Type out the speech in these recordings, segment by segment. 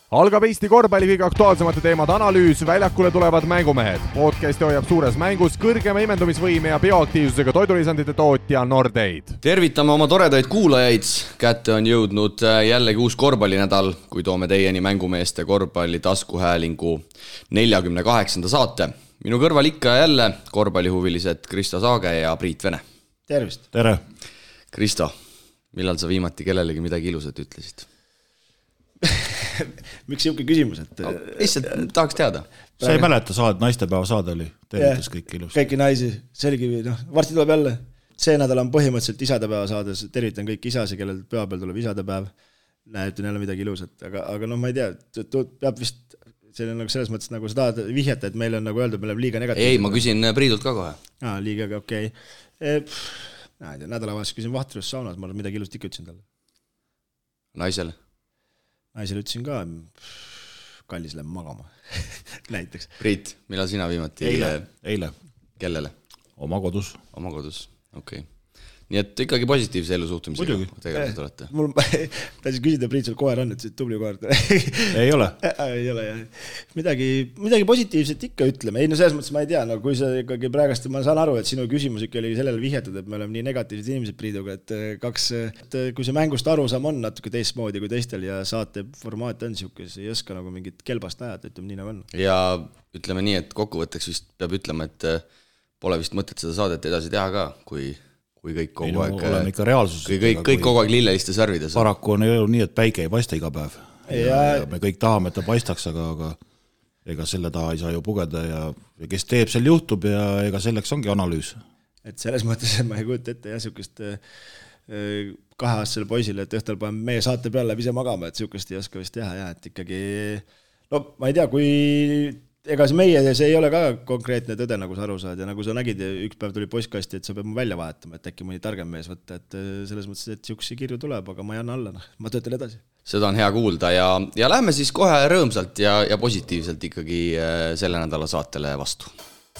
Algab Eesti korvpalli kõige aktuaalsemate teemade analüüs, väljakule tulevad mängumehed. Podcasti hoiab suures mängus kõrgema imendumisvõime ja bioaktiivsusega toidulisandite tootja Nordeid. Tervitame oma toredaid kuulajaid. Kätte on jõudnud jällegi uus korvpallinädal, kui toome teieni mängumeeste korvpalli taskuhäälingu 48. saate. Minu kõrval ikka jälle korvpallihuvilised Kristo Saage ja Priit Vene. Tervist! Tere! Kristo, millal sa viimati kellelegi midagi ilusat ütlesid? Miks siuke küsimus, et... Lihtsalt tahaks teada. Sa ei mäleta naistepäeva saade oli, tervitas kõik ilus. Kõiki naisi, selgi, varsti tuleb jälle. See nädal on põhimõtteliselt isadepäeva saades, tervitan kõik isasi, kellel pühapäeval tuleb isadepäev. Ütlen jälle midagi ilusat, aga ma ei tea, peab vist, see on nagu selles mõttes, nagu sa tahad vihjata, et meil on nagu öeldud, meil on liiga negatiivne. Ei, ma küsin Priidult ka kohe. Liiga, okei. Nädalavahes küsin Vahtrus saunas, ma midagi ilusat ikka ütlesin talle. Naisele? Naisele ütlesin ka, kallis lähen magama, näiteks. Priit, millal sina viimati? Eile. Kellele? Oma kodus. Oma kodus, okei. Nii et ikkagi positiivse elu suhtumisega tegelikult olete. Mul tahtsin küsida, Priit, sul koer on, et see tubli koer. Ei ole. Ei ole, jah. Midagi positiivset ikka ütleme. Ei, no selles mõttes ma ei tea, no kui sa ikkagi praegast, ma saan aru, et sinu küsimus ikka oli sellele vihjatud, et me oleme nii negatiivsed inimesed Priiduga, et kui see mängust arusaam on natuke teistmoodi kui teistel ja saate formaat on siukes, ei oska nagu mingit kelbast näjata, ütleme nii nagu on. Ja ütleme nii, et kokkuvõtteks vist peab ütlema, et pole vist mõtet seda saadet edasi teha ka, kui kõik kogu aeg kõik kogu aeg lilleliste särvides. Paraku on elu nii, et päike ei paista iga päev. Ja me kõik tahame, et ta paistaks, aga ega selle taha ei saa ju pugeda ja kes teeb, seal juhtub ja ega selleks ongi analüüs. Et selles mõttes ma ei kujuta ette ja siukest 2-aastasele poisile, et õhtul panen meie saate peale ise magama, et siukest ei oska vist teha ja et ikkagi, no ma ei tea, kui ega see ei ole ka konkreetne tõde, nagu sa aru saad ja nagu sa nägid, üks päev tuli postkasti, et sa peab mu välja vahetama, et äkki mõni targem mees võtta, et selles mõttes, et siuksi kirju tuleb, aga ma ei anna alla, ma töötan edasi. Seda on hea kuulda ja lähme siis kohe rõõmsalt ja positiivselt ikkagi selle nädala saatele vastu.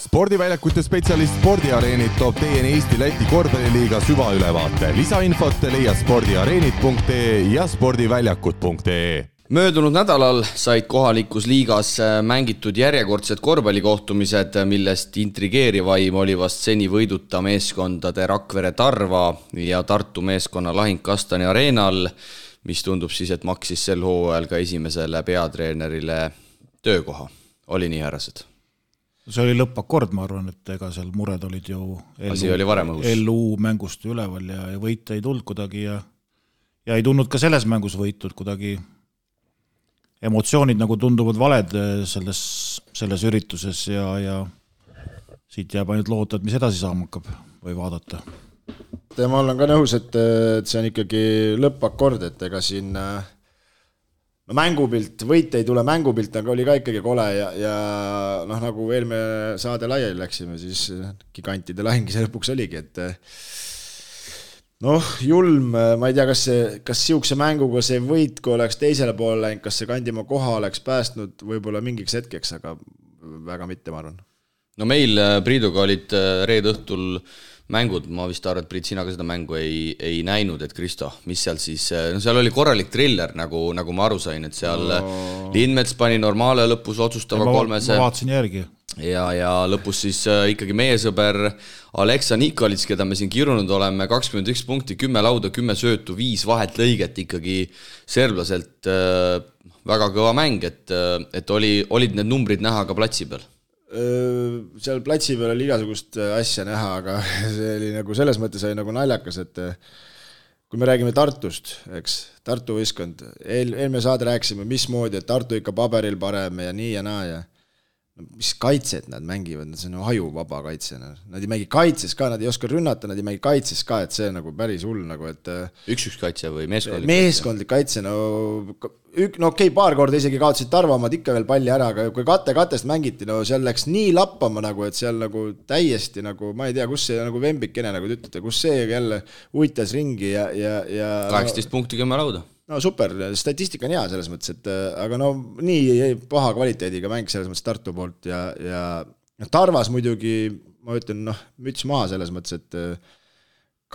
Spordiväljakute spetsialist Spordiareenid toob teieni Eesti-Läti korvpalliliiga süvaülevaate. Lisainfot leia spordiareenid.ee ja spordiväljakud.ee. Möödunud nädalal said kohalikus liigas mängitud järjekordsed korvpallikohtumised, millest intrigeerivaim oli vast seni võiduta meeskondade Rakvere Tarva ja Tartu meeskonna lahing Kastani areenal, mis tundub siis, et maksis sel hooajal ka esimesele peatreenerile töökoha. Oli nii, härrased? See oli lõppakord, ma arvan, et ega seal mured olid ju LU mängust üleval ja võite ei tulnud kuidagi ja ei tulnud ka selles mängus võitud kuidagi. Emotsioonid nagu tunduvad valed selles ürituses ja siit jääb ainult loota, et mis edasi saama hakkab või vaadata. Ja ma olen ka nõus, et see on ikkagi lõppakord, et ega siin mängupilt, võite ei tule mängupilt, aga oli ka ikkagi kole ja nagu eelmine saade laiali läksime, siis gigantide lahingi see lõpuks oligi, et julm, ma ei tea, kas siukse mänguga see võit, kui oleks teisele poole läinud, kas see Kandimaa koha oleks päästnud võib-olla mingiks hetkeks, aga väga mitte, ma arvan. No meil Priiduga olid reede õhtul mängud, ma vist arvan, et Priit, sina ka seda mängu ei näinud, et Kristo, mis seal siis, seal oli korralik triller, nagu ma aru sain, et seal Lindmets pani Normaale lõpus otsustava kolmese. Ma vaatasin järgi. Ja lõpus siis ikkagi meie sõber Aleksa Nikolits, keda me siin kirunud oleme, 21 punkti, 10 lauda, 10 söötu, 5 vahet lõiget ikkagi serblaselt väga kõva mäng, et olid need numbrid näha ka platsi peal? Seal platsi peal oli igasugust asja näha, aga see oli nagu selles mõttes oli nagu naljakas, et kui me räägime Tartust, eks, Tartu võistkond, eelmine saade rääkisime, mismoodi, et Tartu ikka paberil parem ja nii ja naa ja mis kaitset nad mängivad, see on hajuvaba kaitse. Nad ei mängi kaitses ka, nad ei oska rünnata, nad ei mängi kaitses ka, et see nagu päris hull nagu, et üks kaitse või meeskondlik kaitse, okei, paar korda isegi kaotasid Tarvamad ikka veel palli ära, aga kui katest mängiti, seal läks nii lappama nagu, et seal nagu täiesti nagu, ma ei tea, kus see nagu vembikene nagu ütlete, kus see jälle uitas ringi ja 18 punkti 10 lauda. No super, statistika on hea selles mõttes, et aga nii paha kvaliteediga mäng selles mõttes Tartu poolt ja Tarvas muidugi, ma ütlen, müts maha selles mõttes, et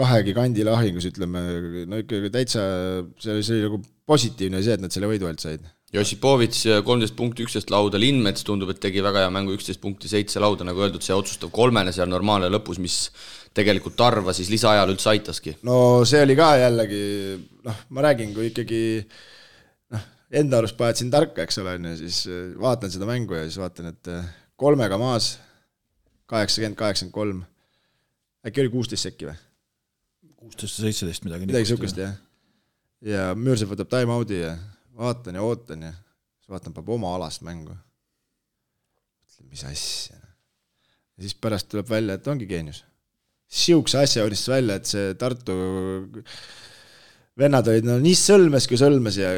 2 gigandi lahingus, ütleme, ikkagi täitsa see oli nagu positiivne see, et nad selle võidu alt said. Josipovits 13 punkti, 11 lauda, Lindmets tundub, et tegi väga hea mängu, 11 punkti, 7 lauda, nagu öeldud, see otsustav kolmene seal normaalne lõpus, mis tegelikult Tarva siis lisaajal üldse aitaski. No see oli ka jällegi, ma räägin, kui ikkagi enda arust paetsin tarka, eks ole, siis vaatan seda mängu ja siis vaatan, et kolmega maas 80-83, äkki oli 16 sekki või? 16-17 midagi sukest, jah. Ja Müürsepp võtab time-out'i ja vaatan ja ootan ja siis vaatan, peab oma alast mängu. Mis asja. Ja siis pärast tuleb välja, et ongi geenius. Siukse asja unistas välja, et see Tartu vennad olid nii sõlmes kui sõlmes ja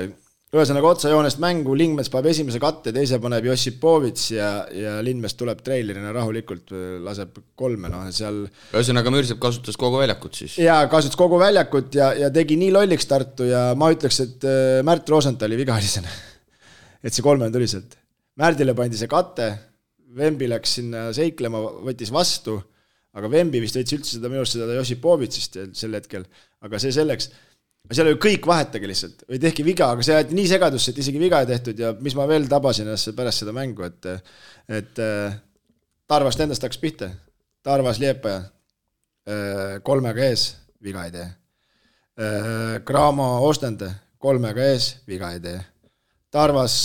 ühesõnaga otsajoonest mängu, Lindmets paneb esimese katte, teise paneb Josipovits ja Lindmets tuleb treilerina rahulikult, laseb kolme, seal... Ühesõnaga Müürsepp kasutas kogu väljakut siis? Jaa, kasutas kogu väljakut ja tegi nii lolliks Tartu ja ma ütleks, et Märt Rosenthali vigalisena. Et see kolmene tuli sealt. Märdile pandi see katte, Vembi läks sinna seiklema, võttis vastu, aga Vembi vist võttis üldse seda minust seda Josipovitsist sel hetkel, aga see selleks... Seal oli kõik vahetage lihtsalt, või tehki viga, aga see jäeti nii segadusse, et isegi viga ei tehtud ja mis ma veel tabasin pärast seda mängu, et Tarvast endast hakkas pihta. Tarvas Liepaja kolmega ees, viga ei tee. Graamo Ostende kolmega ees, viga ei tee. Tarvas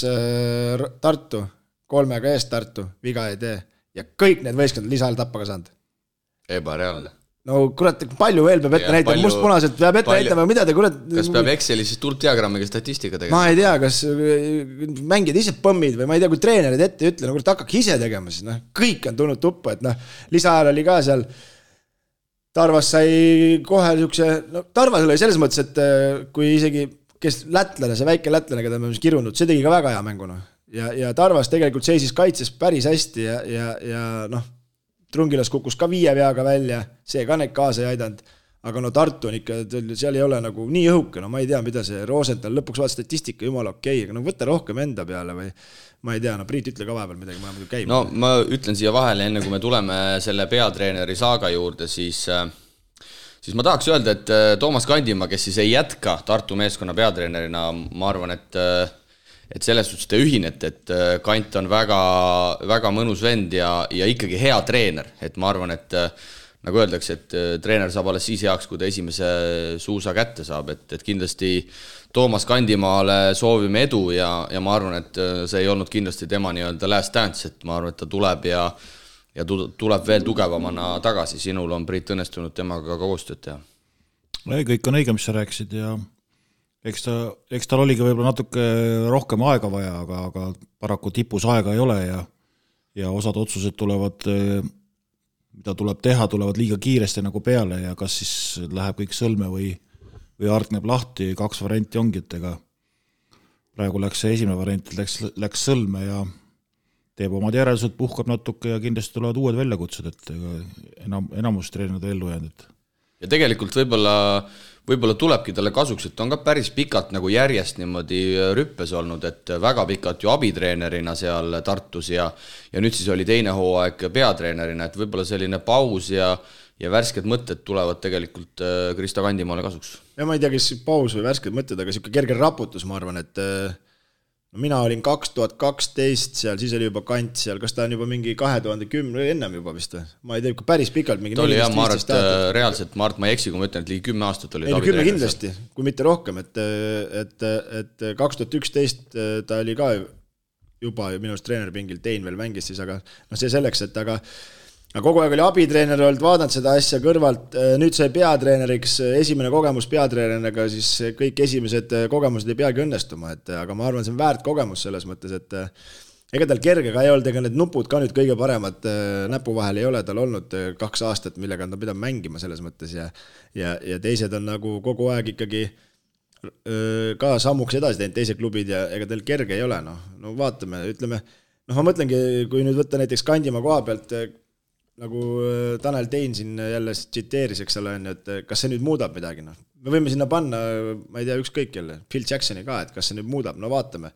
Tartu kolmega ees Tartu, viga ei tee. Ja kõik need võistkond lisaajal tappa ka saanud. Ebareaalne. No kurat, palju veel peab ette näitama, mustpunaselt peab ette näitama, mida te kurat... Kas peab Exceli siis tultdiagrammiga statistika tegema? Ma ei tea, kas mängid ise põmmid või ma ei tea, kui treenerid ette ütle, kurat hakkaks ise tegema siis, kõik on tulnud tuppa, et lisaajal oli ka seal, Tarvas sai kohe niisuguse, Tarvas oli selles mõttes, et kui isegi, kes lätlane, see väike lätlane, keda me kirunud, see tegi ka väga hea mängu, ja Tarvas tegelikult seisis kaitses päris hästi ja Trungilas kukkus ka 5 veaga välja, see ka neid kaasa ei aidanud, aga Tartu on ikka, seal ei ole nagu nii õhuke, ma ei tea, mida see Rosenthal lõpuks vaat statistika jumala okei, aga võtta rohkem enda peale või ma ei tea, Priit ütle ka vahepeal midagi, ma käib. No ma ütlen siia vahele, enne kui me tuleme selle peatreeneri saaga juurde, siis ma tahaks öelda, et Toomas Kandimaa, kes siis ei jätka Tartu meeskonna peatreenerina, ma arvan, et selles suhtes te ühinete, et Kant on väga, väga mõnus vend ja ikkagi hea treener, et ma arvan, et nagu öeldakse, et treener saab alles siis heaks, kui ta esimese suusa kätte saab, et kindlasti Toomas Kandimaale soovime edu ja ma arvan, et see ei olnud kindlasti tema nii-öelda last dance, et ma arvan, et ta tuleb ja tuleb veel tugevamana tagasi, sinul on Priit õnnestunud temaga ka koostööd teha. Kõik on õige, mis sa rääkisid ja eks tal oligi võib-olla natuke rohkem aega vaja, aga paraku tipus aega ei ole ja osad otsused tulevad, mida tuleb teha, tulevad liiga kiiresti nagu peale ja kas siis läheb kõik sõlme või hargneb lahti, 2 varianti ongi, et ega praegu läks see esimene variant, läks sõlme ja teeb omad järeldused, puhkab natuke ja kindlasti tulevad uued väljakutsed, et enamus treenid ellu jäänud. Ja tegelikult võib-olla tulebki talle kasuks, et on ka päris pikalt nagu järjest niimoodi rüppes olnud, et väga pikalt ju abitreenerina seal Tartus ja nüüd siis oli teine hooaeg peatreenerina, et võib-olla selline paus ja värsked mõtted tulevad tegelikult Kristo Kandimaale kasuks. Ja ma ei tea, kes paus või värsked mõtted, aga siuke kerge raputus, ma arvan, et mina olin 2012 seal, siis oli juba Kant seal, kas ta on juba mingi 2010, ennem juba vist või? Ma ei tea, päris pikalt mingi... Ta oli jah, ma arvan, et reaalselt, ma ei eksi, kui ma ütlen, et ligi 10 aastat oli Tavi Treener. Kindlasti, kui mitte rohkem, et 2011 ta oli ka juba minu arust treenerpingil, Tein veel mängis siis, aga see selleks, et aga kogu aeg oli abitreener olnud, vaadanud seda asja kõrvalt, nüüd sai peatreeneriks, esimene kogemus peatreeneriga, siis kõik esimesed kogemused ei peagi õnnestuma, aga ma arvan, see on väärt kogemus selles mõttes, et ega tal kerge ka ei olnud, ega need nupud ka nüüd kõige paremad näpu vahel ei ole, tal olnud 2 aastat, millega ta pidab mängima selles mõttes ja teised on nagu kogu aeg ikkagi ka sammuks edasi teinud teised klubid ja ega tal kerge ei ole, no vaatame, ütleme, ma mõtlengi, kui nüüd võtta näiteks Kandimaa koha pealt, nagu Tanel Tein siin jälle tsiteeris, eks ole, et kas see nüüd muudab midagi, me võime sinna panna, ma ei tea, ükskõik jälle, Phil Jacksoni ka, et kas see nüüd muudab, vaatame.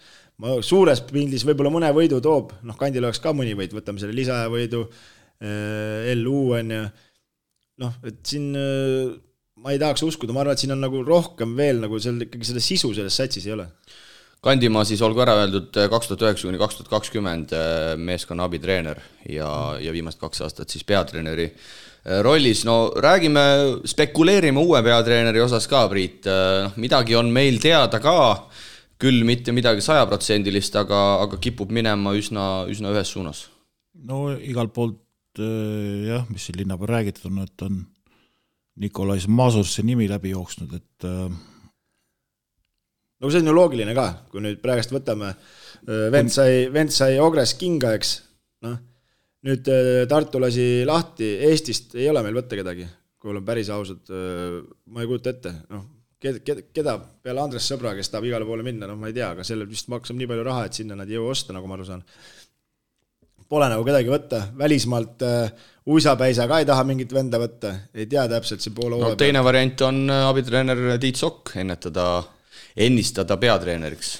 Ma suures pildis võib-olla mõne võidu toob, Kandil oleks ka mõni võid, võtame selle lisaja võidu, LU on ja et siin ma ei tahaks uskuda, ma arvan, et siin on nagu rohkem veel, nagu seal ikkagi selle sisu selles satsis ei ole. Kandimaa siis olgu ära öeldud 2009–2020 meeskonna abitreener ja viimast 2 aastat siis peatreeneri rollis. No räägime, spekuleerime uue peatreeneri osas ka, Priit. Midagi on meil teada ka, küll mitte midagi 100%, aga kipub minema üsna ühes suunas. No igalt poolt jah, mis siin linna peal räägitud on, et on Nikolais Masursi nimi läbi jooksnud, et no see on ju loogiline ka, kui nüüd praegust võtame, vend sai Ogres kinga, eks, noh, nüüd Tartu lasi lahti, Eestist ei ole meil võtta kedagi, kui olen päris ausad, ma ei kujuta ette, noh, keda peale Andres Sõbra, kes tahab igale poole minna, noh, ma ei tea, aga sellel vist maksab nii palju raha, et sinna nad ei jõua osta, nagu ma aru saan. Pole nagu kedagi võtta, välismaalt Uisapäisa ka ei taha mingit venda võtta, ei tea täpselt see poole no, teine variant on abitreener Tiit Sokk ennistada peatreeneriks.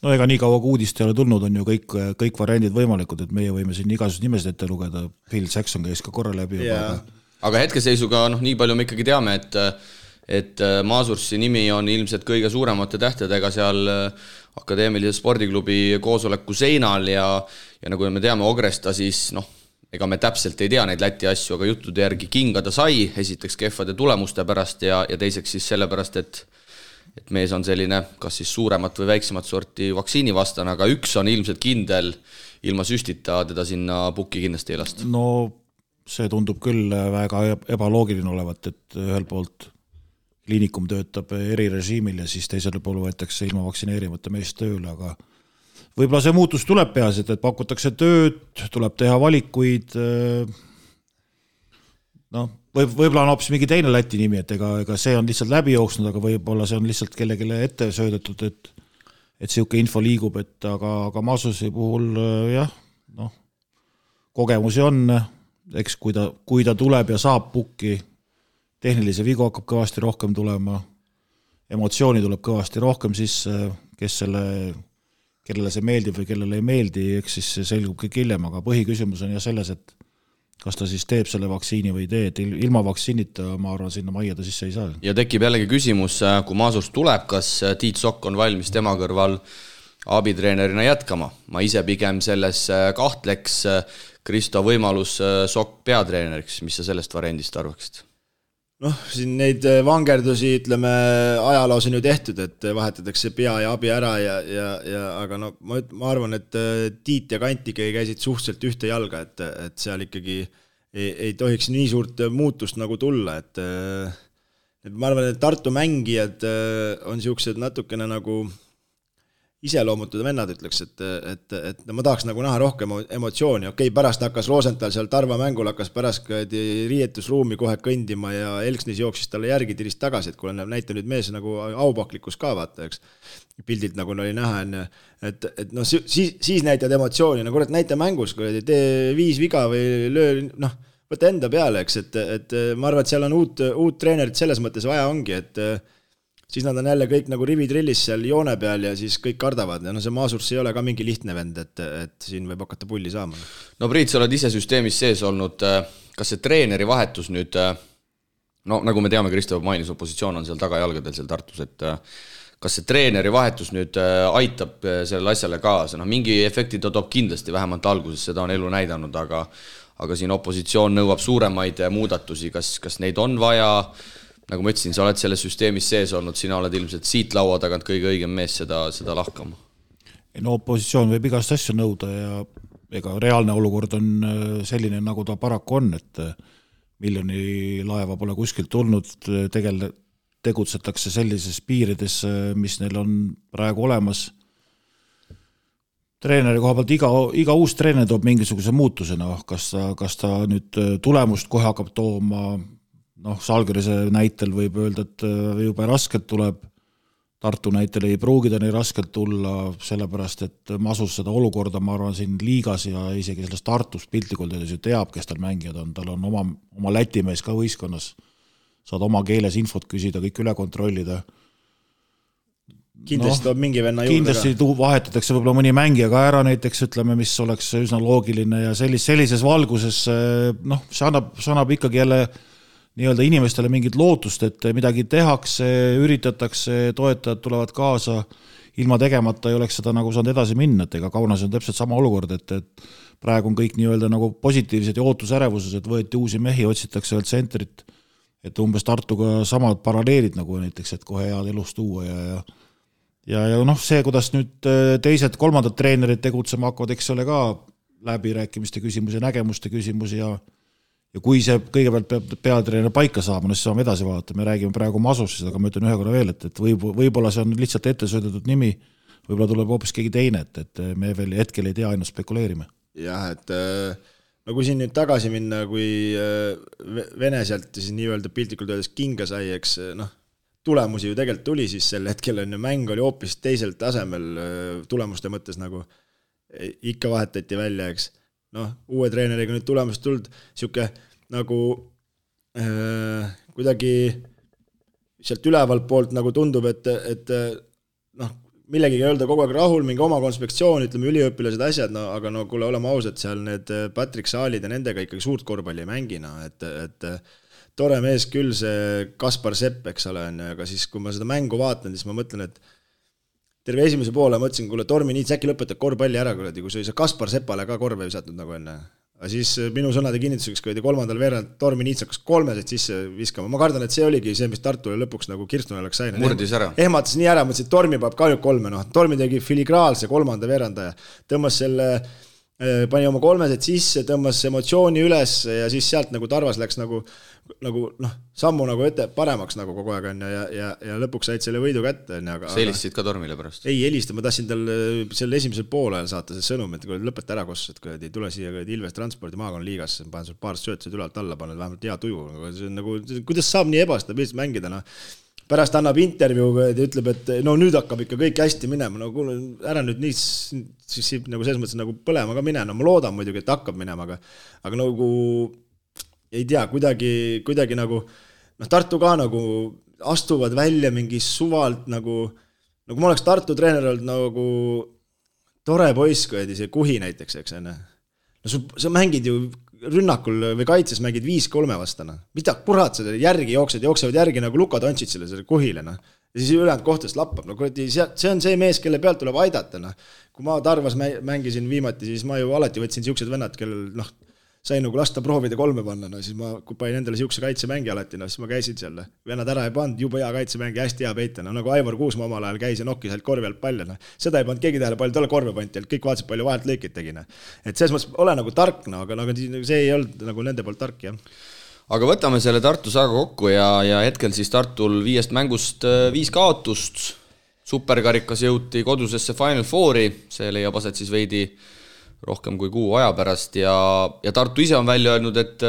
No ega nii kaua kui uudist ei ole tulnud, on ju kõik variandid võimalikud, et meie võime siin igasugused nimesid ette lugeda, Phil Jackson käis ka korra läbi. Aga hetkeseisuga nii palju me ikkagi teame, et Masursi nimi on ilmselt kõige suuremate tähtedega seal akadeemilise spordiklubi koosoleku seinal ja nagu me teame Ogresta, siis ega me täpselt ei tea neid Läti asju, aga juttude järgi kinga ta sai, esiteks kehvade tulemuste pärast ja teiseks siis sellepärast, et mees on selline kas siis suuremat või väiksemat sorti vaktsiinivastane, aga üks on ilmselt kindel, ilma süstita teda sinna pukki kindlasti ei lasta. No see tundub küll väga ebaloogiline olevat, et ühel poolt kliinikum töötab erirežiimil ja siis teisel pool võetakse ilma vaktsineerimata meest tööle, aga võib-olla see muutus tuleb peaasjad, et pakutakse tööd, tuleb teha valikuid, võib-olla on hoopis mingi teine Läti nimi, et ega see on lihtsalt läbi jooksnud, aga võib-olla see on lihtsalt kellelegi ette söödetud, et siuke info liigub, aga Masusi puhul jah, kogemusi on, eks kui ta tuleb ja saab pukki, tehnilise vigu hakkab kõvasti rohkem tulema, emotsiooni tuleb kõvasti rohkem sisse, kellele see meeldib või kellele ei meeldi, eks siis see selgub kõik hiljem, aga põhiküsimus on ja selles, et kas ta siis teeb selle vaktsiini või ei tee, et ilma vaktsiinita ma arvan, sinna majja ta sisse ei saa. Ja tekib jällegi küsimus, kui Masurs tuleb, kas Tiit Sokk on valmis tema kõrval abitreenerina jätkama? Ma ise pigem selles kahtleks, Kristo võimalus Sokk peatreeneriks, mis sa sellest variandist arvaksid? Siin neid vangerdusi, ütleme, ajaloos on ju tehtud, et vahetatakse pea ja abi ära aga ma arvan, et Tiit ja Kantike käisid suhteliselt ühte jalga, et seal ikkagi ei tohiks nii suurt muutust nagu tulla, et ma arvan, et Tartu mängijad on siuksed natukene nagu iseloomutud vennad, ütleks, et ma tahaks nagu näha rohkem emotsiooni. Okei, pärast hakkas Rosenthal seal Tarva mängul, hakkas pärast riietusruumi kohe kõndima ja Elksnis jooksis talle järgi tirist tagasi, et kui näita nüüd mees nagu aupaklikus ka vaata, eks. Pildilt nagu oli näha, et siis näitad emotsiooni, nagu näita mängus, kui tee 5 viga või löö, võta enda peale, eks, et ma arvan, et seal on uut treenerit selles mõttes vaja ongi, et siis nad on jälle kõik nagu rivitrillis seal joone peal ja siis kõik kardavad. Ja see Masurs ei ole ka mingi lihtne vend, et siin võib hakata pulli saama. No Priit, sa oled ise süsteemis sees olnud. Kas see treeneri vahetus nüüd, nagu me teame, Kristo mainis, opositsioon on seal tagajalgadel seal Tartus, et kas see treeneri vahetus nüüd aitab sellele asjale kaasa? Mingi efekti ta toob kindlasti, vähemalt alguses, seda on elu näidanud, aga siin opositsioon nõuab suuremaid muudatusi. Kas neid on vaja? Nagu ma ütlesin, sa oled selles süsteemis sees olnud, sina oled ilmselt siit laua tagant kõige õigem mees seda lahkama. No opositsioon võib igast asju nõuda ja ega reaalne olukord on selline, nagu ta paraku on, et miljoni laeva pole kuskilt tulnud, tegutsetakse sellises piirides, mis neil on praegu olemas. Treeneri koha pealt iga uus treener toob mingisuguse muutusena, kas ta nüüd tulemust kohe hakkab tooma, Salgirise näitel võib öelda, et juba raskelt tuleb, Tartu näitel ei pruugida nii raskelt tulla, sellepärast, et Masus seda olukorda, ma arvan, siin liigas ja isegi sellest Tartust piltlikult ju teab, kes tal mängijad on, tal on oma lätimees ka võistkonnas, saad oma keeles infot küsida, kõik üle kontrollida. Kindlasti toob mingi venna juurde kindlasti ka. Vahetatakse võib-olla mõni mängija ka ära näiteks, ütleme, mis oleks üsna loogiline ja sellises valguses, see annab ikkagi jälle nii-öelda inimestele mingit lootust, et midagi tehakse, üritatakse, toetajad tulevad kaasa ilma tegemata ei oleks seda nagu saanud edasi minna, et ega Kaunas on täpselt sama olukord, et praegu on kõik nii-öelda nagu positiivsed ja ootusärevuses, et võeti uusi mehi, otsitakse veel tsentrit, et umbes Tartuga samad paralleelid nagu näiteks, et kohe head elust tuua ja noh, see, kuidas nüüd teised, kolmandad treenerid tegutsema hakkavad, eks ole ka läbirääkimiste küsimus ja nägemuste küsimus ja kui see kõigepealt peab peatreener paika saama, siis saame edasi vaadata, me räägime praegu Masosist, aga ma ütlen ühe korra veel, et võib-olla see on lihtsalt ette söödetud nimi, võib-olla tuleb hoopis keegi teine, et me veel hetkel ei tea, ainult spekuleerime. Jah, et no kui siin nüüd tagasi minna, kui Vene sealt siis nii-öelda piltlikult öeldes kinga sai, eks tulemusi ju tegelikult tuli, siis sel hetkel on ju mäng oli hoopis teisel tasemel tulemuste mõttes nagu ikka vahetati välja, eks. Uue treeneriga nüüd tulemust tuld, siuke nagu kuidagi sealt ülevalt poolt nagu tundub, et millegi ei öelda kogu aeg rahul, mingi oma konspektsioon, ütleme üliõpilased asjad, aga kuule, oleme ausad, seal need Patrick Saalid ja nendega ikkagi suurt korvpalli ei mängina, et tore mees küll see Kaspar Sepp, eks ole, aga siis kui ma seda mängu vaatan, siis ma mõtlen, et terve esimese poole mõtlesin, kuule, Tormi Niits äkki lõpetab korvpalli ära, kui see Kaspar Sepale ka korve visatnud nagu enne. Aga siis minu sõnade kinnituseks, kui kolmandal veerand Tormi Niits hakkas 3 sisse viskama. Ma kardan, et see oligi see, mis Tartule lõpuks nagu Kirstune oleks sain. Murdis ära. Ehmatas nii ära, mõtlesin, et Tormi peab kahju 3. Tormi tegi filigraalse kolmanda veerandaja. Tõmbas selle, pani oma 3 sisse, tõmbas emotsiooni üles ja siis sealt nagu Tarvas läks nagu sammu nagu ette paremaks nagu kogu aeg on ja lõpuks said selle võidu kätte. Sa helistasid ka Tormile pärast? Ei helista, ma tahtsin tal selle esimesel poolel saata see sõnum, et kui lõpeta ära kossus, et kui ei tule siia Ilves transpordi maakonna liigas, panen sul paar söötsid ülalt alla, panen vähemalt hea tuju. Nagu, kuidas saab nii ebastabiilselt mängida? Pärast annab intervjuu ja ütleb, et nüüd hakkab ikka kõik hästi minema. Kuule, ära nüüd nii siis nagu selles mõttes nagu põlema ka minema. Ma loodan muidugi, et hakkab minema, aga nagu ei tea, kuidagi nagu Tartu ka nagu astuvad välja mingi suvalt nagu ma oleks Tartu treener olnud nagu tore poiss, kui see Kuhi näiteks, eks enne. Sa mängid ju rünnakul või kaitses mängid 5-3 vastana. Mida kurat sa järgi jooksevad järgi nagu Luka Dontšitsile selle Kuhile. Ja siis ülejäänud kohtast lappab. See on see mees, kelle pealt tuleb aidata. Kui ma Tarvas mängisin viimati, siis ma ju alati võtsin siuksed vennad, kellel sain nagu lasta proovida 3 panna, siis ma panin endale siukse kaitsemängi alati, siis ma käisin seal. Vennad ära ei pannud, juba hea kaitsemängi, hästi hea peita. Nagu Aivar Kuusma omal ajal käis ja nokkis ainult korvi alt palle. Seda ei pannud keegi tähele, palju talle korve panti, kõik vaatasid palju vahelt lõikid tegin. Et selles mõttes ole nagu tark, aga see ei olnud nagu nende poolt tark, jah. Aga võtame selle Tartu saaga kokku ja hetkel siis Tartul 5 mängust 5 kaotust. Superkarikas jõuti kodusesse Final Fouri, see leiab aset siis veidi rohkem kui kuu aja pärast ja Tartu ise on välja öelnud, et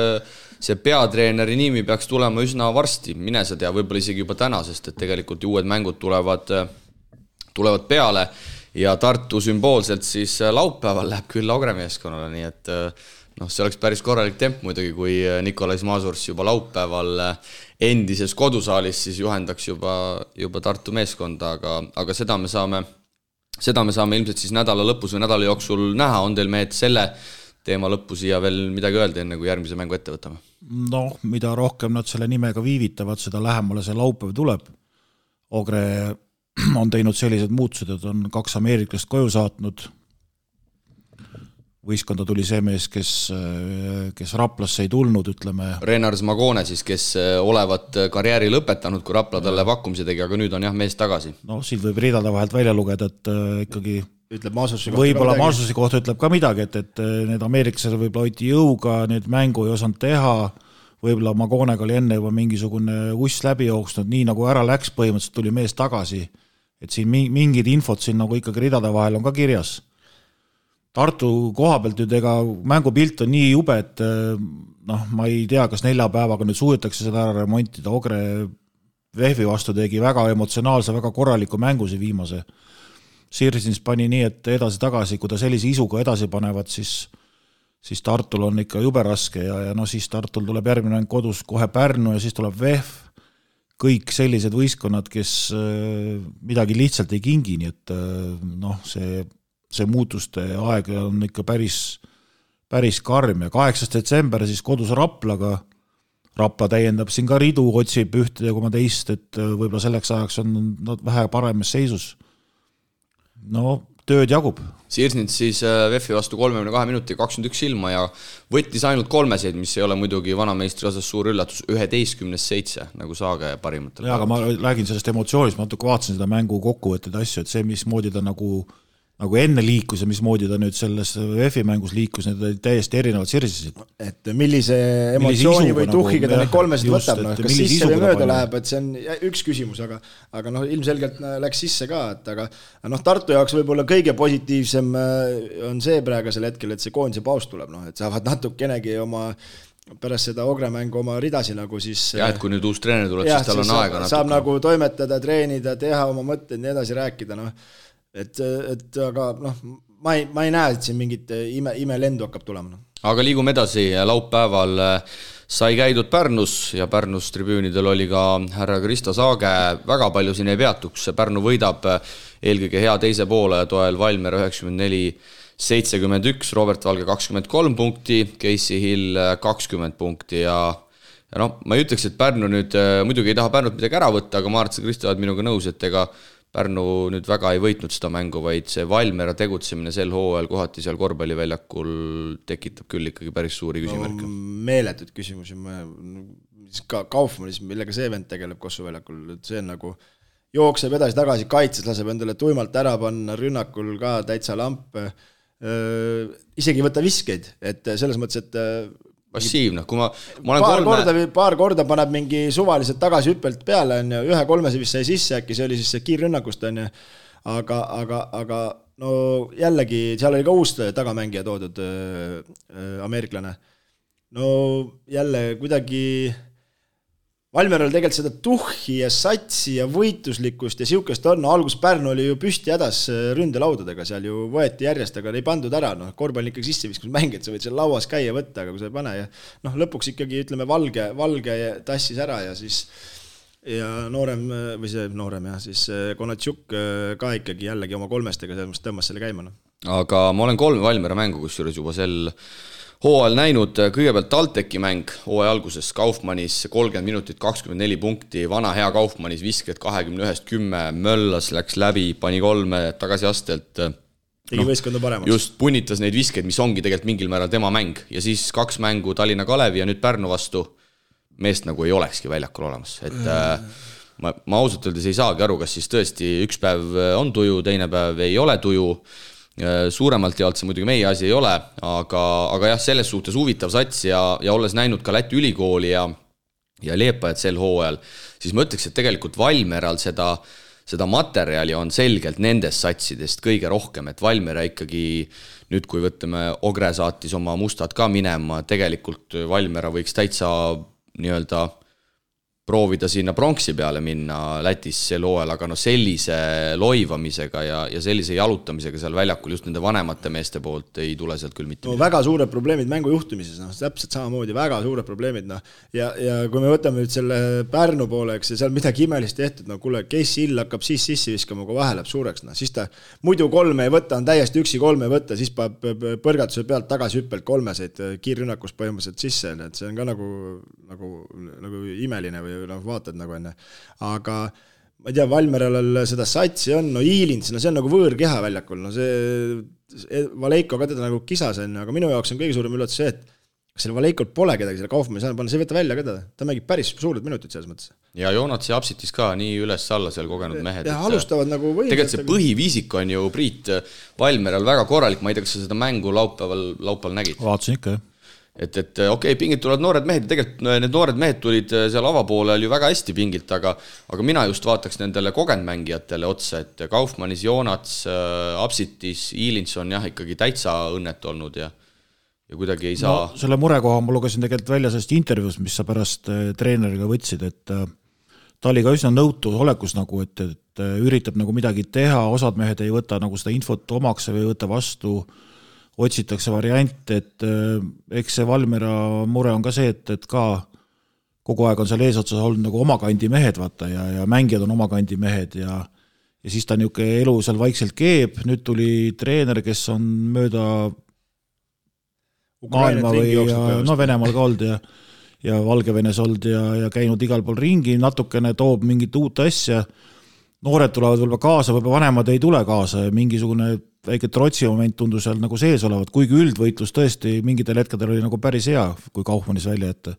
see peatreeneri nimi peaks tulema üsna varsti, mine sa tea, võib-olla isegi juba täna, sest et tegelikult uued mängud tulevad peale ja Tartu sümboolselt siis laupäeval läheb küll Augre meeskonnale, nii et see oleks päris korralik temp muidugi, kui Nikolais Masurs juba laupäeval endises kodusaalis siis juhendaks juba Tartu meeskonda, aga seda me saame ilmselt siis nädala lõpus või nädala jooksul näha. On teil mehed selle teema lõppu siia veel midagi öelda, enne kui järgmise mängu ette võtame? Mida rohkem nad selle nimega viivitavad, seda lähemale see laupäev tuleb. Ogre on teinud sellised muutused, et on 2 ameeriklast koju saatnud. Võistkonda tuli see mees, kes Raplasse ei tulnud, ütleme. Renars Magone siis, kes olevat karjääri lõpetanud, kui Rapla talle pakkumise tegi, aga nüüd on jah mees tagasi. Siit võib ridada vahelt välja lugeda, et ikkagi ütleb Masusi võib-olla Masusi kohta ütleb ka midagi, et need ameeriklased võib-olla hoiti jõuga, need mängu ei osanud teha, võib-olla Magonega oli enne juba mingisugune uss läbi jooksnud, nii nagu ära läks, põhimõtteliselt tuli mees tagasi, et siin mingid infot siin nagu ikkagi ridada vahel on ka kirjas. Tartu koha pealt nüüd ega mängupilt on nii jube, et ma ei tea, kas 4 päevaga nüüd suudetakse seda ära remontida. Ogre Vehvi vastu tegi väga emotsionaalse, väga korraliku mängusi viimase. Sirsins pani nii, et edasi-tagasi, kui ta sellise isuga edasi panevad, siis Tartul on ikka jube raske ja siis Tartul tuleb järgmine mäng kodus kohe Pärnu ja siis tuleb Vehv. Kõik sellised võistkonnad, kes midagi lihtsalt ei kingi, nii et see muutuste aeg on ikka päris karm ja 8. detsember siis kodus Raplaga. Rapla täiendab siin ka ridu, otsib ühte ja teist, et võib-olla selleks ajaks on nad vähe paremas seisus. No tööd jagub. Sirsnits siis VEF-i vastu 32 minuti 21 ilma ja võttis ainult 3 mis ei ole muidugi vanameistri osas suur üllatus, 11-7 nagu Saage parimatel. Aga ma räägin sellest emotsioonist, ma natuke vaatasin seda mängu kokkuvõtted asju, et see, mismoodi ta nagu enne liikus ja mismoodi ta nüüd selles VEF-i mängus liikus, need olid täiesti erinevad sirsisid. Et millise emotsiooni või tuhhiga ta neid 3 võtab, kas sisse või mööda läheb, et see on üks küsimus, aga ilmselgelt läks sisse ka, et aga Tartu jaoks võib-olla kõige positiivsem on see praegusel hetkel, et see koondise paus tuleb, et saavad natukenegi oma pärast seda Ogre mängu oma ridasi nagu siis ja, et kui nüüd uus treener tuleb, siis tal on aega natuke. Saab nagu toimetada, treenida, teha oma mõtteid, nii edasi rääkida, Et aga ma ei näe, et siin mingit ime lendu hakkab tulema. Aga liigume edasi, laupäeval sai käidud Pärnus ja Pärnus tribüünidel oli ka härra Kristo Saage, väga palju siin ei peatuks, Pärnu võidab eelkõige hea teise poole toel Valmiera 94-71, Robert Valge 23 punkti, Casey Hill 20 punkti ja ma ei ütleks, et Pärnu nüüd muidugi ei taha Pärnut midagi ära võtta, aga ma arvan, et Kristo oled minuga nõus, et ega Pärnu nüüd väga ei võitnud seda mängu, vaid see Valmiera tegutsemine sel hooajal kohati seal korvpalliväljakul tekitab küll ikkagi päris suuri küsimärke. Meeletud küsimusi. Ka Kaufmanis, millega see vend tegeleb Kossu väljakul, see on nagu jookseb edasi tagasi, kaitses laseb endale tuimalt ära panna, rünnakul ka täitsa lamp. Isegi võtta viskeid, et selles mõttes, et passiivne, kui ma olen paar korda paneb mingi suvaliselt tagasi hüppelt peale, on ju, 1-3 vist sai sisse, äkki see oli siis see kiirrünnakust, on ju, aga no jällegi, seal oli ka uus tagamängija toodud ameeriklane. No jälle kuidagi Valmieral tegelikult seda tuhhi ja satsi ja võitluslikkust ja siukest on, algus Pärnu oli ju püsti hädas ründelaudadega, seal ju võeti järjest, aga ei pandud ära, korvpall ikkagi sisse viskus mängid, sa võid seal lauas käia võtta, aga kui sa ei pane ja lõpuks ikkagi ütleme valge tassis ära ja siis ja noorem ja siis Konatšuk ka ikkagi jällegi oma 3 tõmbas selle käima. Aga ma olen 3 Valmiera mängu, kus juures juba sel hooajal näinud, kõigepealt TalTechi mäng hooaja alguses Kaufmanis 30 minutit 24 punkti, vana hea Kaufmanis visked 21-10, möllas, läks läbi, pani 3 tagasi astelt. Tegi võistkonda paremaks. Just punnitas neid viskeid, mis ongi tegelikult mingil määral tema mäng ja siis 2 mängu Tallinna Kalevi ja nüüd Pärnu vastu meest nagu ei olekski väljakul olemas, et ma ausalt öeldes ei saagi aru, kas siis tõesti üks päev on tuju, teine päev ei ole tuju. Suuremalt jaolt see muidugi meie asi ei ole, aga jah, selles suhtes huvitav sats ja olles näinud ka Läti ülikooli ja Liepajat sel hooajal, siis ma ütleks, et tegelikult Valmieral seda materjali on selgelt nendest satsidest kõige rohkem, et Valmiera ikkagi nüüd, kui võtame Ogre saatis oma mustad ka minema, tegelikult Valmiera võiks täitsa nii-öelda proovida sinna pronksi peale minna Lätis sel hooajal, aga sellise loivamisega ja sellise jalutamisega seal väljakul just nende vanemate meeste poolt ei tule sealt küll mitte. Väga suured probleemid mängu juhtimises, täpselt samamoodi, väga suured probleemid. Ja kui me võtame nüüd selle Pärnu pooleks ja seal midagi imelist tehtud, kuule, Casey Hill hakkab siis sissi viskama, kui vahe läheb suureks, siis ta muidu 3 ei võtta, on täiesti üksi 3 ei võtta, siis paneb põrgatuse pealt tagasi hüppelt 3 kiirrünnakus põhimõtteliselt sisse, et see on ka nagu imeline või vaatad nagu enne, aga ma ei tea, Valmieral seda satsi on, Iilins, see on nagu võõrkeha väljakul, see Valeiko ka teda nagu kisas on, aga minu jaoks on kõige suurem üllatus see, et selle Valeikol pole kedagi, selle Kaufmanni saanud panna, see võtta välja ka ta mängib päris suured minutid selles mõttes. Ja Joonats ja Apsitis ka nii üles-alla seal kogenud mehed. Ja alustavad nagu võimsad. Tegelikult see põhiviisik on ju Priit Valmieral väga korralik, ma ei tea, kas sa seda mängu laupäeval nägid? Vaatasin ikka, jah. Et okei, pingilt tulevad noored mehed ja tegelikult need noored mehed tulid seal avapoolel ju väga hästi pingilt, aga mina just vaataks nendele kogenud mängijatele otsa, et Kaufmanis, Joonats, Apsitis, Iilins on jah ikkagi täitsa õnnet olnud ja kuidagi ei saa. No, selle murekoha ma lugesin tegelikult välja sellest intervjuust, mis sa pärast treeneriga võtsid, et ta oli ka üsna nõutu olekus nagu, et üritab nagu midagi teha, osad mehed ei võta nagu seda infot omaks või ei võta vastu, otsitakse variant, et eks see Valmiera mure on ka see, et ka kogu aeg on seal eesotsas olnud nagu omakandi mehed, vaata, ja mängijad on omakandi mehed ja siis ta niisugune elu seal vaikselt keeb, nüüd tuli treener, kes on mööda maailma või Venemaal ka olnud ja Valgevenes olnud ja käinud igal pool ringi, natukene toob mingit uut asja. noored tulevad võib-olla kaasa, võib-olla vanemad ei tule kaasa ja mingisugune väike trotsi moment tundus seal nagu sees olevat, kuigi üldvõitlus tõesti mingitel hetkedel oli nagu päris hea, kui Kaufmannis välja ette.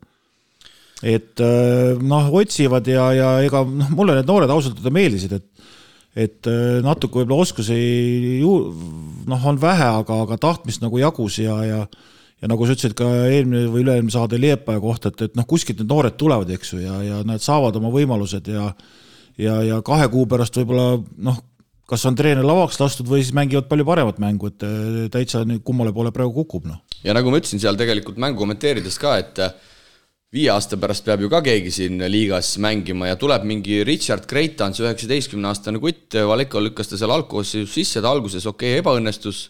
Et otsivad ja ega mulle need noored ausalt meeldisid, et natuke võib-olla oskusi on vähe, aga tahtmist nagu jagus ja nagu sa ütlesid ka eelmine või üle-eelmine saade Liepaja kohta, et kuskilt need noored tulevad, eks ju, ja nad saavad oma võimalused ja 2 kuu pärast võib-olla kas on treener lavaks lastud või siis mängivad palju paremat mängu, et täitsa kummale poole praegu kukub. Ja nagu ma ütlesin seal tegelikult mängu kommenteerides ka, et 5 aasta pärast peab ju ka keegi siin liigas mängima ja tuleb mingi Richard Kreitans, 19-aastane kutt, Valeko lükkas ta seal algkoosseisus sisse, ta alguses ebaõnnestus,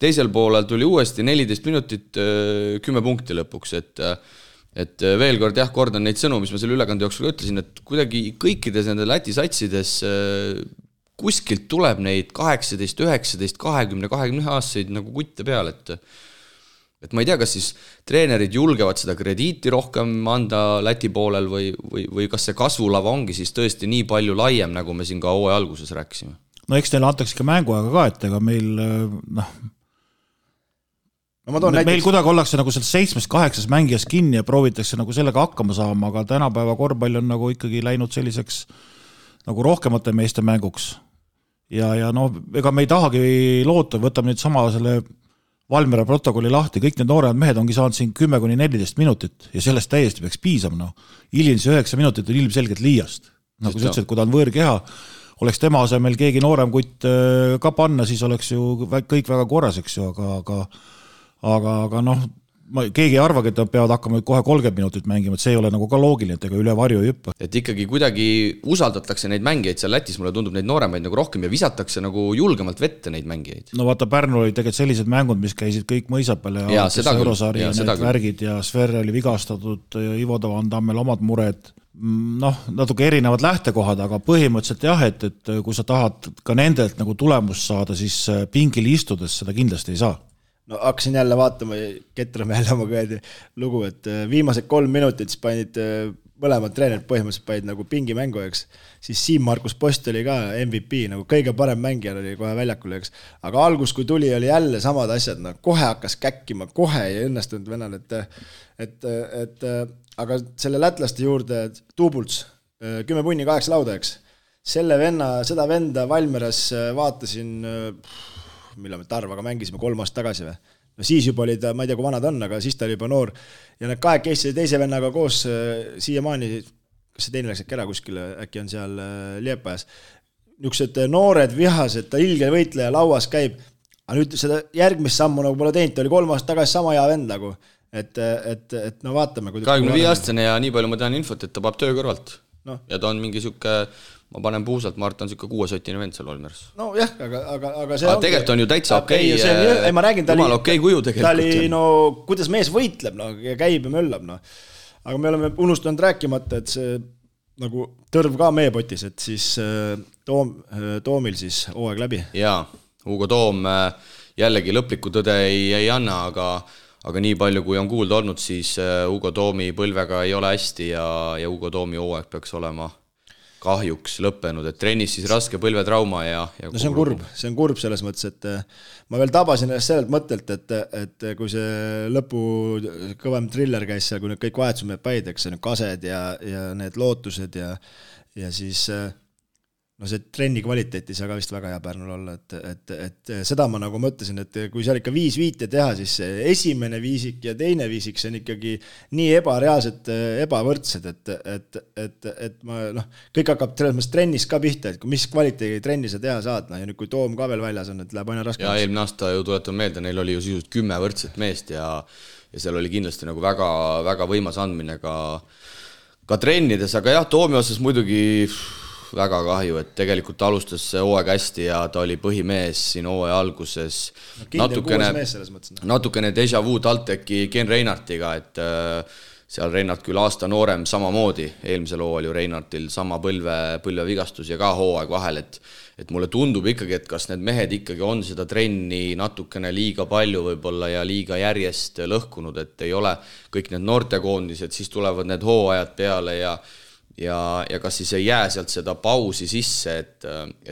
teisel poolel tuli uuesti 14 minutit 10 punkti lõpuks, et veel kord kordan neid sõnu, mis ma selle ülekande jooksul ütlesin, et kuidagi kõikides nende Läti satsides kuskilt tuleb neid 18, 19, 20, 20 aastaseid nagu kutte peal, et ma ei tea, kas siis treenerid julgevad seda krediiti rohkem anda Läti poolel või kas see kasvulava ongi siis tõesti nii palju laiem, nagu me siin ka hooaja alguses rääkisime. No eks neile antakse ka mänguaega ka, et ega meil meil kuidagi ollakse nagu seal 7-8 mängijas kinni ja proovitakse nagu sellega hakkama saama, aga tänapäeva korvpall on nagu ikkagi läinud selliseks nagu rohkemate meeste mänguks. Ja ega me ei tahagi loota, võtame nüüd sama selle Valmiera protokolli lahti, kõik need noored mehed ongi saanud siin 10-14 minutit ja sellest täiesti peaks piisama. Ilins 9 minutit on ilmselgelt liiast. Nagu sa ütlesid, kui ta on võõrkeha, oleks tema asemel keegi noorem kutt ka panna, siis oleks ju kõik väga korras, eks ju, aga keegi ei arvagi, et nad peavad hakkama kohe 30 minutit mängima, et see ei ole nagu ka loogiline, et ega üle varju ei hüppa. Et ikkagi kuidagi usaldatakse neid mängijaid seal Lätis, mulle tundub neid nooremaid nagu rohkem ja visatakse nagu julgemalt vette neid mängijaid. No vaata, Pärnu oli tegelikult sellised mängud, mis käisid kõik mõisapel ja Eurosaari ja need värgid ja Sver oli vigastatud, Ivo Tavandammel omad mured. Natuke erinevad lähtekohad, aga põhimõtteliselt jah, et kui sa tahad ka nendelt nagu tulemust saada, siis pingil istudes seda kindlasti ei saa. Hakkasin jälle vaatama, Ketrame jälle oma kõedi lugu, et viimased 3 minutit panid mõlemad treenerid põhimõtteliselt panid nagu pingimängu, eks. Siis Siim-Markus Post oli ka MVP, nagu kõige parem mängija oli kohe väljakul, eks. Aga algus, kui tuli, oli jälle samad asjad, kohe hakkas käkkima, kohe ei õnnestunud venal, aga selle lätlaste juurde Tuubults, 10 punni 8 lauda, eks. Seda venda Valmeras vaatasin millal me Tarvaga mängisime 3 aastat tagasi või. Siis juba oli ta, ma ei tea, kui vana ta on, aga siis ta oli juba noor. Ja need 2 keissi teise vennaga koos siiamaani, kas see teine läks äkki ära kuskile, äkki on seal Liepajas. Niisugused noored vihased, ta ilge võitleja lauas käib, aga nüüd seda järgmist sammu nagu pole teinud, ta oli 3 aastat tagasi sama hea vend nagu. Et vaatame. 25-aastane ja nii palju ma tean infot, et ta paab töö kõrvalt. Ja ta on mingi siuke, ma panen puusalt, ma arvan, on siuke 6-sotine vend seal Valmeras. No jah, aga see on... Tegelikult on ju täitsa okei, ma räägin, jumal okei kuju tegelikult. Ta oli, kuidas mees võitleb, ja käib ja möllab. Aga me oleme unustanud rääkimata, et see nagu tõrv ka meie potis, et siis Toomil siis hooaeg läbi. Jaa, Hugo Toom jällegi lõplikku tõde ei anna, aga nii palju, kui on kuulda olnud, siis Hugo Toomi põlvega ei ole hästi ja Hugo Toomi hooaeg peaks olema kahjuks lõppenud, et trennis siis raske põlvetrauma ja no see on kurb selles mõttes, et ma veel tabasin sellelt mõttelt, et kui see lõpu kõvem triller käis seal, kui need kõik vahetused päid, eks see kased ja need lootused ja siis see trenni kvaliteet ei saa ka vist väga hea Pärnul olla, et seda ma nagu mõtlesin, et kui seal ikka 5 viite teha, siis esimene viisik ja teine viisik, see on ikkagi nii ebareaalselt ebavõrdsed, et ma, kõik hakkab trennis ka pihta, et mis kvaliteedi trenni sa teha saad, ja nüüd kui Toom ka veel väljas on, et läheb aina raske. Ja eelmine aasta ju tuletan meelde, neil oli ju sisust 10 võrdset meest ja seal oli kindlasti nagu väga, väga võimas andmine ka trennides, aga jah, Toomi osas muidugi väga kahju, et tegelikult alustas hooaeg hästi ja ta oli põhimees siin hooaja alguses. Natukene déjà vu TalTechi Ken Reinartiga, et seal Reinart küll aasta noorem samamoodi, eelmisel hooajal ju Reinartil sama põlvevigastus ja ka hooaeg vahel, et mulle tundub ikkagi, et kas need mehed ikkagi on seda trenni natukene liiga palju võib-olla ja liiga järjest lõhkunud, et ei ole kõik need noortekoondised, siis tulevad need hooajad peale ja ja kas siis ei jää sealt seda pausi sisse, et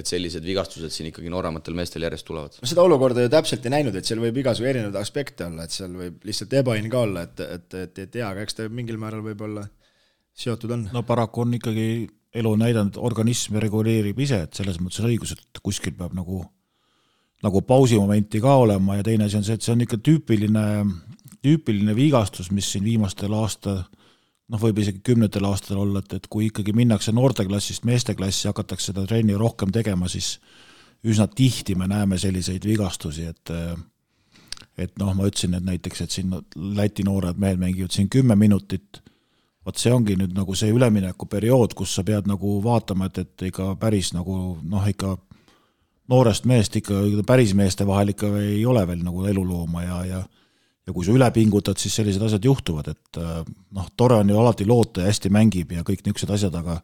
sellised vigastused siin ikkagi noorematel meestel järjest tulevad? Seda olukorda ju täpselt ei näinud, et seal võib igasugu erinevad aspekte olla, et seal võib lihtsalt ebaõnn ka olla, et tea, aga eks ta mingil määral võib olla seotud on. No paraku on ikkagi elu näidanud, organism reguleerib ise, et selles mõttes on õigus, et kuskil peab nagu pausimomenti ka olema ja teine asi on see, et see on ikka tüüpiline vigastus, mis siin viimastel võib isegi 10 aastatel olla, et kui ikkagi minnakse noorteklassist meesteklassi, hakatakse seda trenni rohkem tegema, siis üsna tihti me näeme selliseid vigastusi, et ma ütlesin, et näiteks, et siin Läti noored mehed mängivad siin 10 minutit, vaat see ongi nüüd nagu see ülemineku periood, kus sa pead nagu vaatama, et ikka päris nagu ikka noorest meest ikka päris meeste vahel ikka ei ole veel nagu elulooma ja kui sa üle pingutad, siis sellised asjad juhtuvad, et tore on ju alati loota ja hästi mängib ja kõik niisugused asjad, aga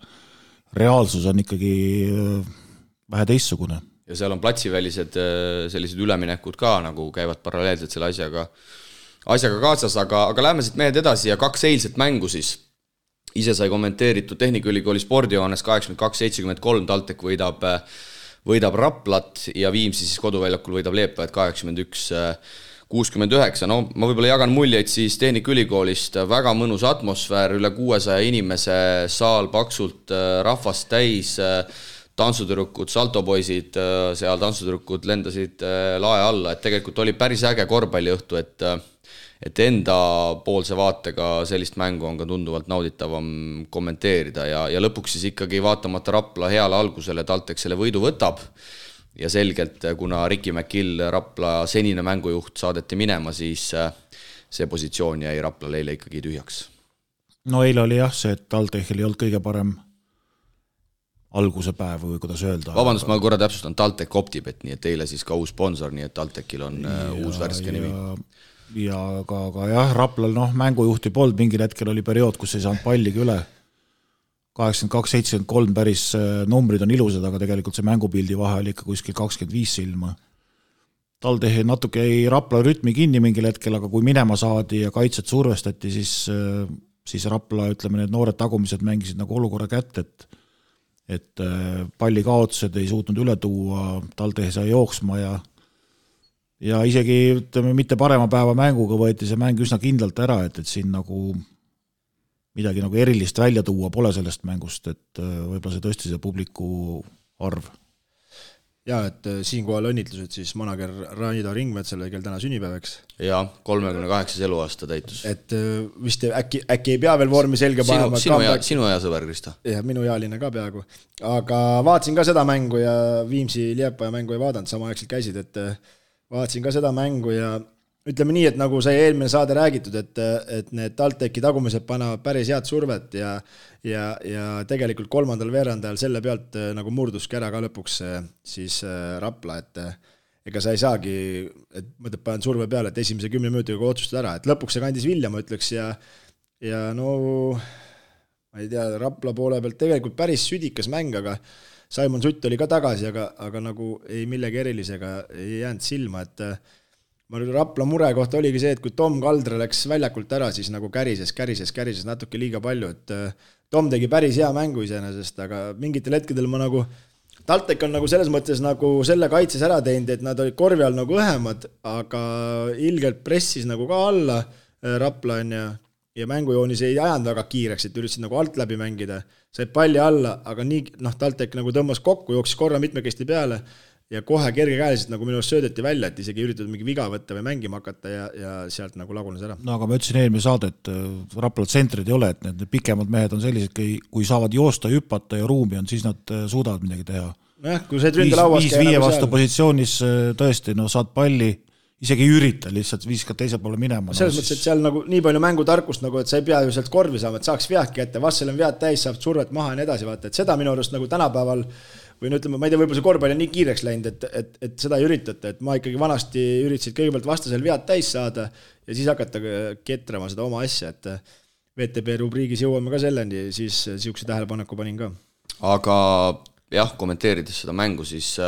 reaalsus on ikkagi vähe teistsugune. Ja seal on platsivälised sellised üleminekud ka, nagu käivad paralleelselt selle asjaga kaasas, aga läheme siit mehed edasi ja 2 eilset mängu siis. Ise sai kommenteeritud Tehnikaülikooli spordijoones 82-73, TalTech võidab Raplat ja Viimsi siis koduväljakul võidab Leepajat 81-69. No ma võib-olla jagan muljeid siis Tehnikaülikoolist, väga mõnus atmosfäär, üle 600 inimese, saal paksult rahvast täis, tantsutüdrukud, saltopoisid, seal tantsutüdrukud lendasid lae alla, et tegelikult oli päris äge korvpalliõhtu, et enda poolse vaatega sellist mängu on ka tunduvalt nauditavam kommenteerida ja lõpuks siis ikkagi vaatamata Rapla heale algusele TalTech selle võidu võtab ja selgelt, kuna Ricky McGill, Rapla senine mängujuht, saadeti minema, siis see positsioon jäi Rapla eile ikkagi tühjaks. No eile oli jah see, et TalTechil ei olnud kõige parem alguse päev või kuidas öelda. Vabandust, ma korra täpsustan, TalTech Optibet, nii et eile siis ka uus sponsor, nii et TalTechil on uus värske nimi. Ja aga jah, Raplal mängujuhti polnud, mingil hetkel oli periood, kus ei saanud palligi üle 82-73 päris numbrid on ilusad, aga tegelikult see mängupildi vahe oli ikka kuskil 25 silma. TalTech natuke ei Rapla rütmi kinni mingil hetkel, aga kui minema saadi ja kaitset survestati, siis Rapla, ütleme, need noored tagumised mängisid nagu olukorra kätte, et palli kaotused ei suutnud üle tuua, TalTech sai jooksma ja isegi, ütleme, mitte parema päeva mänguga võeti see mäng üsna kindlalt ära, et siin nagu midagi nagu erilist välja tuua pole sellest mängust, et võib-olla see tõesti see publiku arv. Ja, et siinkohal õnnitlused siis manager Raido Ringmetsale, kel täna sünnipäevaks. Ja, 38 eluaasta täitus. Et vist äkki ei pea veel vormi selge panema. Sinu hea sõber, Krista. Ja, minu ealine ka peaaegu. Aga vaatasin ka seda mängu ja Viimsi Liepaja mängu ei vaadanud, samaaegselt käisid, et vaatasin ka seda mängu ja ütleme nii, et nagu sai eelmine saade räägitud, et need TalTechi tagumised panevad päris head survet ja tegelikult 3. veerandajal selle pealt nagu murduski ära ka lõpuks siis Rapla, et ega sa ei saagi, et mõtled panen surve peale, et esimese 10 minutiga otsustada ära, et lõpuks see kandis vilja, ma ütleks, ja no ma ei tea, Rapla poole pealt tegelikult päris südikas mäng, aga Simon Sutt oli ka tagasi, aga nagu ei millegi erilisega ei jäänud silma, et Rapla mure kohta oligi see, et kui Tom Kaldre läks väljakult ära, siis nagu kärises natuke liiga palju, et Tom tegi päris hea mängu iseenesest, aga mingitel hetkedel ma nagu, TalTech on nagu selles mõttes nagu selle kaitses ära teinud, et nad olid korvi all nagu õhemad, aga ilgelt pressis nagu ka alla Rapla on ja mängujoonis ei ajanud väga kiireks, et üritasid nagu alt läbi mängida, said palli alla, aga nii, TalTech nagu tõmbas kokku, jooksis korra mitmekesti peale ja kohe kergekäeliselt nagu minu arust söödeti välja, et isegi üritatud mingi viga võtta või mängima hakata ja sealt nagu lagunes ära. No aga ma ütlesin eelmine saade, et Rapla tsentrid ei ole, et need pikemad mehed on sellised, kui saavad joosta, hüppata ja ruumi on, siis nad suudavad midagi teha. Nojah, kui see ründe lauas käi nagu vastu positsioonis tõesti, saad palli, isegi ei ürita, lihtsalt viskad teise poole minema. Selles mõttes, et seal nagu nii palju mängutarkust, nagu, et sa ei pea ju sealt korvi saama, et saaks veadki ette, vastsel on vead täis, saab survet maha ja nii edasi vaata, et seda minu arust nagu tänapäeval või no ütleme, ma ei tea, võib-olla see korvpall on nii kiireks läinud, et seda ei üritata, et ma ikkagi vanasti üritasid kõigepealt vastasel vead täis saada ja siis hakata ketrama seda oma asja, et VTB rubriigis jõuame ka selleni, siis siukse tähelepaneku panin ka. Aga jah, kommenteerides seda mängu, siis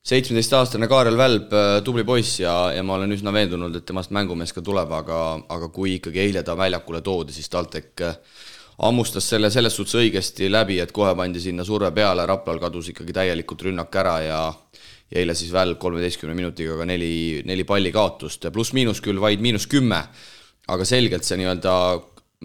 17-aastane Kaarel Välb, tubli poiss ja ma olen üsna veendunud, et temast mängumees ka tuleb, aga kui ikkagi eile ta väljakule toodi, siis TalTech ammustas selle selles suhtes õigesti läbi, et kohe pandi sinna surve peale, Raplal kadus ikkagi täielikult rünnak ära ja eile siis veel 13 minutiga ka 4 palli kaotust, pluss-miinus küll vaid -10, aga selgelt see nii-öelda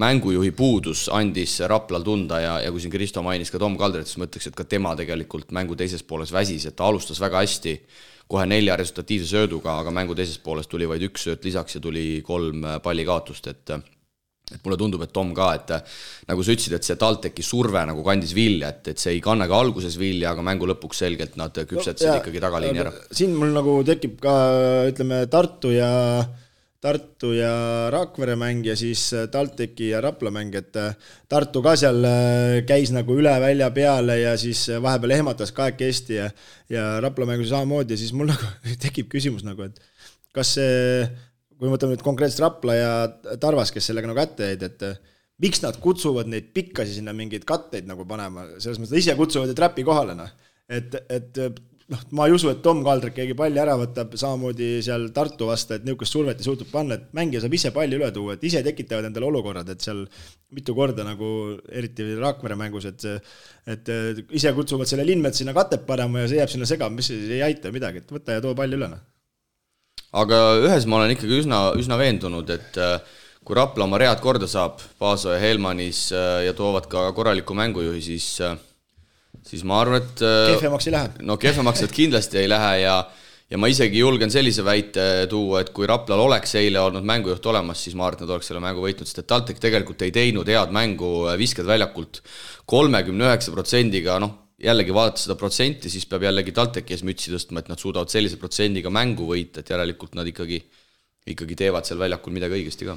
mängujuhi puudus andis Raplal tunda ja kui siin Kristo mainis ka Tom Kaldrit, siis mõtleks, et ka tema tegelikult mängu teises pooles väsis, et ta alustas väga hästi, kohe 4 resultatiivse sööduga, aga mängu teises pooles tuli vaid 1 sööt lisaks ja tuli 3 palli kaotust, et mulle tundub, et Tom ka, et nagu sa ütlesid, et see TalTechi surve nagu kandis vilja, et see ei kanna ka alguses vilja, aga mängu lõpuks selgelt nad küpsetasid ikkagi tagaliini ära. Siin mul nagu tekib ka, ütleme, Tartu ja Rakvere mäng ja siis TalTechi ja Rapla mäng, et Tartu ka seal käis nagu üle välja peale ja siis vahepeal ehmatas kahekesti ja Rapla mängus samamoodi ja siis mul nagu tekib küsimus nagu, et kas see, kui mõtleme nüüd konkreetselt Rapla ja Tarvas, kes sellega nagu kätte jäid, et miks nad kutsuvad neid pikkasi sinna mingeid katteid nagu panema, selles mõttes ise kutsuvad ja trappi kohale, et ma ei usu, et Tom Kaldrik keegi palli ära võtab, samamoodi seal Tartu vasta, et niisugust survet ei suutub panna, et mängija saab ise palli üle tuua, et ise tekitavad endale olukorrad, et seal mitu korda nagu eriti Rakvere mängus, et ise kutsuvad selle Linmet sinna katet panema ja see jääb sinna segama, mis ei aita midagi, et võta ja too palli üle. Aga ühes ma olen ikkagi üsna veendunud, et kui Rapla oma read korda saab, Paaso ja Helmanis ja toovad ka korraliku mängujuhi, siis ma arvan, et kehvemaks ei lähe. No kehvemaks et kindlasti ei lähe ja ma isegi julgen sellise väite tuua, et kui Raplal oleks eile olnud mängujuht olemas, siis ma arvan, et nad oleks selle mängu võitnud, sest et TalTech tegelikult ei teinud head mängu, visked väljakult 39%-ga, jällegi vaadata seda protsenti, siis peab jällegi TalTechi ees mütsi tõstma, et nad suudavad sellise protsendiga mängu võita, et järelikult nad ikkagi teevad seal väljakul midagi õigesti ka.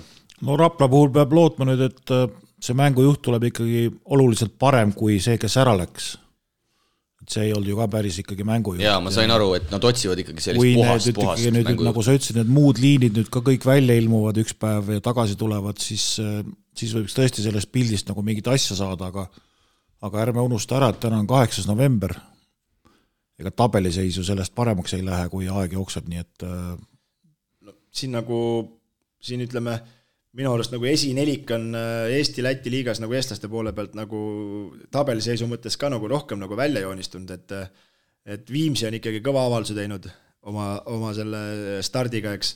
No Rapla puhul peab lootma nüüd, et see mängujuht tuleb ikkagi oluliselt parem kui see, kes ära läks. Et see ei olnud ju ka päris ikkagi mängujuht. Jaa, ma sain aru, et nad otsivad ikkagi sellist puhast mängujuht. Nagu sa ütlesid, need muud liinid nüüd ka kõik välja ilmuvad üks päev ja tagasi tulevad, siis võiks tõesti sellest pildist nagu mingit asja saada, aga ärme unusta ära, et täna on 8. november. Ega tabeliseisu sellest paremaks ei lähe, kui aeg jookseb, nii et siin ütleme, minu arust nagu esinelik on Eesti Läti liigas nagu eestlaste poole pealt nagu tabeliseisu mõttes ka nagu rohkem nagu välja joonistunud, et Viimsi on ikkagi kõva avalduse teinud oma selle stardiga, eks,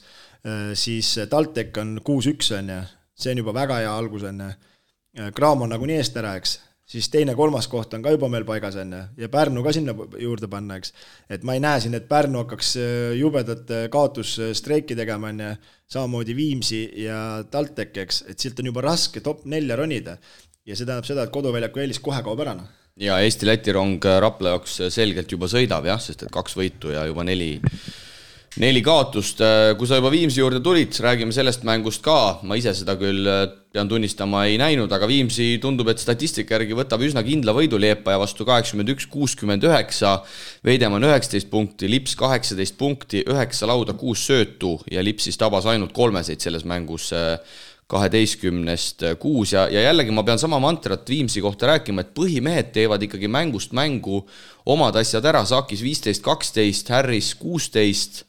siis TalTech on 6-1 on ja see on juba väga hea algus on ja Graam on nagu nii eest ära, eks, siis teine, 3. koht on ka juba meil paigas enne ja Pärnu ka sinna juurde panna, eks. Et ma ei näe siin, et Pärnu hakkaks jubedat kaotusstreiki tegema enne, samamoodi Viimsi ja TalTech, eks, et silt on juba raske top 4 ronida ja see tähendab seda, et koduväljaku eelis kohe kaob ära. Ja Eesti-Läti rong Rapla jaoks selgelt juba sõidab, jah, sest et 2 võitu ja juba 4 kaotust. Kui sa juba Viimsi juurde tulid, räägime sellest mängust ka. Ma ise seda küll pean tunnistama ei näinud, aga Viimsi tundub, et statistika järgi võtab üsna kindla võidu Liepaja vastu 81-69, Veidemann 19 punkti, Lips 18 punkti, 9 lauda, 6 söötu ja Lips siis tabas ainult 3 selles mängus 12-6 ja jällegi ma pean sama mantrat Viimsi kohta rääkima, et põhimehed teevad ikkagi mängust mängu omad asjad ära, Saakis 15-12, Harris 16,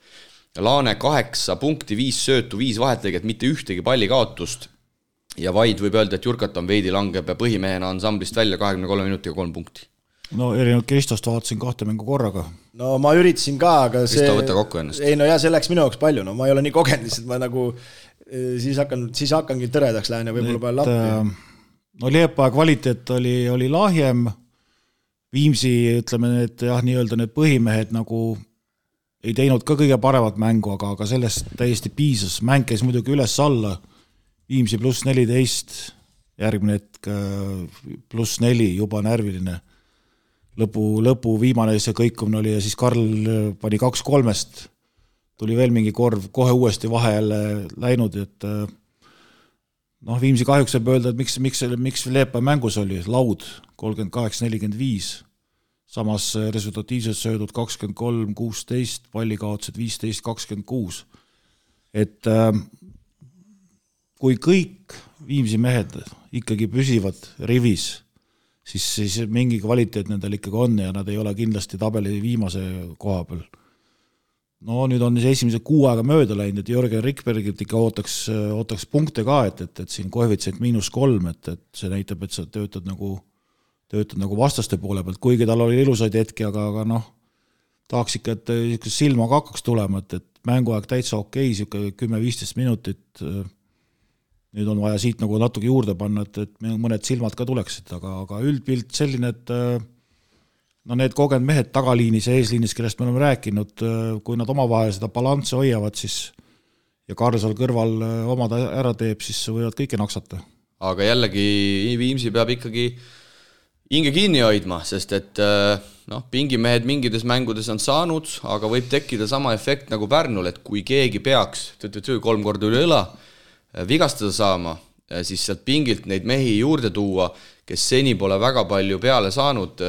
Laane 8 punkti, 5 söötu, 5 vahetlõiget, mitte ühtegi palli kaotust ja vaid võib öelda, et Jurkat on veidi langeb ja põhimehena ansamblist välja 23 minutiga 3 punkti. No erinevalt Kristost vaatasin 2 mängu korraga. No ma üritasin ka, aga see... Kristo, võtta kokku ennast. Ei no jah, see läks minu jaoks palju, no ma ei ole nii kogenud, lihtsalt ma nagu siis hakkangi tõredaks lähen ja võib-olla palju lappi. No Liepaja kvaliteet oli lahjem, Viimsi, ütleme, et jah, nii-öelda need põhimehed nagu ei teinud ka kõige paremat mängu, aga sellest täiesti piisas. Mäng käis muidugi üles-alla, Viimsi pluss 14, järgmine hetk pluss 4, juba närviline. Lõpu viimane see kõikumine oli ja siis Karl pani 2-3-st, tuli veel mingi korv, kohe uuesti vahe jälle läinud, et Viimsi kahjuks võib öelda, et miks Liepaja mängus oli laud 38-45, samas resultatiivselt söödud 23-16, pallikaotused 15-26. Et kui kõik Viimsi mehed ikkagi püsivad rivis, siis mingi kvaliteet nendel ikkagi on ja nad ei ole kindlasti tabeli viimase koha peal. no nüüd on esimese 6 aega mööda läinud, et Jörgen Rikbergilt ikka ootaks punkte ka, et siin koefitsient -3, et see näitab, et sa töötad nagu vastaste poole pealt, kuigi tal oli ilusaid hetki, aga noh, tahaks ikka, et silma ka hakkaks tulema, et mänguaeg täitsa okei, 10-15 minutit, nüüd on vaja siit nagu natuke juurde panna, et mõned silmad ka tuleksid, aga üldpilt selline, et no need kogenud mehed tagaliinis ja eesliinis, kellest me oleme rääkinud, kui nad omavahel seda balanssi hoiavad, siis ja Karl seal kõrval omad ära teeb, siis võivad kõike naksata. Aga jällegi Viimsi peab ikkagi hinge kinni hoidma, sest et pingimehed mingides mängudes on saanud, aga võib tekkida sama efekt nagu Pärnul, et kui keegi peaks 3 korda üle õla vigastada saama, siis sealt pingilt neid mehi juurde tuua, kes seni pole väga palju peale saanud,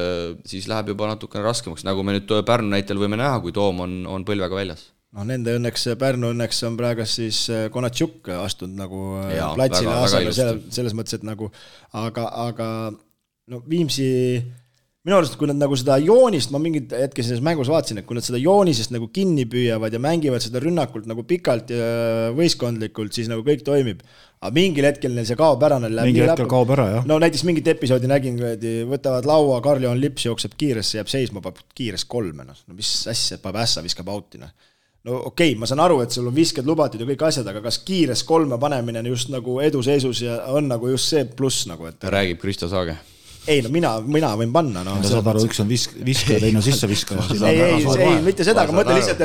siis läheb juba natukene raskemaks, nagu me nüüd Pärnu näitel võime näha, kui Toom on põlvega väljas. No nende õnneks, Pärnu õnneks on praegu siis Konatšuk astunud nagu platsile asemel selles mõttes, et nagu, aga no Viimsi, minu arust, kui nad nagu seda joonist, ma mingid hetke selles mängus vaatasin, et kui nad seda joonisest nagu kinni püüavad ja mängivad seda rünnakult nagu pikalt ja võistkondlikult, siis nagu kõik toimib. Aga mingil hetkel neil see kaob ära. Mingi hetkel kaob ära, jah. No näiteks mingit episoodi nägin, võtavad laua, Karl-Johan Lips jookseb kiiresse, jääb seisma, paneb kiires 3. No mis asja, paneb ässa, viskab autina. No okei, ma saan aru, et sul on visked lubatud ja kõik asjad, aga kas kiires 3 panemine just nagu eduseisus ja on nagu just see pluss nagu, et räägib Kristo Saage. Ei, no mina võin panna. No, saad aru, üks on viskaja, teine on sisse viskaja. Ei, mitte seda, aga mõtle lihtsalt,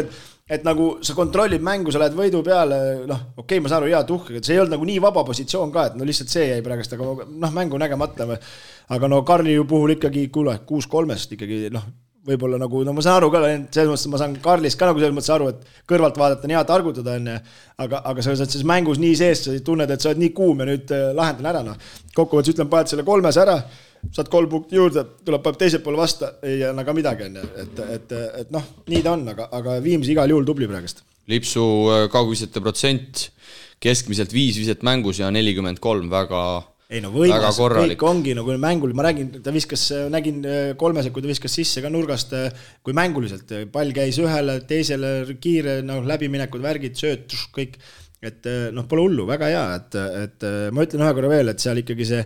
et nagu sa kontrollid mängu, sa lähed võidu peale, okei, ma saan aru, hea tuhk, et see ei olnud nagu nii vaba positsioon ka, et no lihtsalt see jäi praegust, aga mängu nägemata. Aga no Karli ju puhul ikkagi 6-3 ikkagi, võib-olla nagu, ma saan aru ka, selles mõttes ma saan Karlist ka nagu selles mõttes aru, et kõrvalt vaadata on hea targutada enne, aga sa oled siis mängus nii sees, sa tunned, et sa oled nii kuum ja nüüd lahendan ära. Kokkuvõttes ütlen, paned selle 3 ära, saad 3 punkti juurde, tuleb teiselt poole vasta, ei anna ka midagi, et nii ta on, aga Viimsi igal juhul tubli praegust. Lipsu kaugvisete protsent keskmiselt 5 viset mängus ja 43, väga võimas, kõik ongi, kui mängul, ma räägin, ta viskas, nägin 3, kui ta viskas sisse ka nurgast, kui mänguliselt, pall käis ühele, teisele kiire, läbiminekud, värgid, sööt, kõik, et pole hullu, väga hea, et ma ütlen ühe korra veel, et seal ikkagi see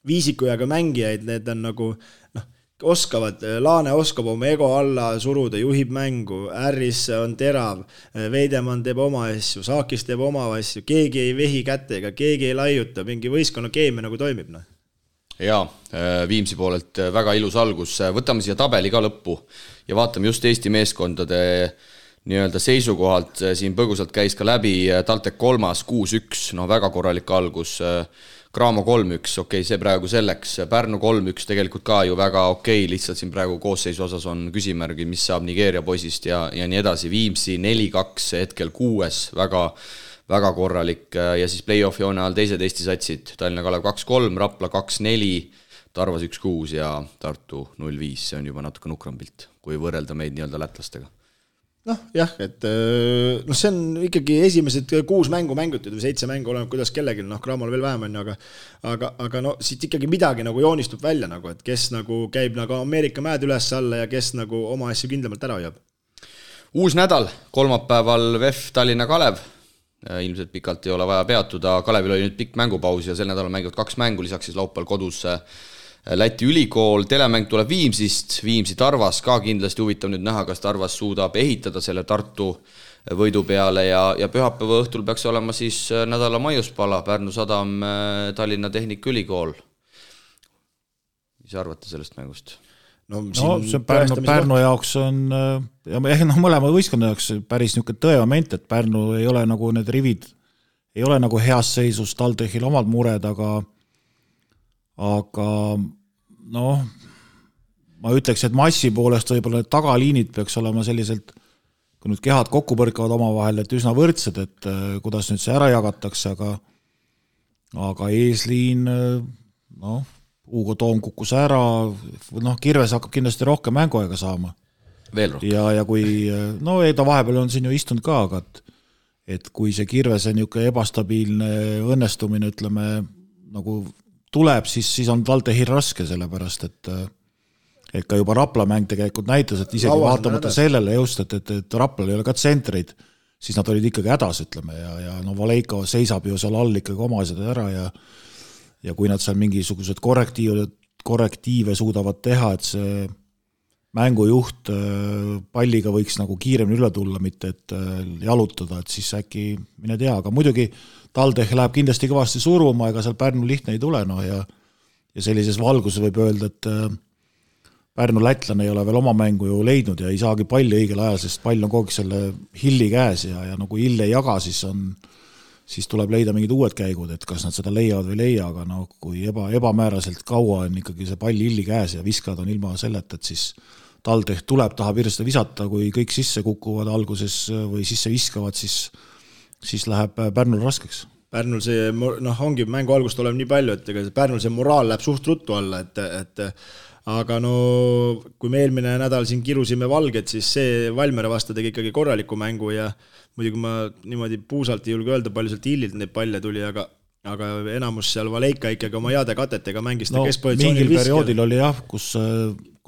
viisikujaga mängijaid, need on nagu, oskavad, Laane oskab oma ego alla suruda, juhib mängu, Ärris on terav, Veidemann teeb oma asju, Saakis teeb oma asju, keegi ei vehi kätega, keegi ei laiuta, mingi võistkonna keemia nagu toimib. Jaa, Viimsi poolelt väga ilus algus, võtame siia tabeli ka lõppu ja vaatame just Eesti meeskondade nii-öelda seisukohalt, siin põgusalt käis ka läbi TalTech 3, 6-1, väga korralik algus, Graamo 3-1, okei, see praegu selleks, Pärnu 3-1 tegelikult ka ju väga okei, lihtsalt siin praegu koosseisu osas on küsimärgi, mis saab Nigeeria poisist ja nii edasi, Viimsi 4-2 hetkel 6, väga korralik ja siis play-off joone all teised Eesti satsid, Tallinna Kalev 2-3, Rapla 2-4, Tarvas 1-6 ja Tartu 0-5, see on juba natuke nukram pilt, kui võrrelda meid nii-öelda lätlastega. Jah, et see on ikkagi esimesed 6 mängu mängutud või 7 mängu oleneb, kuidas kellelgi, Graamol veel vähem on, aga siit ikkagi midagi nagu joonistub välja, nagu, et kes nagu käib nagu Ameerika mäed üles alla ja kes nagu oma asju kindlamalt ära hoiab. Uus nädal, kolmapäeval VEF Tallinna Kalev, ilmselt pikalt ei ole vaja peatuda, Kalevil oli nüüd pikk mängupaus ja sel nädalal mängivad 2 mängu, lisaks siis laupäeval kodus Läti ülikool, telemäng tuleb Viimsist, Viimsi Tarvas ka kindlasti huvitav nüüd näha, kas Tarvas suudab ehitada selle Tartu võidu peale ja pühapäeva õhtul peaks olema siis nädala maiuspala, Pärnu Sadam, Tallinna Tehnikaülikool. Mis arvate sellest mängust? See Pärnu jaoks on, mõlema võistkonna jaoks päris niisugune tõemoment, et Pärnu ei ole nagu need rivid, ei ole nagu heas seisus, TalTechil omad mured, aga ma ütleks, et massi poolest võib-olla need tagaliinid peaks olema selliselt, kui nüüd kehad kokku põrkavad omavahel, et üsna võrdsed, et kuidas nüüd see ära jagatakse, aga eesliin, Hugo Toom kukkus ära, Kirves hakkab kindlasti rohkem mänguaega saama. Veel rohkem. Ja kui, ta vahepeal on siin ju istunud ka, aga et kui see Kirvese niisugune ebastabiilne õnnestumine, ütleme, nagu tuleb, siis on TalTechil raske, sellepärast, et et ka juba Rapla mäng tegelikult näitas, et isegi vaatamata sellele just, et Raplal ei ole ka tsentreid, siis nad olid ikkagi hädas, ütleme, ja no Valeiko seisab ju seal all ikkagi oma asjad ära ja kui nad seal mingisugused korrektiive suudavad teha, et see mängujuht palliga võiks nagu kiiremini üle tulla, mitte et jalutada, et siis äkki mine tea, aga muidugi TalTech läheb kindlasti kõvasti suruma, ega seal Pärnu lihtne ei tule, no ja sellises valguses võib öelda, et Pärnu lätlane ei ole veel oma mängu ju leidnud ja ei saagi palli õigel ajal, sest pall on kogu selle Hilli käes ja no kui Hill ei jaga, siis tuleb leida mingid uued käigud, et kas nad seda leiavad või leia, aga no kui ebamääraselt kaua on ikkagi see pall Hilli käes ja viskad on ilma selleta, et siis TalTech tahab hirmsasti visata, kui kõik sisse kukuvad alguses või sisse viskavad, siis läheb Pärnul raskeks. Pärnul see, ongi mängu algust oleb nii palju, et Pärnul see moraal läheb suht ruttu alla, et aga no kui me eelmine nädal siin kirusime Valget, siis see Valmere vastu tegi ikkagi korraliku mängu ja muidugi ma niimoodi puusalt ei julge öelda, palju sealt Hillilt neid palle tuli, aga enamus seal Valeika ikkagi oma heade katetega mängis ta keskpositsioonil mingil perioodil oli jah, kus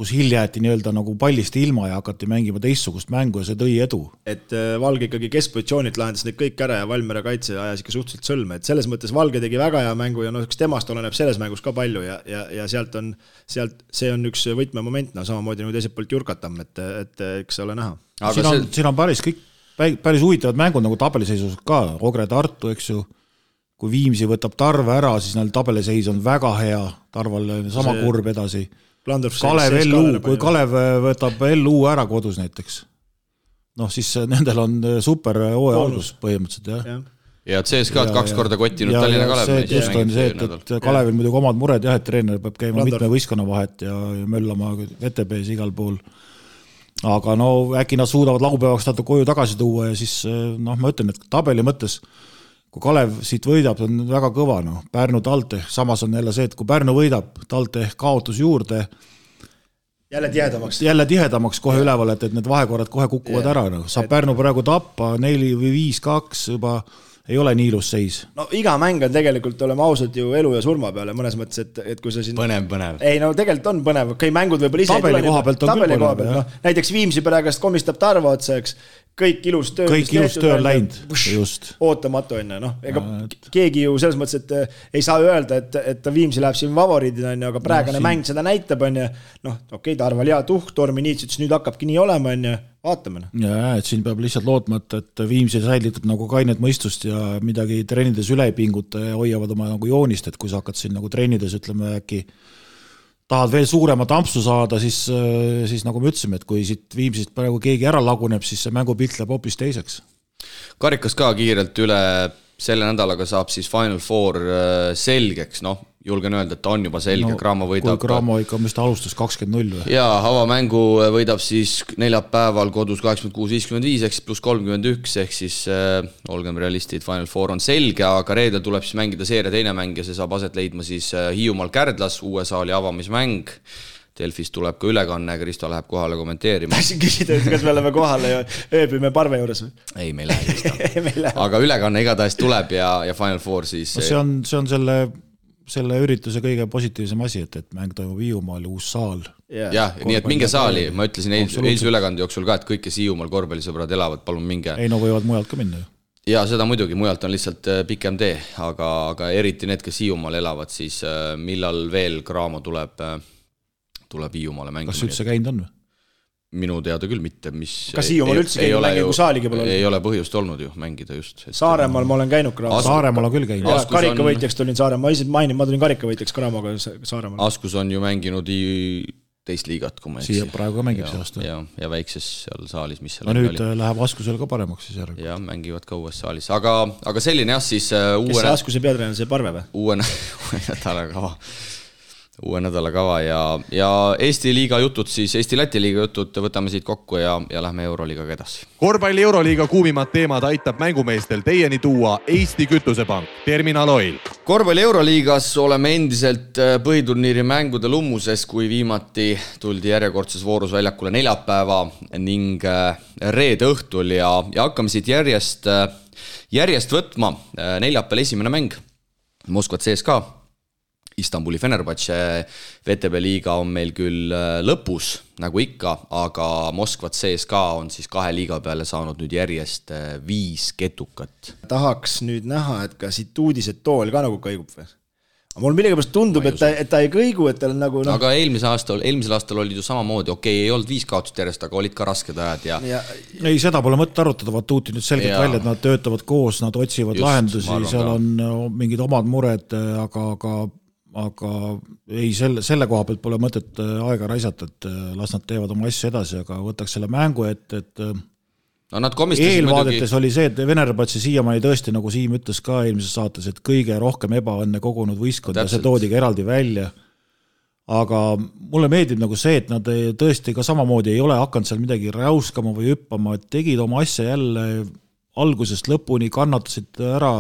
Hill jäeti nii-öelda nagu pallist ilma ja hakati mängima teistsugust mängu ja see tõi edu. Et Valge ikkagi keskpositsioonilt lahendas need kõik ära ja Valmere kaitse ajas ikka suhteliselt sõlme, et selles mõttes Valge tegi väga hea mängu ja temast oleneb selles mängus ka palju ja sealt see on üks võtmemoment, samamoodi nagu teiselt poolt Jurkatam, et eks ole näha. Siin on päris huvitavad mängud nagu tabeliseisus ka, Ogre Tartu, eks ju, kui Viimsi võtab Tarve ära, siis neil tabeliseis on väga hea, Tarval sama kurb edasi. Kalev LU, kui Kalev võtab LU ära kodus näiteks, siis nendel on super hooaja algus põhimõtteliselt, jah. Ja CSK'd 2 korda kottinud Tallinna Kalev. Just on see, et Kalevil muidugi omad mured, jah, et treener peab käima mitme võistkonna vahet ja möllama VTB-s igal pool. Aga äkki nad suudavad laupäevaks tato koju tagasi tuua ja siis, ma ütlen, et tabeli mõttes, kui Kalev siit võidab, on väga kõva, Pärnu TalTech, samas on jälle see, et kui Pärnu võidab, TalTech kaotus juurde, jälle tihedamaks kohe üleval, et need vahekorrad kohe kukuvad ära, saab Pärnu praegu tappa 4 või 5-2 juba ei ole nii ilus seis. Iga mäng on tegelikult, oleme ausad ju elu ja surma peale, mõnes mõttes, et kui see siin... Põnev. Ei, tegelikult on põnev, kui mängud võib-olla ise tabeli koha pealt on küll põnev. Näiteks Viimsi pärast komistab Tarva otsa, eks, kõik ilus töö on läinud, just. Ootamatu enne, ega keegi ju selles mõttes, et ei saa öelda, et Viimsi läheb siin favoriidina, aga praegune mäng seda näitab, okei, Tarval hea tuhk, Tormi Niits ütles, nüüd hakkabki nii olema, vaatame. Ja, et siin peab lihtsalt lootma, et Viimsi säilitab nagu kainet mõistust ja midagi treenides üle ei pinguta ja hoiavad oma nagu joonist, et kui sa hakkad siin nagu treenides, ütleme äkki tahad veel suuremat ampsu saada, siis nagu me ütlesime, et kui siit Viimsist praegu keegi ära laguneb, siis see mängupilt läheb hoopis teiseks. Karikas ka kiirelt üle selle nädalaga saab siis Final Four selgeks, julgen öelda, et ta on juba selge, Graamo võidab. Kui Graamo ikka, mis ta alustas 20-0 või? Jaa, avamängu võidab siis neljapäeval kodus 86-55 ehk plus 31 ehk siis olgem realistid, Final Four on selge, aga reedel tuleb siis mängida seeria teine mäng ja see saab aset leidma siis Hiiumaal Kärdlas, uue saali avamismäng. Delfis tuleb ka ülekanne, Kristo läheb kohale kommenteerima. Tahtsin küsida, kas me oleme kohale ja ööbime Parve juures või? Ei, me ei lähe Kristo. Aga ülekanne igatahes tuleb ja Final Four siis... See on selle ürituse kõige positiivsem asi, et mäng toimub Hiiumaal, uus saal. Jah, nii et minge saali, ma ütlesin eilse ülekande jooksul ka, et kõik, kes Hiiumaal korvpallisõbrad elavad, palun minge. Ei, võivad mujalt ka minna ju. Ja seda muidugi, mujalt on lihtsalt pikem tee, aga eriti need, kes Hiiumaal elavad, siis millal veel Graamo tuleb Hiiumaale mängima. Kas üldse käinud on või? Minu teada küll mitte, kas Hiiumaal üldse käinud mängi, kui saaligi pole olnud? Ei ole põhjust olnud ju mängida just. Saaremaal ma olen käinud Graamo. Saaremaal on küll käinud. Karikavõitjaks tulin Saaremaal, ma tulin karikavõitjaks Graamoga Saaremaal. Askus on ju mänginud teist liigat, kui ma siia praegu ka mängib see aasta. Ja väikses seal saalis, mis seal nüüd oli. Läheb Askusel ka paremaks siis järgi. Ja mängivad ka uues saalis, aga selline jah siis kes see Askuse peatreener, see Parve või? Uue nädala kava ja Eesti liiga jutud siis, Eesti-Läti liiga jutud võtame siit kokku ja lähme Euroliigaga edasi. Korvpalli Euroliiga kuumimad teemad aitab mängumeestel teieni tuua Eesti Kütusepank, Terminal Oil. Korvpalli Euroliigas oleme endiselt põhiturniiri mängude lummuses, kui viimati tuldi järjekordses voorus väljakule neljapäeva ning reede õhtul ja hakkame siit järjest võtma. Neljapäeval esimene mäng, Moskva CSKA. Istanbuli Fenerbahce VTB liiga on meil küll lõpus, nagu ikka, aga Moskva CSKA on siis 2 liiga peale saanud nüüd järjest 5 ketukat. Tahaks nüüd näha, et ka siit uudised tool ka nagu kõigub või? Mul millegipärast tundub, et ta ei kõigu, et tal nagu... Aga eelmisel aastal olid ju samamoodi, ei olnud 5 kaotust järjest, aga olid ka rasked ajad ja... Ei, seda pole mõtte arutada, Vatuuti nüüd selgelt välja, et nad töötavad koos, nad otsivad lahendusi, seal on mingid omad mured, aga ei, selle koha pealt pole mõtet aega raisata, et las nad teevad oma asju edasi, aga võtaks selle mängu, et no nad komistasid eelvaadetes oli see, et Fenerbahce siiamaani tõesti, nagu Siim ütles ka eelmises saates, et kõige rohkem ebaõnne kogunud võistkond ja see toodigi eraldi välja. Aga mulle meeldib nagu see, et nad tõesti ka samamoodi ei ole hakanud seal midagi räuskama või hüppama, et tegid oma asja jälle algusest lõpuni, kannatasid ära,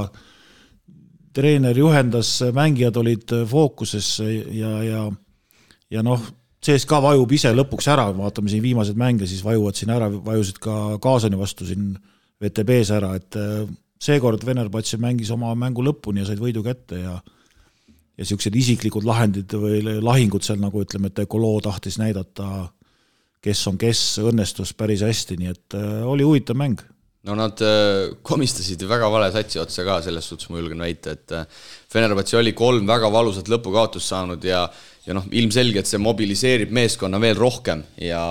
treener juhendas, mängijad olid fookuses ja noh, CSKA vajub ise lõpuks ära, vaatame siin viimased mänge, siis vajuvad siin ära, vajusid ka Kaasani vastu siin VTB-s ära, et seekord Fenerbahce mängis oma mängu lõpuni ja said võidu kätte ja siuksed isiklikud lahendid või lahingud seal, nagu ütleme, et Ekolo tahtis näidata, kes on kes, õnnestus päris hästi, nii et oli huvitav mäng. No nad komistasid väga vale satsi otsa ka, selles suhtes ma julgen väita, et Fenerbahce oli 3 väga valusat lõpukaotust saanud ja ilmselgelt see mobiliseerib meeskonna veel rohkem ja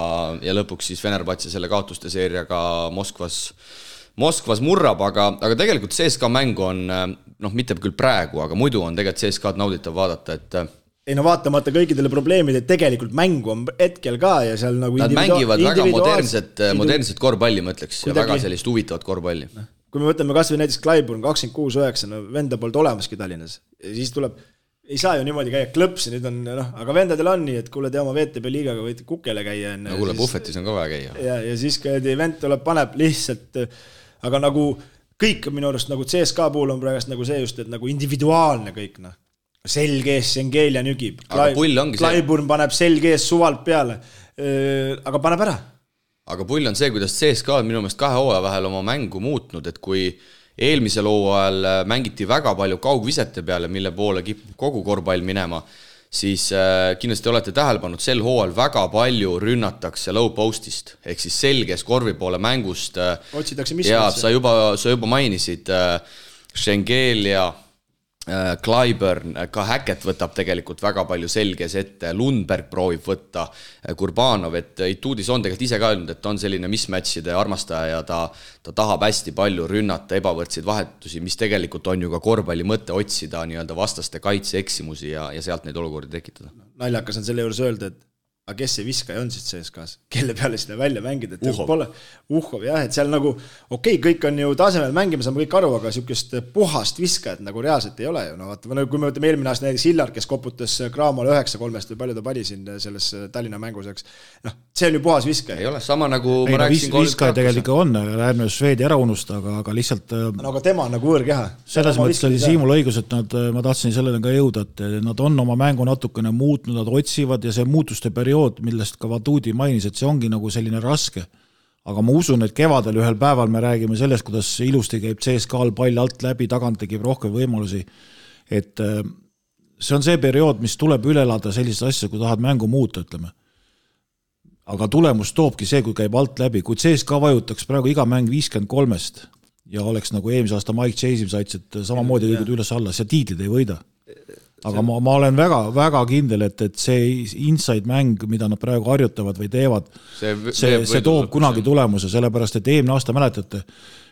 lõpuks siis Fenerbahce selle kaotuste seeriaga Moskvas murrab, aga tegelikult CSKA mäng on, mitte küll praegu, aga muidu on tegelikult CSKA-d nauditav vaadata, et ei no vaatamata kõikidele probleemid, et tegelikult mängu on hetkel ka ja seal nagu nad mängivad väga modernset korvpalli, ma ütleks, ja väga sellist huvitavat korvpalli. Kui me võtame kas või näiteks Clyburn 26-9, venda poolt olemaski Tallinnas, ja siis tuleb, ei saa ju niimoodi käia klõpsi, nüüd on, aga vendadel on nii, et kuule te oma VTB liigaga võite kukele käia. No kuule, Buffetis on ka vaja käia. Ja siis vend tuleb, paneb lihtsalt, aga nagu kõik minu arust nagu CSKA puhul on praegust nagu see just, et nagu individuaalne kõik, selgees Sengel ja nügib. Clyburn paneb selgees suvalt peale, aga paneb ära. Aga pull on see, kuidas CSKA on minu meelest 2 hooaja vahel oma mängu muutnud, et kui eelmisel hooajal mängiti väga palju kaugvisete peale, mille poole kipub kogu korvpall minema, siis kindlasti olete tähele pannud, sel hooajal väga palju rünnatakse low postist, ehk siis selges korvi poole mängust. Otsitakse mis ja sa juba mainisid Sengel ja Clyburn, ka Hackett võtab tegelikult väga palju selges ette, Lundberg proovib võtta, Kurbanov, et Ituudis on tegelikult ise ka öelnud, et on selline mismatchide armastaja ja ta tahab hästi palju rünnata ebavõrdseid vahetusi, mis tegelikult on ju ka korvpalli mõte otsida nii-öelda vastaste kaitseeksimusi ja sealt neid olukordi tekitada. Naljakas on selle juures öelda, et aga kes see viskaja on siis CSKAs, kelle peale seda välja mängida, et Uhhov, jah, et seal nagu kõik on ju tasemel mängima, saame kõik aru, aga sükest puhast viskajat nagu reaalselt ei ole ju, kui me võtame eelmine aasta näiteks Hillar, kes koputas Kraamale 9-3 või palju ta pani siin selles Tallinna mänguseks, see on ju puhas viskaja. Ei ole, sama nagu ma rääkisin viskaja tegelikult on, ärme Šveedi ära unusta, aga lihtsalt aga tema on nagu võõrkeha. Selles mõttes oli Siimul õigus, et ma tahtsin sellele ka jõuda, et nad on oma mängu natukene muutnud, nad otsivad ja see muutuste periood, millest ka Vatuudi mainis, et see ongi nagu selline raske. Aga ma usun, et kevadel ühel päeval me räägime sellest, kuidas ilusti käib CSKA-l pall alt läbi, tagant tegib rohkem võimalusi. Et see on see periood, mis tuleb üle elada sellist asja, kui tahad mängu muuta, ütleme. Aga tulemus toobki see, kui käib alt läbi. Kui CSKA vajutaks praegu iga mäng 53-st ja oleks nagu eelmise aasta Mike Chase saits, et samamoodi liigud üles alla, see tiitlid ei võida. Aga ma olen väga kindel, et see inside mäng, mida nad praegu harjutavad või teevad, see toob kunagi tulemuse, sellepärast, et eelmine aasta mäletate,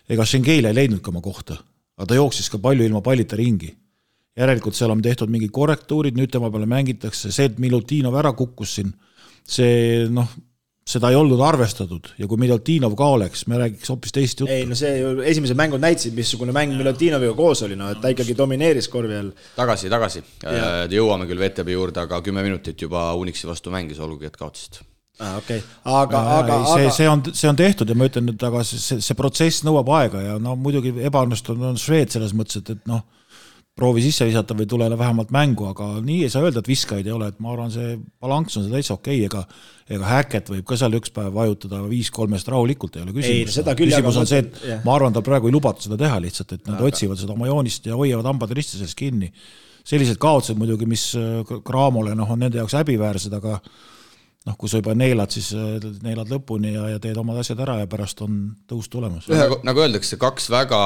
ega Sengel ei leidnud ka oma kohta, aga ta jooksis ka palju ilma pallita ringi. Järelikult seal on tehtud mingid korrektuurid, nüüd tema peale mängitakse, see, et Milutinov ära kukkus siin, see seda ei olnud arvestatud ja kui Milutinov ka oleks, me räägiks hoopis teist juttu. Ei, no see ju esimesed mängud näitasid, missugune mäng Milutinoviga koos oli, et ta ikkagi domineeris korvi all. Tagasi. Jõuame küll VTB juurde, aga 10 minutit juba Unixi vastu mängis, olgugi, et kaotasid. Okay. See on tehtud ja ma ütlen, et aga see protsess nõuab aega ja muidugi ebaõnnestunud on Šveed selles mõttes, et proovi sisse visata või tule vähemalt mängu, aga nii ei saa öelda, et viskajaid ei ole, et ma arvan, see balanss on see täitsa okei, ega Häkket võib ka seal üks päev vajutada 5-3 rahulikult, ei ole küsimus. Küsimus on see, et ma arvan, tal praegu ei lubata seda teha lihtsalt, et nad otsivad seda oma joonist ja hoiavad hambad risti sellest kinni. Sellised kaotused muidugi, mis Cramole on nende jaoks häbiväärsed, aga kui sa juba neelad, siis neelad lõpuni ja teed omad asjad ära ja pärast on tõus tulemas. Nagu öeldakse, 2 väga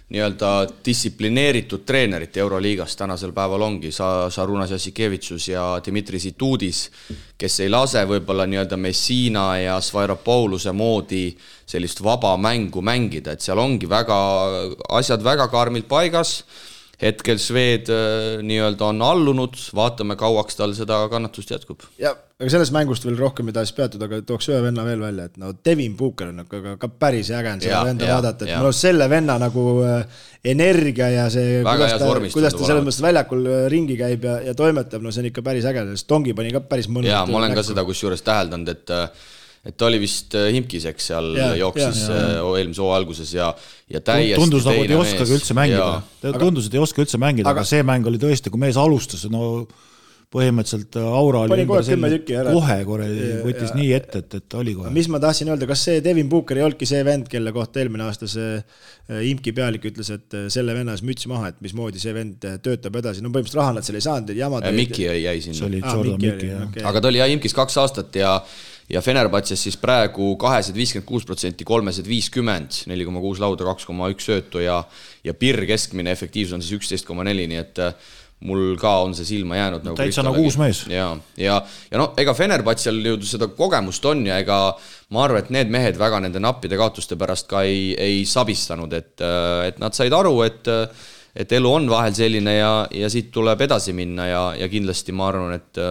nii-öelda distsiplineeritud treenerit Euroliigas tänasel päeval ongi Šarūnas Jassikevitsus ja Dmitri Situdis, kes ei lase võib-olla nii-öelda Messina ja Svairopouluse moodi sellist vaba mängu mängida, et seal ongi asjad väga karmilt paigas. Hetkel Šved nii-öelda on allunud, vaatame kauaks tal seda kannatust jätkub. Ja, aga sellest mängust veel rohkem ei tahaks peatud, aga tooks ühe venna veel välja, et Devin Booker on ka päris ägen seda venda vaadata, et mul on selle venna nagu energia ja see, kuidas ta selles mõttes väljakul ringi käib ja toimetab, see on ikka päris äge, sest Tongi pani ka päris mõnus. Ja, ma olen ka seda kusjuures täheldanud, et ta oli vist Himkiseks seal jooksis eelmise hoo alguses ja täiesti tundus nagu, et ei oskagi üldse mängida. Tundus, et ei oska üldse mängida, aga see mäng oli tõesti, kui mees alustas, põhimõtteliselt aura oli kohe võttis nii ette, et oli kohe. Mis ma tahtsin öelda, kas see Devin Booker ei olnudki see vend, kelle kohta eelmine aasta see Imki pealik ütles, et selle vennas müts maha, et mismoodi see vend töötab edasi. Põhimõtteliselt raha nad seal ei saanud. Mikki jäi sinna. Mikki. Aga ta oli Imkis 2 aastat ja Fenerbahces siis praegu 256%, 350, 4,6 lauda, 2,1 söötu ja PIR keskmine efektiivsus on siis 11,4, nii et mul ka on see silma jäänud. Täitsa nagu uus mees. Ja ega Fenerbahcel ju seda kogemust on ja ega ma arvan, et need mehed väga nende nappide kaotuste pärast ka ei sabistanud, et nad said aru, et elu on vahel selline ja siit tuleb edasi minna ja kindlasti ma arvan, et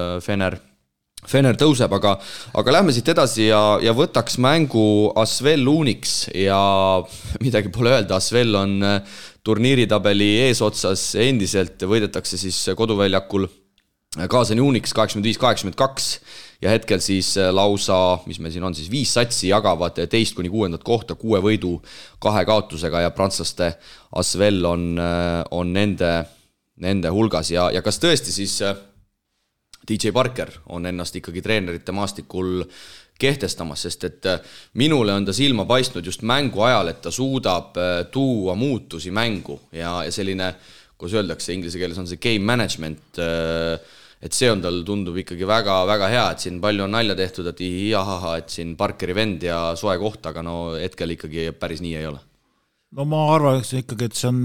Fener tõuseb, aga lähme siit edasi ja võtaks mängu Asvel Uniks ja midagi pole öelda, Asvel on turniiritabeli eesotsas endiselt, võidetakse siis koduväljakul kaasani Uniks 85-82 ja hetkel siis lausa, mis meil siin on siis 5 satsi jagavad 2-6 kohta 6 võidu 2 kaotusega ja prantslaste Asvel on nende hulgas ja kas tõesti siis DJ Parker on ennast ikkagi treenerite maastikul kehtestamas, sest et minule on ta silma paistnud just mängu ajal, et ta suudab tuua muutusi mängu ja selline, kus öeldakse inglise keeles on see game management, et see on tal tundub ikkagi väga, väga hea, et siin palju on nalja tehtud, et siin Parkeri vend ja soe koht, aga hetkel ikkagi päris nii ei ole. No ma arvan ikkagi, et see on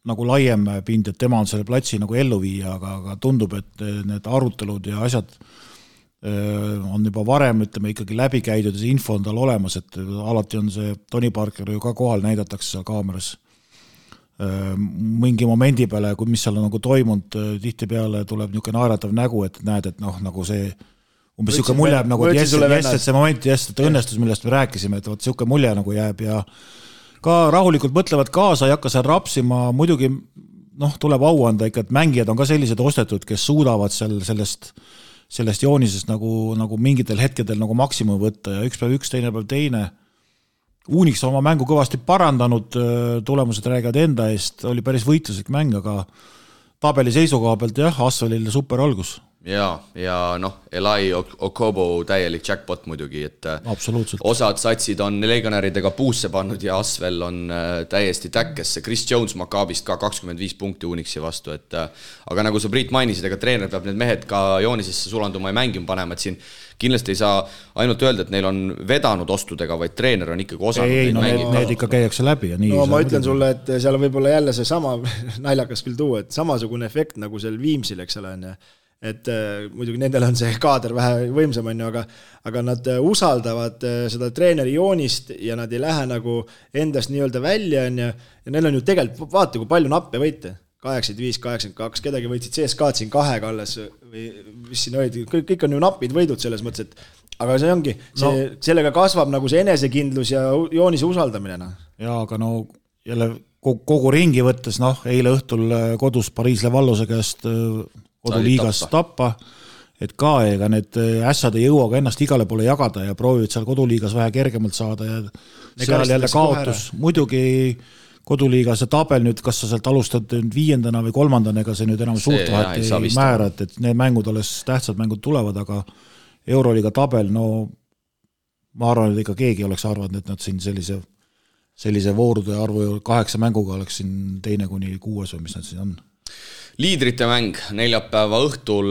nagu laiem pind, et tema on selle platsi nagu ellu viia, aga tundub, et need arutelud ja asjad on juba varem, ütleme, ikkagi läbi käidud ja see info on tal olemas, et alati on see Tony Parker ju ka kohal näidatakse seal kaameras mingi momendi peale, mis seal on nagu toimunud, tihti peale tuleb niisugune naeratav nägu, et näed, et nagu see umbes niisugune mulje jääb nagu, et see moment, et õnnestus, millest me rääkisime, et niisugune mulje nagu jääb ja ka rahulikult mõtlevad kaasa, ei hakka seal rapsima, muidugi tuleb au anda ikka, et mängijad on ka sellised ostetud, kes suudavad sellest joonisest nagu mingitel hetkedel nagu maksimum võtta ja üks päev üks, teine päev teine. Uniks on oma mängu kõvasti parandanud, tulemused räägivad enda eest, oli päris võitluslik mäng, aga tabeli seisukoha pealt Asvelil super algus. Ja Eli Okobo täielik jackpot muidugi, et osad satsid on legionäridega puusse pannud ja Asvel on täiesti täkkesse. Chris Jones Maccabist ka 25 punkti Unixi vastu, aga nagu sa Priit mainisid, ega treener peab need mehed ka joonisesse sulanduma ja mängima panema, et siin kindlasti ei saa ainult öelda, et neil on vedanud ostudega, vaid treener on ikkagi osanud need ikka käiakse läbi ja nii. Ma ütlen sulle, et seal on võib-olla jälle see sama naljakas küll tuua, et samasugune efekt nagu seal Viimsil, eks ole, et muidugi nendel on see kaader vähe võimsam, aga nad usaldavad seda treeneri joonist ja nad ei lähe nagu endast nii-öelda välja ja neil on ju tegelikult, vaata kui palju nappe võite, 85-82, kedagi võitsid CSKA-d siin 2 alles või mis siin olid, kõik on ju napid võidud selles mõttes, et aga see ongi, sellega kasvab nagu see enesekindlus ja joonise usaldamine. Jaa, aga jälle kogu ringi võttes, eile õhtul kodus Pariis Levallose käest koduliigas tappa, et ka ega need ässad ei jõua ka ennast igale poole jagada ja proovivad seal koduliigas vähe kergemalt saada ja seal jälle kaotus. Muidugi koduliiga see tabel nüüd, kas sa sealt alustad 5. või 3. ega see nüüd enam suurt vahet ei määra, et need mängud alles tähtsad mängud tulevad, aga Euroliiga tabel, no ma arvan, et ikka keegi oleks arvanud, et nad siin sellise voorude arvu 8 mänguga oleks siin 2. kuni 6 või mis nad siin on. Liidrite mäng neljapäeva õhtul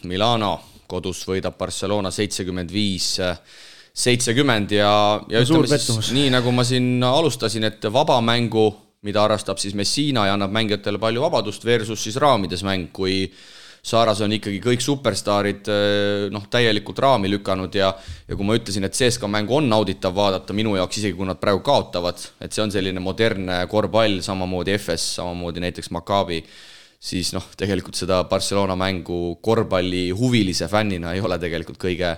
Milano kodus võidab Barcelona 75-70 ja ütleme siis nii, nagu ma siin alustasin, et vaba mängu, mida harrastab siis Messina ja annab mängijatele palju vabadust versus siis raamides mäng, kui Saaras on ikkagi kõik superstaarid täielikult raami lükanud ja kui ma ütlesin, et CSKA mängu on nauditav vaadata minu jaoks, isegi kui nad praegu kaotavad, et see on selline modernne korvpall, samamoodi FS, samamoodi näiteks Maccabi, siis tegelikult seda Barcelona mängu korvpalli huvilise fännina ei ole tegelikult kõige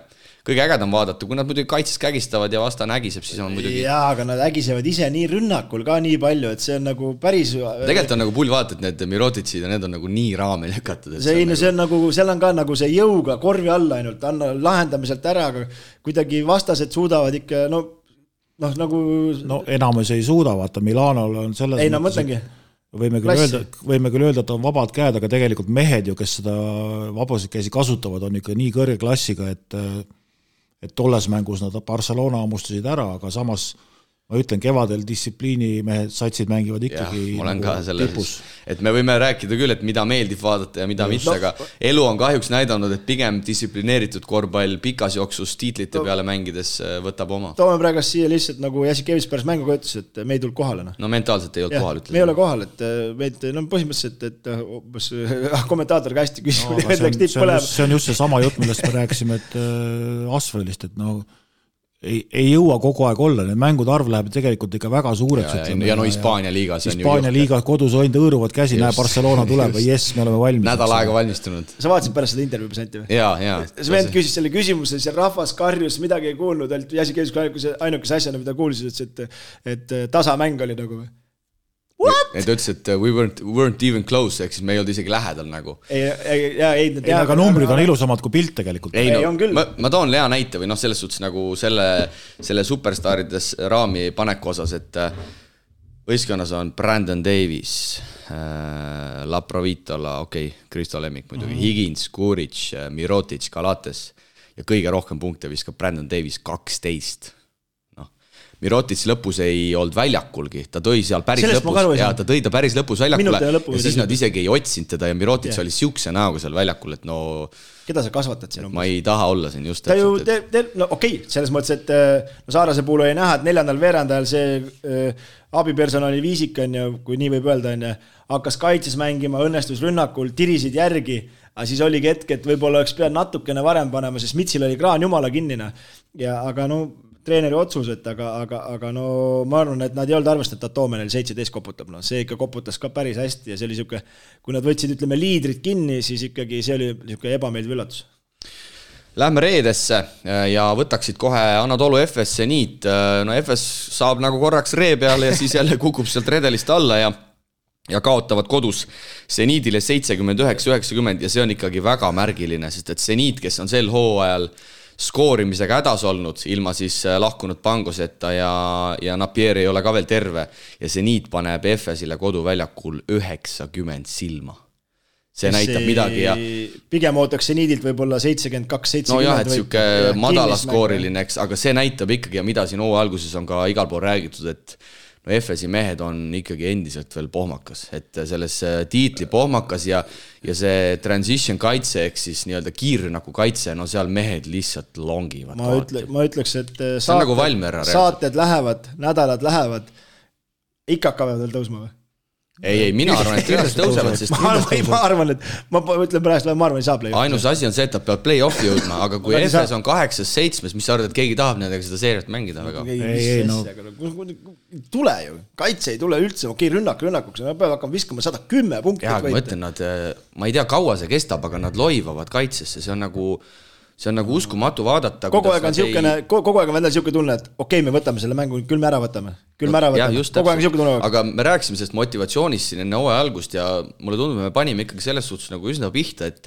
ägedam vaadata, kui nad muidugi kaitses kägistavad ja vastane ägiseb, siis on muidugi... Jaa, aga nad ägisevad ise nii rünnakul ka nii palju, et see on nagu päris... Tegelikult on nagu pull vaadata, et need Mirotitsid ja need on nagu nii raame lükatud. See on nagu, seal on ka nagu see jõuga korvi alla ainult, lahendamiselt ära, aga kuidagi vastased suudavad ikka, nagu... enamus ei suuda, vaata, Milanol on selles... Ei, mõtlengi. Võime küll öelda, et on vabad käed, aga tegelikult mehed ju, kes seda vabasid käsi kasutavad, on ikka nii kõrge klassiga, et tolles mängus nad Barcelona ammustasid ära, aga samas ma ütlen, kevadel distsipliini mehed satsid mängivad ikkagi tipus. Et me võime rääkida küll, et mida meeldib vaadata ja mida mitte, aga elu on kahjuks näidanud, et pigem distsiplineeritud korvpall pikas jooksus tiitlite peale mängides võtab oma. Toome praegu siia lihtsalt nagu Jasikevic pärast mänguga ütles, et me ei tulnud kohale. No mentaalselt ei olnud kohal, ütles. Me ei ole kohal, et meid, põhimõtteliselt, et kommentaator ka hästi küsib. See on just see sama jutt, millest me rääkisime, et Asvelist, et ei jõua kogu aeg olla, need mängud arv läheb tegelikult ikka väga suureks. Ja Hispaania liigas on Hispaania liiga kodus hoinud õõruvad käsi, näe Barcelona tuleb või jess, me oleme valmis. Nädal aega valmistunud. Sa vaatasid pärast seda intervjuu presenti või? Jaa. See vend küsis selle küsimuse, seal rahvas karjus, midagi ei kuulnud, Jasikevic ainukese asjana, mida kuulsid, et tasamäng oli nagu või? What? Et ütles, et we weren't even close, ehk siis me ei olnud isegi lähedal nagu. Aga numbrid on ilusamad kui pilt tegelikult. Ma toon hea näite või selles suhtes nagu selle superstaarides raami paneku osas, et võistkonnas on Brandon Davis, Laprovitola, Kristo Lemmik muidugi, Higgins, Kuric, Mirotic, Galates ja kõige rohkem punkte viskab Brandon Davis 12. Mirotic lõpus ei olnud väljakulgi, ta tõi seal päris lõpus ja ta tõi ta päris lõpus väljakule ja siis nad isegi ei otsinud teda ja Mirotic oli siukse näoga seal väljakul, et keda sa kasvatad siin? Ma ei taha olla siin just. Selles mõttes, et Saarase puhul oli näha, et 4. veerandajal see abipersonali viisik on ja kui nii võib öelda, hakkas kaitses mängima, õnnestus rünnakul, tirisid järgi, aga siis oligi hetk, et võib-olla oleks pead natukene varem panema, sest Mitsil oli kraan jumala kinnina. Aga treeneri otsus, aga ma arvan, et nad ei olnud arvestanud, et Toome neil 17 koputab. See ikka koputas ka päris hästi ja see oli siuke, kui nad võtsid, ütleme, liidrid kinni, siis ikkagi see oli siuke ebameeldiv üllatus. Lähme reedesse ja võtaksid kohe Anadolu FS Seniit. FS saab nagu korraks ree peale ja siis jälle kukub sealt redelist alla ja kaotavad kodus Seniidile 79-90 ja see on ikkagi väga märgiline, sest et Seniit, kes on sel hooajal skoorimisega hädas olnud, ilma siis lahkunud Pangoseta ja Napier ei ole ka veel terve ja Seniit paneb FS-ile koduväljakul 90 silma. See näitab midagi ja... Pigem ootaks Seniidilt võib-olla 72-70. No jah, et siuke madalaskooriline, aga see näitab ikkagi ja mida siin hooaja alguses on ka igal pool räägitud, et FS-i mehed on ikkagi endiselt veel pohmakas, et selles tiitli pohmakas ja see transition kaitse ehk siis nii-öelda kiirrünnaku kaitse, seal mehed lihtsalt longivad. Ma ütleks, et saated lähevad, nädalad lähevad, ikka hakkavad veel tõusma või? Ei, mina arvan, et kindlasti tõusevad, sest ma arvan, et ma ütlen praegu, ma arvan, ei saa play-offi. Ainus asi on see, et nad peavad play-offi jõudma, aga kui FS on 8-7, mis sa arvad, et keegi tahab nendega seda seeriat mängida väga? Tule ju, kaitse ei tule üldse, rünnakuks, nad peavad hakkama viskama 110 punkti. Jah, ma ütlen, ma ei tea, kaua see kestab, aga nad loivavad kaitsesse, see on nagu uskumatu vaadata. Kogu aeg on vendel siuke tunne, et me võtame selle mängu, küll me ära võtame. küll mära võtame, kogu aeg niisugune tunne. Aga me rääkisime sellest motivatsioonist siin enne hooaja algust ja mulle tundub, me panime ikkagi selles suhtes nagu üsna pihta, et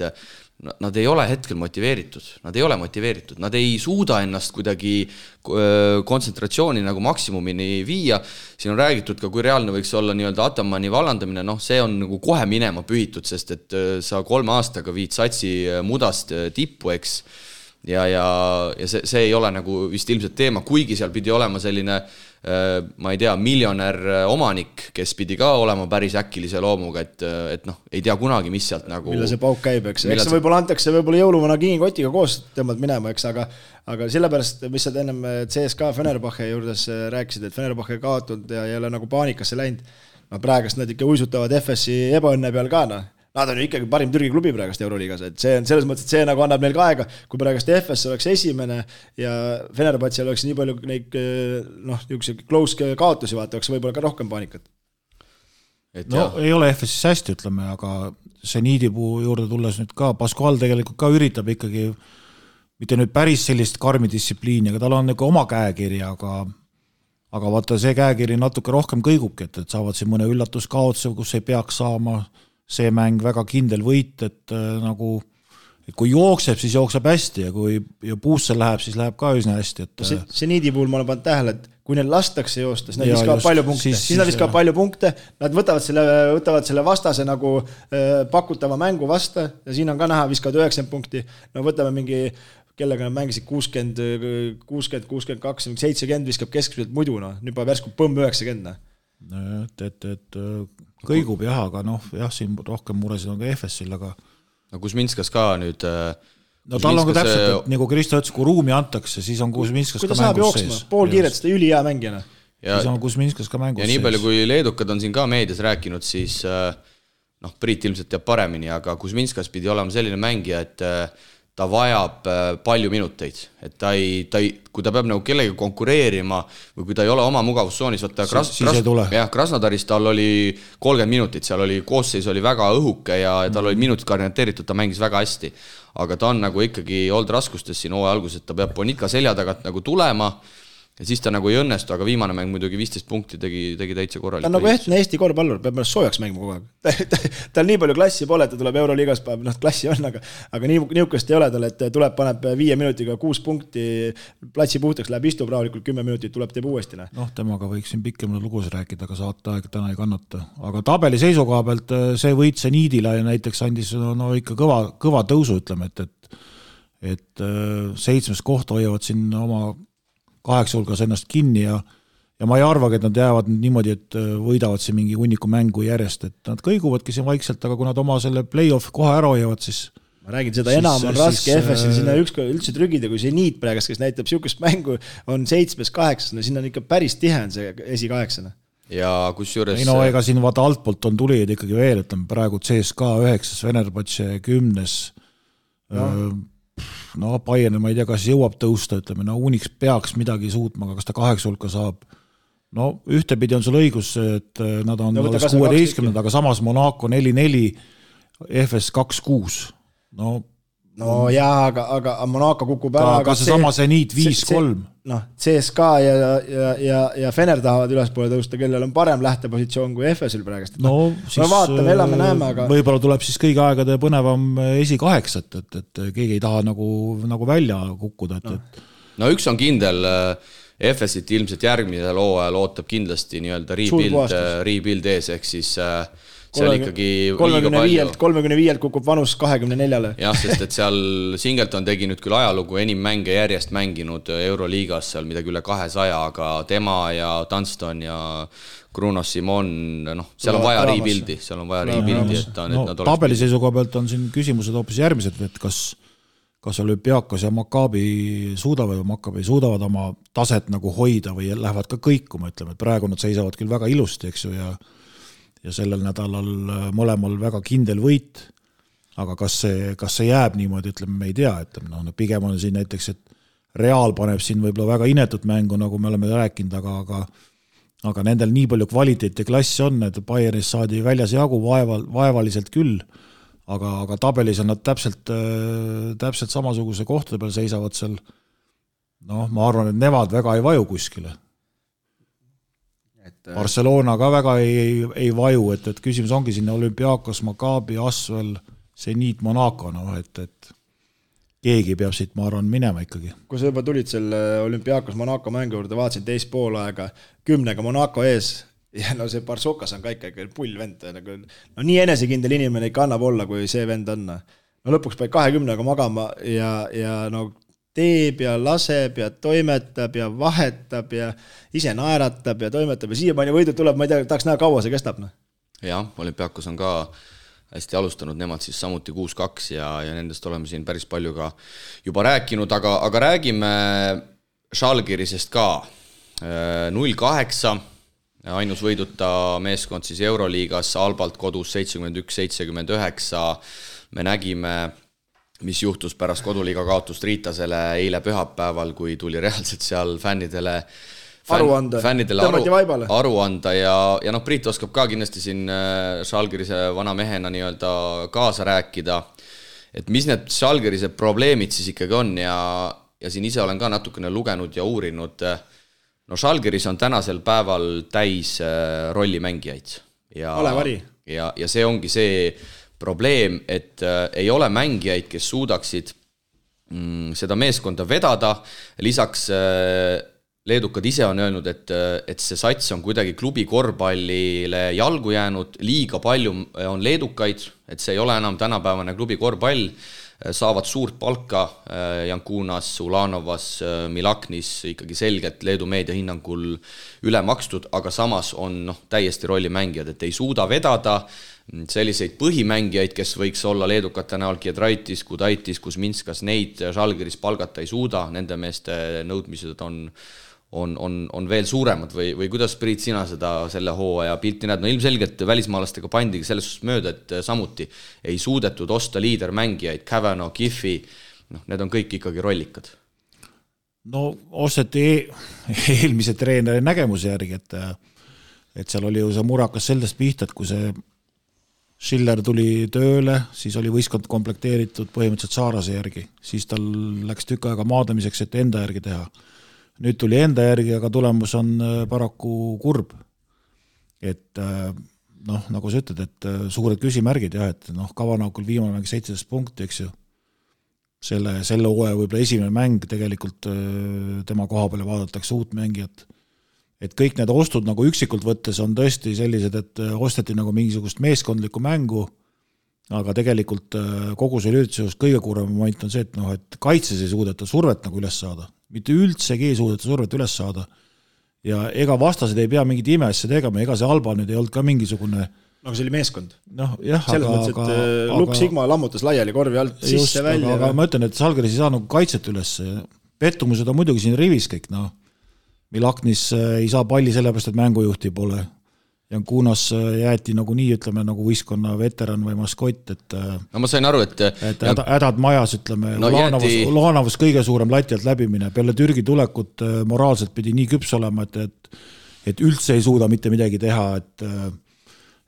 nad ei ole hetkel motiveeritud, nad ei suuda ennast kuidagi kontsentratsiooni nagu maksimumini viia. Siin on räägitud ka, kui reaalne võiks olla nii-öelda Atamani vallandamine, see on nagu kohe minema pühitud, sest et sa 3 aastaga viid satsi mudast tippu, eks, ja see ei ole nagu vist ilmselt teema, kuigi seal pidi olema selline ma ei tea, miljonär omanik, kes pidi ka olema päris äkilise loomuga, et ei tea kunagi, mis sealt nagu... Mille see pauk käib, eks see võib-olla antakse võib-olla jõuluvana kiinkotiga koos tõmbad minema, eks, aga sellepärast, mis sa ennem CSKA Fenerbahce juurdes rääkisid, et Fenerbahce kaotud ja ei ole nagu paanikasse läinud, praegast nad ikka uisutavad FS-i ebaõnne peal ka, nad on ju ikkagi parim Türgi klubi praegast Euroliigas, et see on selles mõttes, et see nagu annab neil ka aega, kui praegast FS oleks esimene ja Fenerbahce'l oleks nii palju neid close kaotusi vaata, oleks võib-olla ka rohkem paanikat. Ei ole FS-is hästi, ütleme, aga see Niidipuu juurde tulles nüüd ka, Pascual tegelikult ka üritab ikkagi mitte nüüd päris sellist karmi distsipliini, aga tal on nagu oma käekiri, aga vaata see käekiri natuke rohkem kõigubki, et saavad siin mõne üllatuskaotuse, kus ei peaks saama see mäng väga kindel võit, et kui jookseb, siis jookseb hästi ja kui puusse läheb, siis läheb ka üsna hästi. Et see Niidi puhul ma olen pannud tähele, et kui neil lastakse joosta, siis nad viskavad palju punkte. Siis nad viskavad palju punkte, nad võtavad selle vastase nagu pakutava mängu vasta ja siin on ka näha, viskavad 90 punkti. Võtame mingi, kellega nad mängisid 60, 62, 70 viskab keskmiselt muidu, nüüd pa värsku põmm 90. Et kõigub jah, aga siin rohkem muresid on ka FS-il, aga Kuzminskas ka nüüd tal on ka täpselt, et nagu Kristo ütles, kui ruumi antakse, siis on Kuzminskas ka mängus sees. Pool kiiret seda üli hea mängijana. Siis on Kuzminskas ka mängus sees. Ja nii palju, kui leedukad on siin ka meedias rääkinud, siis Priit ilmselt teab paremini, aga Kuzminskas pidi olema selline mängija, et ta vajab palju minuteid, et kui ta peab nagu kellega konkureerima või kui ta ei ole oma mugavussoonis, Krasnodaris tal oli 30 minutit, seal oli koosseis oli väga õhuke ja tal oli minutid orienteeritud, ta mängis väga hästi, aga ta on nagu ikkagi olnud raskustes siin hooaja alguses, et ta peab Bonika selja tagant nagu tulema ja siis ta nagu ei õnnestu, aga viimane mäng muidugi 15 punkti tegi täitsa korralik. Ta on nagu ehtne Eesti korvpallur, peab ennast soojaks mängima kogu aeg. Tal nii palju klassi pole, ta tuleb Euroliigas, klassi on, aga niukest ei ole tal, et tuleb, paneb 5 minutiga 6 punkti, platsi puhtaks, läheb istub rahulikult 10 minutit, tuleb teeb uuesti. Temaga võiks siin pikemalt lugus rääkida, aga saate aeg täna ei kannata. Aga tabeli seisukoha pealt see võit see Niidile näiteks andis ikka kõva tõusu, ütleme, et 7. kohta hoiavad siin oma 8 hulgas ennast kinni ja ma ei arvagi, et nad jäävad niimoodi, et võidavad siin mingi hunniku mängu järjest, et nad kõiguvadki siin vaikselt, aga kui nad oma selle play-off koha ära hoiavad, siis ma räägin, seda enam on raske FS-il sinna ükskord üldse trügida, kui see Niit praegast, kes näitab siukest mängu, on 7-8, sinna on ikka päris tihe on see esi-8. Ja kus juures... ega siin vaata altpoolt on tulijaid ikkagi veel, ütleme praegu CSKA 9, Fenerbahce 10, Bayern, ma ei tea, kas jõuab tõusta, ütleme, Unix peaks midagi suutma, aga kas ta 8 hulka saab. Ühtepidi on sul õigus, et nad on 16, aga samas Monaco 4-4, FS 2-6. Aga Monaco kukub ära. Aga see see Niit 5-3. CSKA ja Fener tahavad ülespoole tõusta, kellel on parem lähtepositsioon kui FS-il praegust. Siis vaatame, elame, näeme, aga... Võib-olla tuleb siis kõigi aegade põnevam esi-8, et keegi ei taha nagu välja kukkuda. Üks on kindel, FS-it ilmselt järgmisel hooajal ootab kindlasti nii-öelda rebuild ees, ehk siis... seal ikkagi 35 kukub vanus 24-le. Jah, sest et seal Singleton tegi nüüd küll ajalugu enim mänge järjest mänginud Euroliigas seal midagi üle 200, aga tema ja Dunston ja Bruno Simon, seal on vaja rebuildi, et nad tabeli seisukoha pealt on siin küsimused hoopis järgmised, et kas Olümpiakos ja Maccabi suudavad oma taset nagu hoida või lähevad ka kõikuma, ütleme, et praegu nad seisavad küll väga ilusti, eks ju, ja sellel nädalal mõlemal väga kindel võit, aga kas see jääb niimoodi, ütleme, me ei tea, ütleme, pigem on siin näiteks, et Real paneb siin võib-olla väga inetut mängu, nagu me oleme rääkinud, aga nendel nii palju kvaliteet ja klass on, et Bayernis saadi väljas jagu vaevaliselt küll, aga tabelis on nad täpselt samasuguse kohtade peal seisavad seal, ma arvan, et nemad väga ei vaju kuskile. Barcelona ka väga ei vaju, et küsimus ongi sinna Olympiakos, Maccabi, Asvel, Zenit, Monaco, et keegi peab siit, ma arvan, minema ikkagi. Kui sa juba tulid selle Olympiakos Monaco mängu juurde, vaatasin teist poolaega 10 Monaco ees ja no see Barsokas on ka ikkagi pullvend, nagu, no nii enesekindel inimene ikka annab olla, kui see vend on. No lõpuks peab 20 magama ja no teeb ja laseb ja toimetab ja vahetab ja ise naeratab ja toimetab ja siiamaani võidud tuleb, ma ei tea, tahaks näha kaua see kestab. Jah, Olympiakos on ka hästi alustanud, nemad siis samuti 6-2 ja nendest oleme siin päris palju ka juba rääkinud, aga räägime Žalgirisest ka. 0-8, ainus võiduta meeskond siis Euroliigas, Albalt kodus 71-79. Me nägime, mis juhtus pärast koduliiga kaotust Riitasele eile pühapäeval, kui tuli reaalselt seal fännidele aru anda ja noh, Priit oskab ka kindlasti siin Žalgirise vana mehena nii-öelda kaasa rääkida, et mis need Žalgirise probleemid siis ikkagi on ja siin ise olen ka natukene lugenud ja uurinud. No Žalgiris on tänasel päeval täis rollimängijaid ja see ongi see probleem, et ei ole mängijaid, kes suudaksid seda meeskonda vedada, lisaks leedukad ise on öelnud, et see sats on kuidagi klubi korvpallile jalgu jäänud, liiga palju on leedukaid, et see ei ole enam tänapäevane klubi korvpall, saavad suurt palka Jankunas, Ulanovas, Milaknis ikkagi selgelt Leedu meedia hinnangul üle makstud, aga samas on täiesti rollimängijad, et ei suuda vedada selliseid põhimängijaid, kes võiks olla leedukate näol Giedraitis, Kudaitis, Kuzminskas, neid Žalgiris palgata ei suuda, nende meeste nõudmised on veel suuremad või kuidas, Priit, sina selle hooaja pilti näed? No ilmselgelt välismaalastega pandigi selles suhtes mööda, et samuti ei suudetud osta liidermängijaid, Kavanaugh, Giffi, need on kõik ikkagi rollikad. No osteti eelmise treeneri nägemuse järgi, et seal oli ju see murakas sellest pihta, et kui see Schiller tuli tööle, siis oli võistkond komplekteeritud põhimõtteliselt Saarase järgi, siis tal läks tükk aega maadamiseks, et enda järgi teha. Nüüd tuli enda järgi, aga tulemus on paraku kurb. Et nagu sa ütled, et suured küsimärgid, et Kavanaukul viimane mäng 17 punkti, eks ju. Selle hooaja võib-olla esimene mäng tegelikult tema koha peale vaadatakse uut mängijat. Et kõik need ostud nagu üksikult võttes on tõesti sellised, et osteti nagu mingisugust meeskondlikku mängu, aga tegelikult kogu see üritusest kõige kurvem moment on see, et kaitses ei suudeta survet nagu üles saada. Mitte üldsegi ei suudeta survet üles saada. Ja ega vastased ei pea mingit imeasja tegema, ega see Alba nüüd ei olnud ka mingisugune... No see oli meeskond. Jah, selles mõttes, et Luk Sigma lammutas laiali korvi alt sisse välja. Aga ma ütlen, et Žalgiris ei saa nagu kaitset üles. Pettumused on muidugi siin rivis kõik, Milaknis ei saa palli sellepärast, et mängujuhti pole. Jankunas jäeti nagu nii, ütleme, nagu võistkonna veteran või maskott, et... No ma sain aru, et hädad majas, ütleme, Ulanovas kõige suurem lati alt läbimine. Peale Türgi tulekut moraalselt pidi nii küps olema, et üldse ei suuda mitte midagi teha,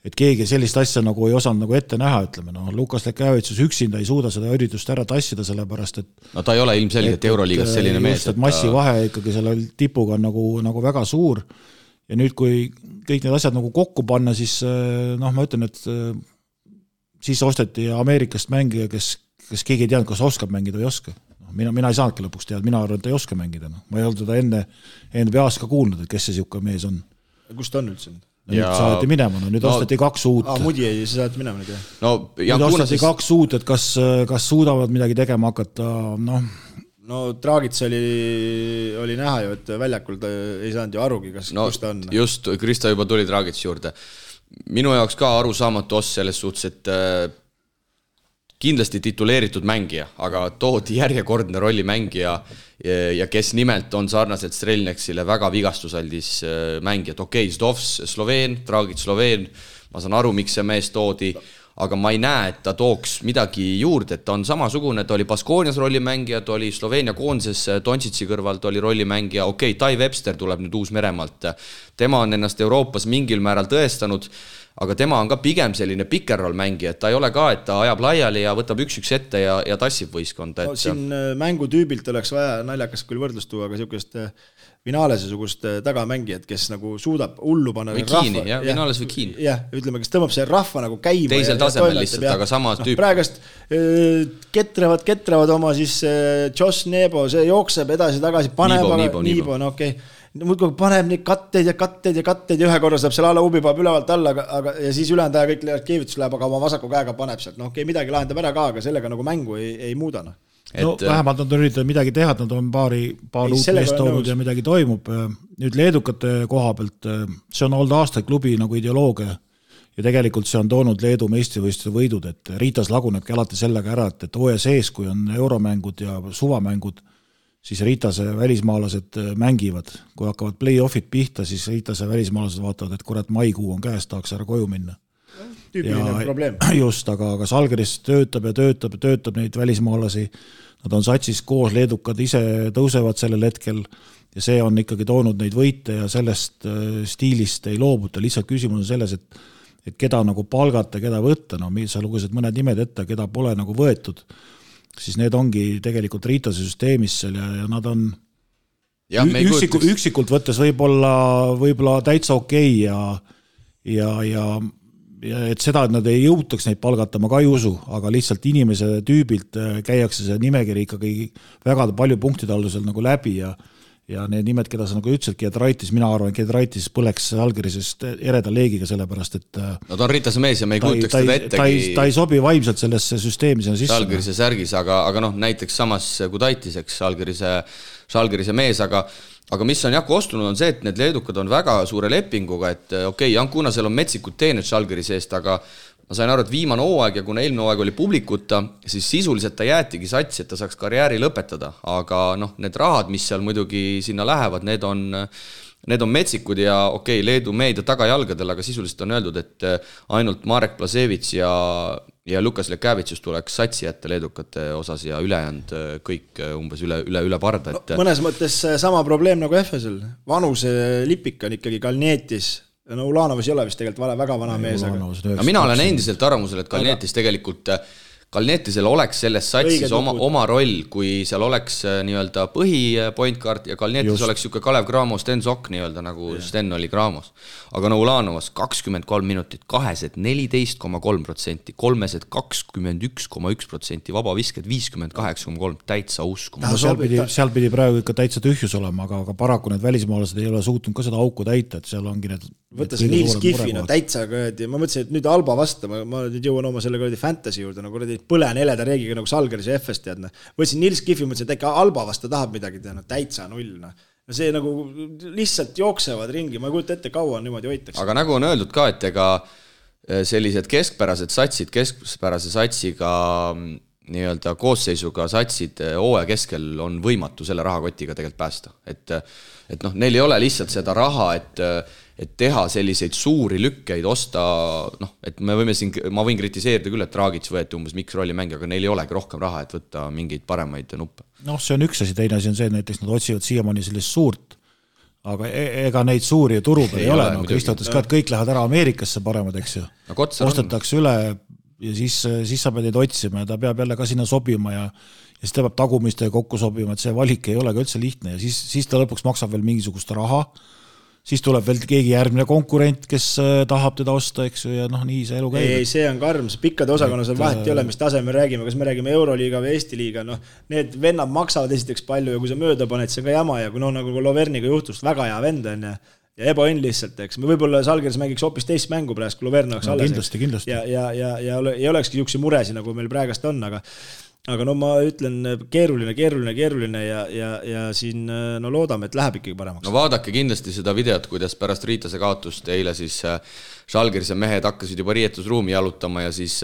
et keegi sellist asja nagu ei osanud nagu ette näha, ütleme. Lukas Lekjavitsus üksinda ei suuda seda üritust ära tassida, sellepärast, et... No ta ei ole ilmselgelt Euroliigas selline mees. Just, et massivahe ikkagi selle tipuga on nagu väga suur. Ja nüüd, kui kõik need asjad nagu kokku panna, siis ma ütlen, et siis osteti Ameerikast mängija, kes keegi ei teadnud, kas oskab mängida või ei oska. Mina ei saanudki lõpuks teada, mina arvan, et ei oska mängida. Ma ei olnud teda enne NBA-s ka kuulnud, et kes see siuke mees on. Kus ta on üldse? Nüüd saati minema, nüüd osteti 2 uut. Muudi ei saati minema nüüd, jah. Nüüd osteti 2 uut, et kas suudavad midagi tegema hakata, No Draagits oli näha ju, et väljakul ta ei saanud ju arugi, kus ta on. Just, Krista juba tuli Draagits juurde. Minu jaoks ka arusaamatu oss selles suhtes, et kindlasti tituleeritud mängija, aga toodi järjekordne rollimängija ja kes nimelt on sarnaselt Strelneksile väga vigastusaldis mängijad. Okei, Zdovs Sloveen, Draagits Sloveen, ma saan aru, miks see mees toodi, aga ma ei näe, et ta tooks midagi juurde, et ta on samasugune, ta oli Baskoonias rollimängija, ta oli Sloveenia koonses Doncic'i kõrvalt oli rollimängija, okei, Tai Webster tuleb nüüd Uus-Meremaalt, tema on ennast Euroopas mingil määral tõestanud, aga tema on ka pigem selline pikerroll mängija, et ta ei ole ka, et ta ajab laiali ja võtab üks ette ja tassib võistkonda. No, siin mängutüübilt oleks vaja naljakas küll võrdlust tuua, aga sihukest Vinalese-sugust tagamängijat, kes nagu suudab hullu panna või Kiini, jah, Vinales või Kiin. Jah, ütleme, kes tõmbab see rahva nagu käima. Teisel tasemel lihtsalt, aga sama tüüp. Praegast ketrevad oma siis Josh Nebo, see jookseb edasi-tagasi, paneb Niibo, no okei. Muudkui paneb neid katteid ja ühe korra saab seal alla ubipaab ülevalt alla, aga, ja siis ülejäänud aja kõik keevitus läheb, aga oma vasaku käega paneb sealt. No okei, midagi lahendab ära ka, aga sellega nagu mängu ei muuda. No vähemalt nad on üritanud midagi teha, nad on paar uut meest toonud ja midagi toimub. Nüüd leedukate koha pealt, see on olnud aastaid klubi nagu ideoloogia ja tegelikult see on toonud Leedu meistrivõistluse võidud, et Ritas lagunebki alati sellega ära, et hooaja sees, kui on euromängud ja suvamängud, siis Ritase välismaalased mängivad. Kui hakkavad play-offid pihta, siis Ritase välismaalased vaatavad, et kurat maikuu on käes, tahaks ära koju minna. Tüüpiline probleem. Just, aga Žalgiris töötab neid välismaalasi. Nad on satsis koos, leedukad ise tõusevad sellel hetkel ja see on ikkagi toonud neid võite ja sellest stiilist ei loobuta. Lihtsalt küsimus on selles, et keda nagu palgata, keda võtta. No, sa lugesid mõned nimed ette, keda pole nagu võetud. Siis need ongi tegelikult Ritase süsteemis seal ja nad on üksikult võttes võib-olla täitsa okei ja et seda, et nad ei jõutaks neid palgata, ma ka ei usu, aga lihtsalt inimese tüübilt käiakse see nimekiri ikkagi väga palju punktide aldusel nagu läbi ja need nimed, keda sa nagu ütlesid, Giedraitis, mina arvan, Giedraitis põleks Žalgirisest ereda leegiga sellepärast, et no ta on Ritase mees ja me ei kujutaks teda ettegi. Ta ei sobi vaimselt sellesse süsteemi sinna sisse. Žalgirise särgis, aga noh, näiteks samas Gudaitis, eks, Žalgirise mees, aga mis on kostunud on see, et need leedukad on väga suure lepinguga, et okei, Jankuna seal on metsikud teened Žalgirise eest, aga ma sain aru, et viimane hooaeg ja kuna eelmine hooaeg oli publikuta, siis sisuliselt ta jäetigi satsi, et ta saaks karjääri lõpetada, aga noh, need rahad, mis seal muidugi sinna lähevad, need on metsikud ja okei, Leedu meedia tagajalgadel, aga sisuliselt on öeldud, et ainult Marek Plasevits ja Lukas Lekavitsus tuleks satsi jätta leedukate osas ja ülejäänud kõik umbes üle parda. No, mõnes mõttes sama probleem nagu Efesel. Vanuse lipik on ikkagi Kalnietis. No Ulanovas ei ole vist tegelikult väga vana mees. Aga mina olen endiselt arvamusel, et Kalnietis tegelikult Kalnietisel oleks selles satsis oma roll, kui seal oleks nii-öelda põhipointkaart ja Kalnietis oleks siuke Kalev Cramo, Sten Sokk nii-öelda nagu Sten oli Cramos. Aga no Ulanovas 23 minutit, 14,3%, 21,1%, vaba visked 58,3%, täitsa uskuma. Seal pidi praegu ikka täitsa tühjus olema, aga paraku need välismaalased ei ole suutnud ka seda auku täita, et seal ongi need võtta see Niels Kiffi, no täitsa kõedi. Ma mõtlesin, et nüüd Alba vasta, ma nüüd jõuan oma selle kõedi fantasy juurde, nagu põlen heleda reegiga nagu Žalgiris ja FS teadna. Võtsin Niels Kiffi, mõtlesin, et äkki Alba vasta tahab midagi teha, no täitsa null. No see nagu lihtsalt jooksevad ringi, ma ei kujuta ette, kaua niimoodi hoitakse. Aga nagu on öeldud ka, et ega sellised keskpärase satsiga nii-öelda koosseisuga satsid hooaja keskel on võimatu selle rahakotiga tegelikult päästa. Et noh, neil ei ole lihtsalt seda raha, et teha selliseid suuri lükkeid, osta, noh, et ma võin kritiseerida küll, et Dragic võeti umbes mikrolli mängi, aga neil ei olegi rohkem raha, et võtta mingeid paremaid nuppe. Noh, see on üks asi, teine asi on see, näiteks nad otsivad siiamaani sellist suurt, aga ega neid suuri turu peal ei ole, no Kristo ütles ka, et kõik lähevad ära Ameerikasse paremad, eks ju. Ostetakse üle ja siis sa pead neid otsima ja ta peab jälle ka sinna sobima ja siis ta peab tagumistega kokku sobima, et see valik ei ole ka üldse lihtne ja siis ta lõpuks maksab veel mingisugust raha, siis tuleb veel keegi järgmine konkurent, kes tahab teda osta, eks ju, ja noh, nii see elu käib. Ei, see on karm, see pikkade osakonnas on vahet ei ole, mis tase me räägime, kas me räägime Euroliiga või Eesti liiga, noh, need vennad maksavad esiteks palju ja kui sa mööda paned, see on ka jama ja kui nagu Loverniga juhtus, väga hea vend on ja ebaõnn lihtsalt, eks. Me võib-olla Žalgiris mängiks hoopis teist mängu praegu, kui Loverna oleks alles. Kindlasti. Ja ei olekski niisuguseid muresi, nagu meil praegast on, aga no ma ütlen keeruline ja siin no loodame, et läheb ikkagi paremaks. No vaadake kindlasti seda videot, kuidas pärast Ritase kaotust eile siis Žalgirise mehed hakkasid juba riietusruumi jalutama ja siis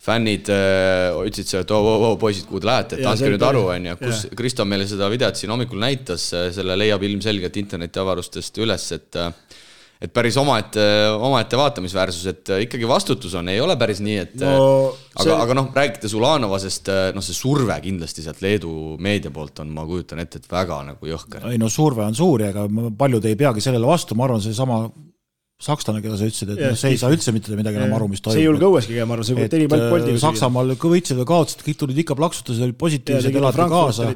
fännid ütlesid see, et poisid, kuhu te lähete, et andke nüüd aru, kus Kristo meile seda videot siin hommikul näitas, selle leiab ilmselgelt internetiavarustest üles, et päris omaette vaatamisväärsus, et ikkagi vastutus on, ei ole päris nii, et aga noh, räägites Ulanovasest, noh see surve kindlasti sealt Leedu meedia poolt on, ma kujutan ette, et väga nagu jõhker. Ei no surve on suur, aga paljud ei peagi sellele vastu, ma arvan, see sakslane, keda sa ütlesid, et see ei saa üldse mitte midagi enam aru, mis toimub. See ei julge õueski käima aru, see kui teni palju poldiga. Saksamaal võitsid või kaotsid, kõik tulid ikka plaksutas, olid positiivsed, elati kaasa.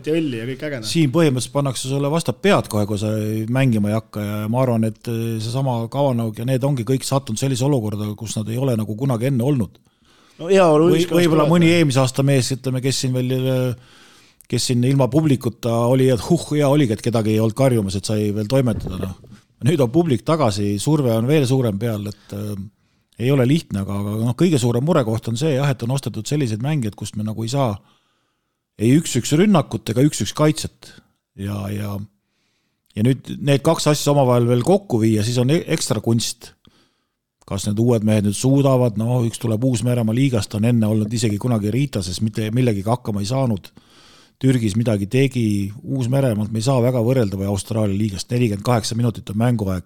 Siin põhimõtteliselt pannakse sulle vastab pead kohe, kui sa mängima ei hakka ja ma arvan, et see sama Kavanaug ja need ongi kõik sattunud sellise olukorda, kus nad ei ole nagu kunagi enne olnud. No, võib-olla mõni eelmise aasta mees, ütleme, kes siin ilma publikuta oli, et hea oligi, et kedagi ei olnud karjumas, et sai veel toimetada. No. Nüüd on publik tagasi, surve on veel suurem peal, et ei ole lihtne, aga kõige suurem murekoht on see, et on ostetud sellised mängijad, kust me nagu ei saa ei 1-1 rünnakut ega 1-1 kaitset. Ja nüüd need kaks asja omavahel veel kokku viia, siis on ekstra kunst. Kas need uued mehed nüüd suudavad, üks tuleb Uus-Meremaa liigast, on enne olnud isegi kunagi Riitases, mitte millegagi hakkama ei saanud. Türgis midagi tegi, Uus-Meremaalt me ei saa väga võrrelda või Austraalia liigast, 48 minutit on mänguaeg,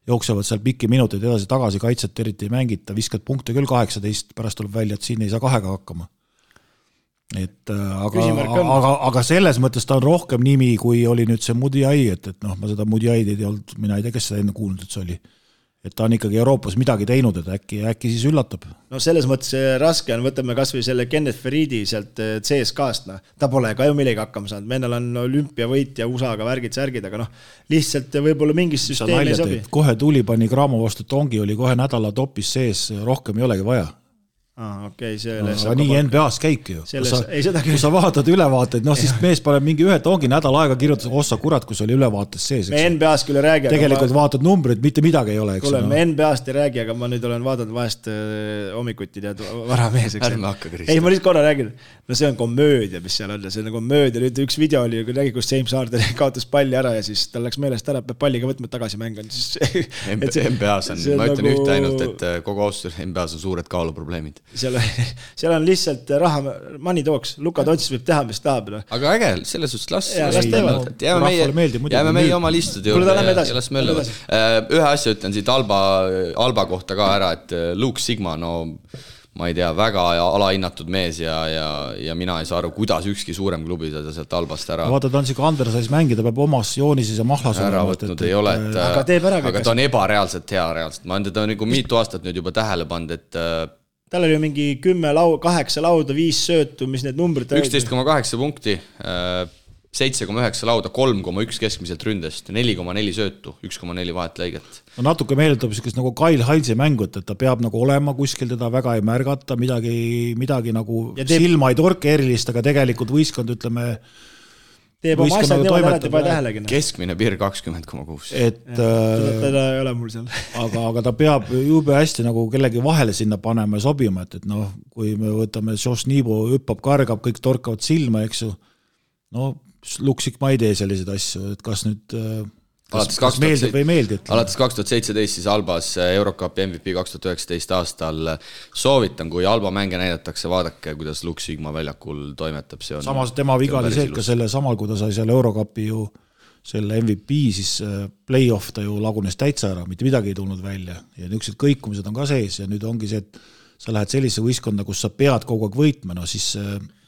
jooksevad seal pikki minuteid edasi-tagasi, kaitset eriti ei mängita, viskad punkte küll 18, pärast tuleb välja, et siin ei saa 2 hakkama. Aga selles mõttes ta on rohkem nimi, kui oli nüüd see Mudiai, et ma seda Mudiaid ei olnud, mina ei tea, kes seda enne kuulnud, et see oli. Et ta on ikkagi Euroopas midagi teinud, et äkki siis üllatab. No selles mõttes raske on, võtame kas või selle Kenneth Feridi sealt CSKast, ta pole ka ju millegi hakkama saanud, mennal on olümpiavõit ja USA-ga värgid-särgid, aga lihtsalt võib-olla mingis süsteemi ei sobi. Kohe tuli pani Kramo vastu Tongi, oli kohe nädala topis sees, rohkem ei olegi vaja. Okay, nii NBA-s käibki ju. Kui sa vaatad ülevaateid, siis mees paneb mingi ühe Tongi nädal aega kirjutas, ossa kurat, kus oli ülevaates sees. Me NBA-s küll ei räägi. Tegelikult vaatad numbrid, mitte midagi ei ole. Me NBA-st ei räägi, aga ma nüüd olen vaadanud vahest hommikuti tead varamees. Ärme hakka Kristjan. Ei, ma lihtsalt korra räägin. See on komöödia, mis seal on. See on komöödia. Nüüd üks video oli, kui räägi, kus James Harden kaotas palli ära ja siis tal läks meelest ära, peab palliga võtma tagasi mängan. NBA-s on, ma ütlen ühte ainult, et kogu austus NBA-s on suured kaaluprobleemid. Seal on lihtsalt raha, money talks, Luka Doncic võib teha, mis tahab. Aga äge, selles suhtes jääme meie oma listude juurde ja las möllavad. Ühe asja ütlen siit Alba kohta ka ära, et Luke Sigma, ma ei tea, väga alahinnatud mees ja mina ei saa aru, kuidas ükski suurem klubi seda sealt Albast ära. Vaata, ta on siuke Andersais mängida, peab omas joonises ja mahlas ära võtnud ei ole, aga ta on ebareaalselt hea reaalselt. Ma on teda nagu mitu aastat nüüd juba tähele pand, et tal oli mingi 8 lauda, 5 söötu, mis need numbrid 11,8 punkti, 7,9 lauda, 3,1 keskmiselt ründest, 4,4 söötu, 1,4 vahetlõiget. Natuke meeldab nagu Kyle Heinze mängut, et ta peab nagu olema kuskil, teda väga ei märgata, midagi nagu silma ei torke erilist, aga tegelikult võistkond, ütleme, teeb oma asjad niimoodi ära, et ei pane tähelegi. Keskmine piir 20,6. Teda ei ole mul seal. Aga ta peab jube hästi nagu kellegi vahele sinna panema ja sobima, et kui me võtame Josh Nibo, hüppab, kargab, kõik torkavad silma, eks ju, Luksik ma ei tee selliseid asju, et kas nüüd kas meeldib või ei meeldi. Alates 2017 siis Albas Eurocupi MVP 2019 aastal soovitan, kui Alba mänge näidatakse, vaadake, kuidas Luke Sigma väljakul toimetab. Samas tema viga oli see, et ka selle samal, kui ta sai selle Eurocupi ju selle MVP, siis play-off ta ju lagunes täitsa ära, mitte midagi ei tulnud välja ja niisugused kõikumised on ka sees ja nüüd ongi see, et sa lähed sellise võistkonda, kus sa pead kogu aeg võitma, siis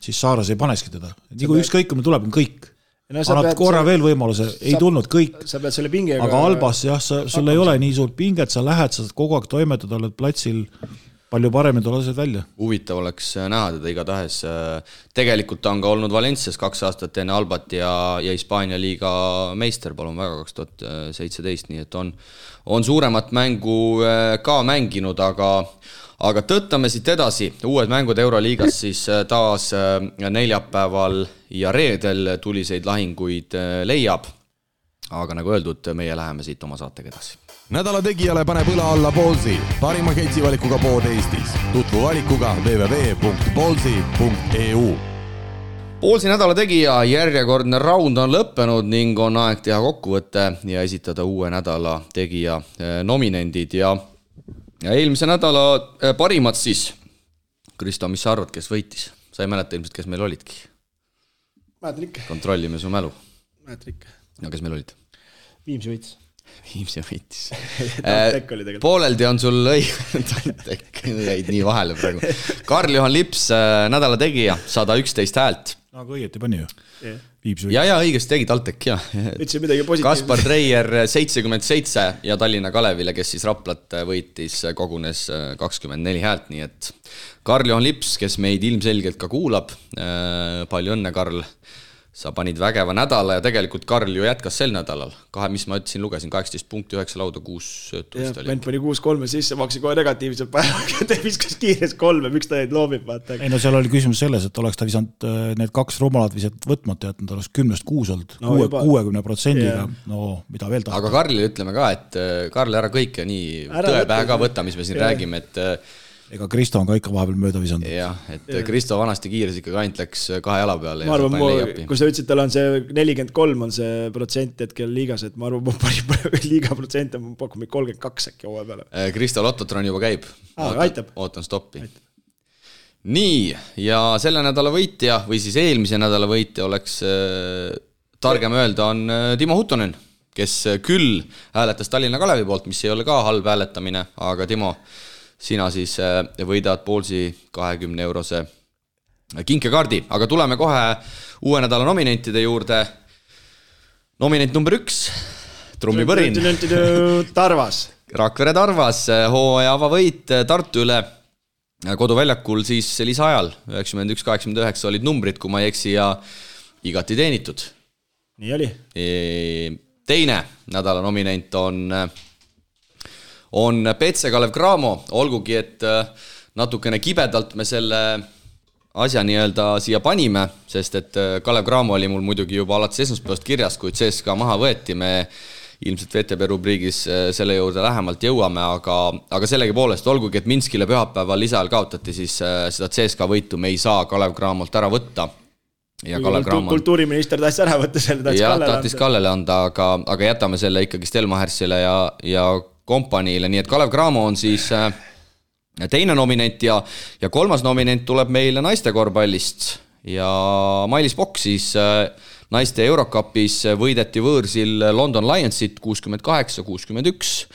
Saaras ei paneski teda. Nii kui ükskõikumine tuleb, on kõik. Annad korra veel võimaluse, ei tulnud kõik. Aga Albas, jah, sul ei ole nii suurt pinget, sa lähed, sa kogu aeg toimetada, oled platsil palju paremini tulevad välja. Huvitav oleks näha teda igatahes. Tegelikult on ka olnud Valencias 2 aastat enne Albat ja Hispaania liiga meister, palun väga, 2017, nii et on suuremat mängu ka mänginud, aga tõttame siit edasi. Uued mängud Euroliigas siis taas neljapäeval ja reedel tuliseid lahinguid leiab. Aga nagu öeldud, meie läheme siit oma saatega edasi. Nädala tegijale paneb õla alla Ballsi, parima ketsivalikuga pood Eestis. Tutvu valikuga www.ballsi.eu. Ballsi nädala tegija järjekordne raund on lõppenud ning on aeg teha kokkuvõte ja esitada uue nädala tegija nominendid ja eelmise nädala parimad siis. Kristo, mis sa arvad, kes võitis? Sa ei mäleta ilmselt, kes meil olidki? Mäletan ikka. Kontrollime su mälu. Mäletan ikka. No kes meil olid? Viimsi võitis. Viimsi võitis. Pooleldi on sul Tantek, jäid nii vahele praegu. Karl-Juhan Lips, nädala tegija, 111 häält. Aga õieti pani ju. Ja õigesti tegi Taltek, jah. Kaspar Treier 77 ja Tallinna Kalevile, kes siis Raplat võitis, kogunes 24 häält, nii et Karl-Juhan Lips, kes meid ilmselgelt ka kuulab, palju õnne, Karl. Sa panid vägeva nädala ja tegelikult Karl ju jätkas sel nädalal. Mis ma ütlesin, lugesin 18 punkti, 9 lauda, 6 söötust. Vend pani 6-3 sisse, maksi kohe negatiivselt päeva, ta viskas kiires 3, miks ta neid loobib, vaata. Ei no seal oli küsimus selles, et oleks ta visanud need 2 rumalat visat võtmata jätnud, oleks 10-6 olnud, 60%-ga, no mida veel tahab. Aga Karlile ütleme ka, et Karl ära kõike nii tõepähe ka võtta, mis me siin räägime, et ega Kristo on ka ikka vahepeal mööda visanud. Jah, et Kristo vanasti kiires ikkagi ainult läks 2 jala peale. Ma arvan, kui sa ütlesid, tal on see 43 on see protsent hetkel liigas, et ma arvan, liiga protsent on pakkumid 32 äkki hooaja peale. Kristo Lottotron juba käib. Ootan stoppi. Aitab. Nii, ja selle nädala võitja või siis eelmise nädala võitja oleks targem öelda on Timo Huttonen, kes küll hääletas Tallinna Kalevi poolt, mis ei ole ka halb hääletamine, aga Timo, sina siis võidad Poolsi 20-eurose kinkekaardi, aga tuleme kohe uue nädala nominentide juurde. Nominent number 1, trummipõrin. Tarvas. Rakvere Tarvas, hooaja avavõit Tartu üle koduväljakul siis lisaajal. 91-89 olid numbrid, kui ma ei eksi, ja igati teenitud. Nii oli. Teine nädala nominent on Petse Kalev Cramo, olgugi, et natukene kibedalt me selle asja nii-öelda siia panime, sest et Kalev Cramo oli mul muidugi juba alates esmaspäevast kirjas, kui CSKA maha võeti, me ilmselt VTB rubriigis selle juurde lähemalt jõuame, aga sellegi poolest, olgugi, et Minskile pühapäeval lisaajal kaotati, siis seda CSKA võitu me ei saa Kalev Cramolt ära võtta. Ja kultuuriminister tahtis ära võtta selle, tahtis Kallele anda, aga jätame selle ikkagi Stelmachersile ja kompaniile, nii et Kalev Cramo on siis teine nominent ja kolmas nominent tuleb meile naiste korvpallist ja Mailis Pokk siis naiste Eurocupis võideti võõrsil London Lionsit 68-61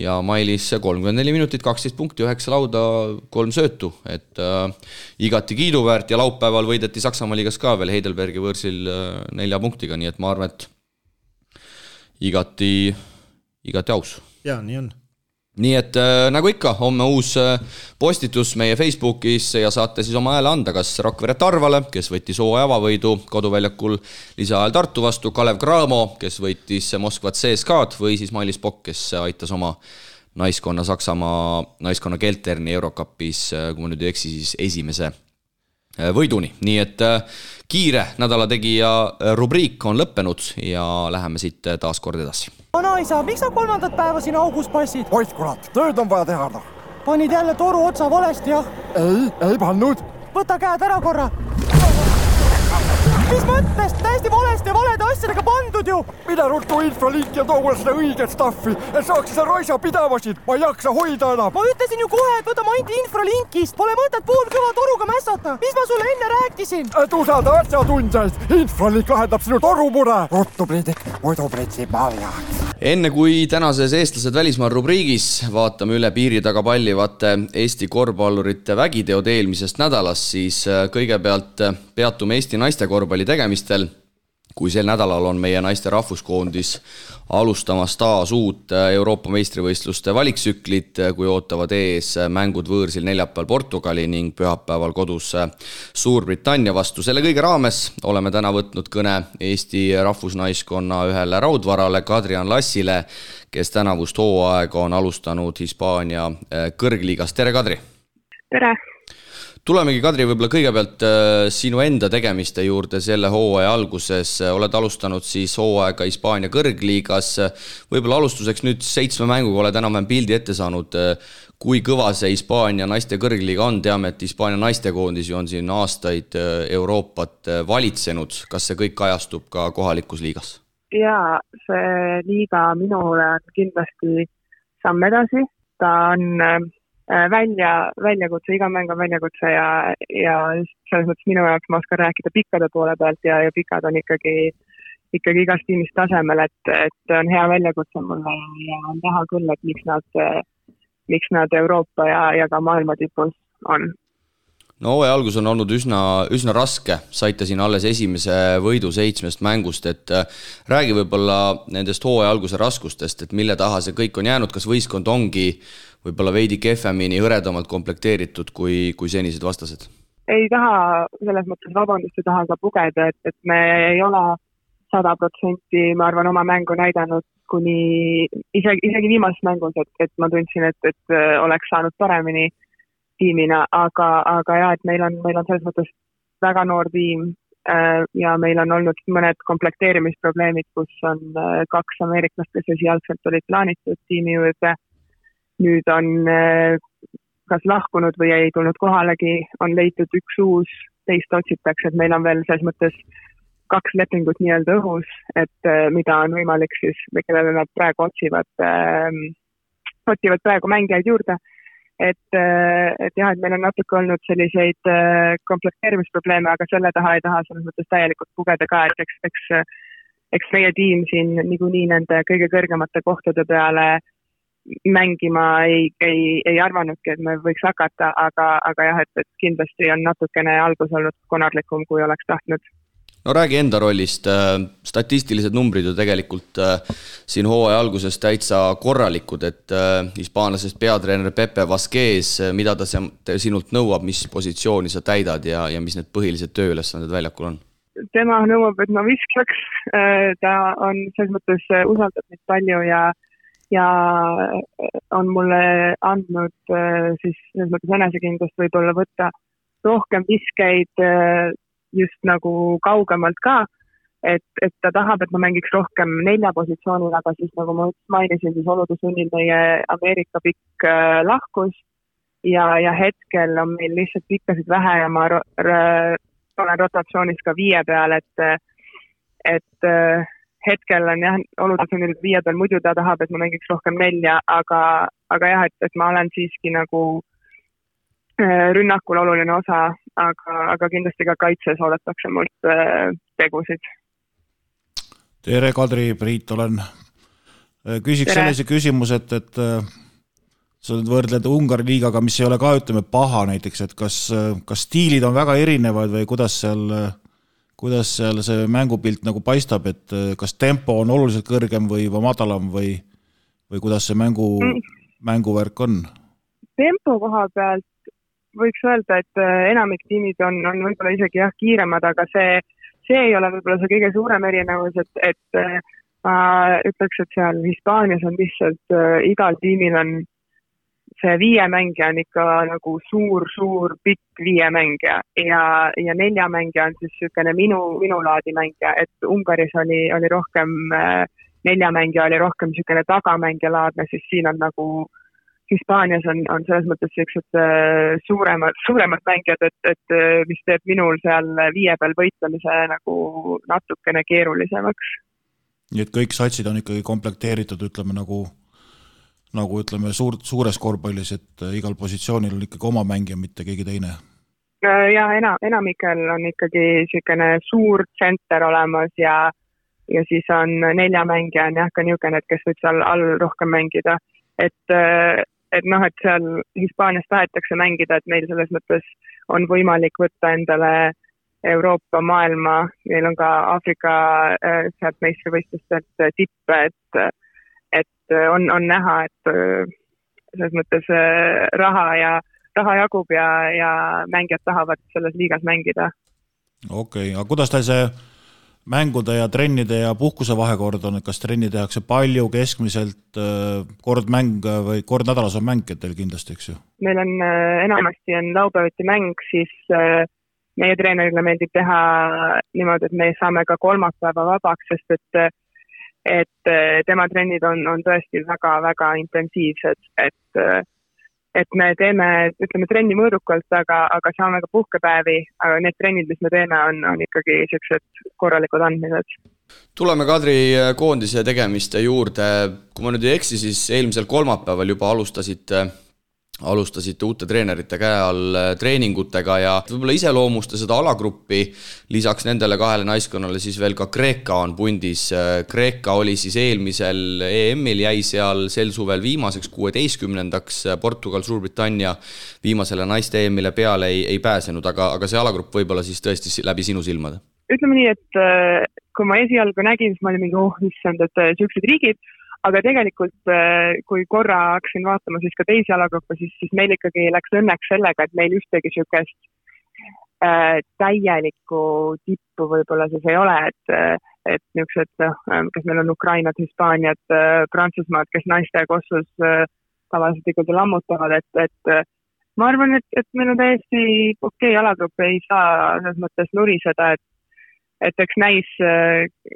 ja Mailis 34 minutit, 12 punkti, 9 lauda, 3 söötu, et igati kiiduväärt ja laupäeval võideti Saksamaa liigas ka veel Heidelbergi võõrsil 4 punktiga, nii et ma arvan, et igati aus. Jaa, nii on. Nii et nagu ikka, homme uus postitus meie Facebookis ja saate siis oma hääle anda, kas Rakvere Tarvale, kes võttis hooaja avavõidu koduväljakul lisaajal Tartu vastu, Kalev Cramo, kes võttis Moskva CSKA'd või siis Mailis Pokk, kes aitas oma naiskonna Saksamaa naiskonna Kelterni Eurocupis, kui ma nüüd ei eksi, siis esimese võiduni. Nii et kiire nädala tegija rubriik on lõppenud ja läheme siit taas kord edasi. Vanaisa, miks sa 3. päeva siin augus passid? Ois kurat, tööd on vaja teha. Panid jälle toru otsa valesti, jah? Ei pannud. Võta käed ära korra. Mis mõttest? Täiesti valesti ja valede asjadega pandud ju. Mida ruttu infralink ja too mulle seda õiget staffi, et saaks seda raisa pidavasid. Ma ei jaksa hoida enam. Ma ütlesin ju kohe, et võta maindi infralinkist. Pole mõtet poolkõva toruga mässata. Mis ma sulle enne rääkisin? Et usada asjatundjaid. Infralink lahendab sinu torumure. Ruttu priidik, muidu pritsib maljaks. Enne kui tänases eestlased välismaal rubriigis vaatame üle piiri taga pallivate Eesti korvpallurite vägiteod eelmisest nädalast, siis kõigepealt peatume Eesti naiste korvpalli tegemistel, kui sel nädalal on meie naiste rahvuskoondis alustamas taas uut Euroopa meistrivõistluste valiksüklit, kui ootavad ees mängud võõrsil neljapäeval Portugali ning pühapäeval kodus Suurbritannia vastu. Selle kõige raames oleme täna võtnud kõne Eesti rahvusnaiskonna ühele raudvarale Kadrian Lassile, kes tänavust hooaega on alustanud Hispaania kõrgliigas. Tere, Kadri! Tere! Tulemegi, Kadri, võib-olla kõigepealt sinu enda tegemiste juurde selle hooaja alguses. Oled alustanud siis hooaega Hispaania kõrgliigas. Võib-olla alustuseks nüüd 7 mänguga oled enam-vähem pildi ette saanud. Kui kõva see Hispaania naiste kõrgliiga on? Teame, et Hispaania naistekoondis on siin aastaid Euroopat valitsenud. Kas see kõik kajastub ka kohalikus liigas? Jaa, see liiga minule on kindlasti samm edasi. Ta on väljakutse, iga mäng on väljakutse ja selles mõttes minu jaoks ma oskan rääkida pikkade poole pealt ja pikad on ikkagi ikkagi igas tiimis tasemel, et on hea väljakutse mulle ja on näha küll, et miks nad Euroopa ja ka maailma tipus on. No hooaja algus on olnud üsna raske, saite siin alles esimese võidu 7 mängust, et räägi võib-olla nendest hooaja alguse raskustest, et mille taha see kõik on jäänud, kas võistkond ongi võib-olla veidi kehvemini hõredamalt komplekteeritud kui senised vastased? Ei taha selles mõttes vabandust, ei taha ka pugeda, et me ei ole 100%, ma arvan, oma mängu näidanud kuni isegi viimases mängus, et ma tundsin, et oleks saanud paremini tiimina, aga jah, et meil on selles mõttes väga noor tiim ja meil on olnud mõned komplekteerimisprobleemid, kus on 2 ameeriklast, kes esialgselt olid plaanitud tiimi juurde. Nüüd on kas lahkunud või ei tulnud kohalegi, on leitud üks uus, teist otsitakse, et meil on veel selles mõttes 2 lepingut nii-öelda õhus, et mida on võimalik siis, kellele nad praegu otsivad praegu mängijaid juurde. Et jah, et meil on natuke olnud selliseid komplekteerimisprobleeme, aga selle taha ei taha selles mõttes täielikult pugeda ka, et eks meie tiim siin niikuinii nende kõige kõrgemate kohtade peale mängima ei arvanudki, et me võiks hakata, aga jah, et kindlasti on natukene algus olnud konarlikum, kui oleks tahtnud. No räägi enda rollist, statistilised numbrid ju tegelikult siin hooaja alguses täitsa korralikud, et hispaanlasest peatreener Pepe Vazquez, mida ta sinult nõuab, mis positsiooni sa täidad ja mis need põhilised tööülesanded väljakul on? Tema nõuab, et ma viskaks, ta on selles mõttes usaldab neid palju ja on mulle andnud siis selles mõttes enesekindlust võib-olla võtta rohkem viskeid just nagu kaugemalt ka, et ta tahab, et ma mängiks rohkem 4 positsioonil, aga siis nagu ma mainisin, siis olude sunnil meie Ameerika pikk lahkus ja hetkel on meil lihtsalt pikkasid vähe ja ma olen rotatsioonis ka 5 peal, et hetkel on jah, olude sunnil 5 peal, muidu ta tahab, et ma mängiks rohkem 4, aga jah, et ma olen siiski nagu rünnakul oluline osa, aga kindlasti ka kaitses oodatakse mult tegusid. Tere, Kadri, Priit, olen. Küsiks sellise küsimus, et sa võrdled Ungari liigaga, mis ei ole ka, ütleme, paha näiteks, et kas stiilid on väga erinevad või kuidas seal see mängupilt nagu paistab, et kas tempo on oluliselt kõrgem või madalam või kuidas see mänguvärk on? Tempo koha pealt võiks öelda, et enamik tiimid on võib-olla isegi jah kiiremad, aga see ei ole võib-olla see kõige suurem erinevus, et ma ütleks, et seal Hispaanias on lihtsalt igal tiimil on see 5 mängija on ikka nagu suur pikk 5 mängija ja 4 mängija on siis niisugune minu laadi mängija, et Ungaris oli rohkem 4 mängija oli rohkem niisugune tagamängija laadne, siis siin on nagu Hispaanias on selles mõttes sellised suuremad mängijad, et mis teeb minul seal 5 peal võitlemise nagu natukene keerulisemaks. Nii et kõik satsid on ikkagi komplekteeritud, ütleme nagu ütleme suures korvpallis, et igal positsioonil on ikkagi oma mängija, mitte keegi teine? Ja enamikel on ikkagi niisugune suur tsenter olemas ja siis on 4 mängija on jah ka niisugune, et kes võib seal all rohkem mängida, et seal Hispaanias tahetakse mängida, et meil selles mõttes on võimalik võtta endale Euroopa, maailma, meil on ka Aafrika sealt meistrivõistlustelt tippe, et on näha, et selles mõttes raha jagub ja mängijad tahavad selles liigas mängida. Okei, aga kuidas teil see mängude ja trennide ja puhkuse vahekord on, et kas trenni tehakse palju, keskmiselt, kord nädalas on mäng teil kindlasti, eks ju? Meil on enamasti on laupäeviti mäng, siis meie treenerile meeldib teha niimoodi, et me saame ka kolmapäeva vabaks, sest et tema trennid on tõesti väga intensiivsed, et me teeme, ütleme, trenni mõõdukalt, aga saame ka puhkepäevi, aga need trennid, mis me teeme, on ikkagi sellised korralikud andmised. Tuleme Kadri koondise tegemiste juurde. Kui ma nüüd ei eksi, siis eelmisel kolmapäeval juba alustasite alustasite uute treenerite käe all treeningutega ja võib-olla iseloomusta seda alagruppi, lisaks nendele kahele naiskonnale siis veel ka Kreeka on pundis. Kreeka oli siis eelmisel EM-il, jäi seal sel suvel viimaseks 16-ndaks, Portugal, Suurbritannia viimasele naiste EM-ile peale ei pääsenud, aga see alagrupp võib-olla siis tõesti läbi sinu silmade? Ütleme nii, et kui ma esialgu nägin, siis ma olin mingi issand, et sellised riigid, aga tegelikult, kui korra hakkasin vaatama siis ka teisi alagruppe, siis meil ikkagi läks õnneks sellega, et meil ühtegi sükest täielikku tippu võib-olla siis ei ole, et niisugused, kes meil on Ukrainat, Hispaaniat, Prantsusmaad, kes naiste kossus tavaliselt ikkagi lammutavad, et ma arvan, et meil on täiesti okei alagrupp, ei saa selles mõttes nuriseda, et eks näis,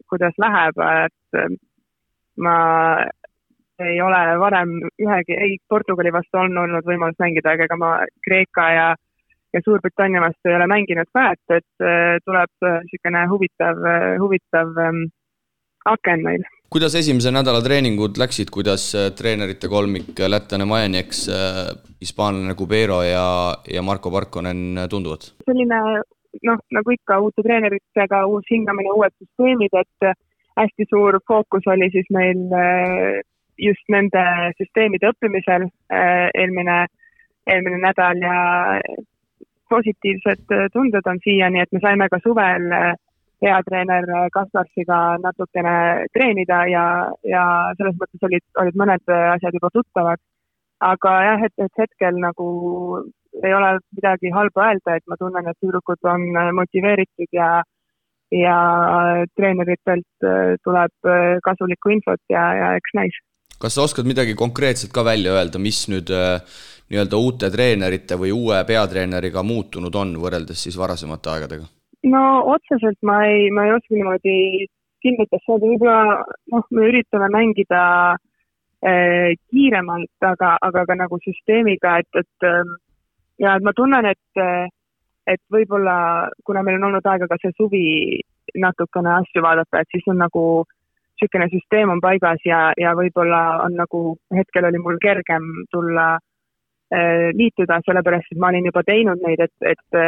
kuidas läheb, et ma ei ole varem ei Portugali vastu olnud võimalus mängida, ega ma Kreeka ja Suurbritannia vastu ei ole mänginud ka, et tuleb selline huvitav aken meil. Kuidas esimese nädala treeningud läksid, kuidas treenerite kolmik lätlane Majanieks, hispaanlane Cubero ja Marko Parkonen tunduvad? Selline, nagu ikka uute treeneritega uus hingamine, uued süsteemid, et hästi suur fookus oli siis meil just nende süsteemide õppimisel eelmine nädal ja positiivsed tunded on siiani, et me saime ka suvel peatreener Kasparsiga natukene treenida ja selles mõttes olid mõned asjad juba tuttavad. Aga jah, et hetkel nagu ei ole midagi halba öelda, et ma tunnen, et tüdrukud on motiveeritud ja treeneritelt tuleb kasulikku infot ja eks näis. Kas sa oskad midagi konkreetselt ka välja öelda, mis nüüd nii-öelda uute treenerite või uue peatreeneriga muutunud on võrreldes siis varasemate aegadega? No otseselt ma ei oska niimoodi kinnitas saada, võib-olla me üritame mängida kiiremalt, aga ka nagu süsteemiga, et ma tunnen, et võib-olla, kuna meil on olnud aega ka see suvi natukene asju vaadata, et siis on nagu selline süsteem on paigas ja võib-olla on nagu hetkel oli mul kergem tulla liituda, sellepärast, et ma olin juba teinud neid, et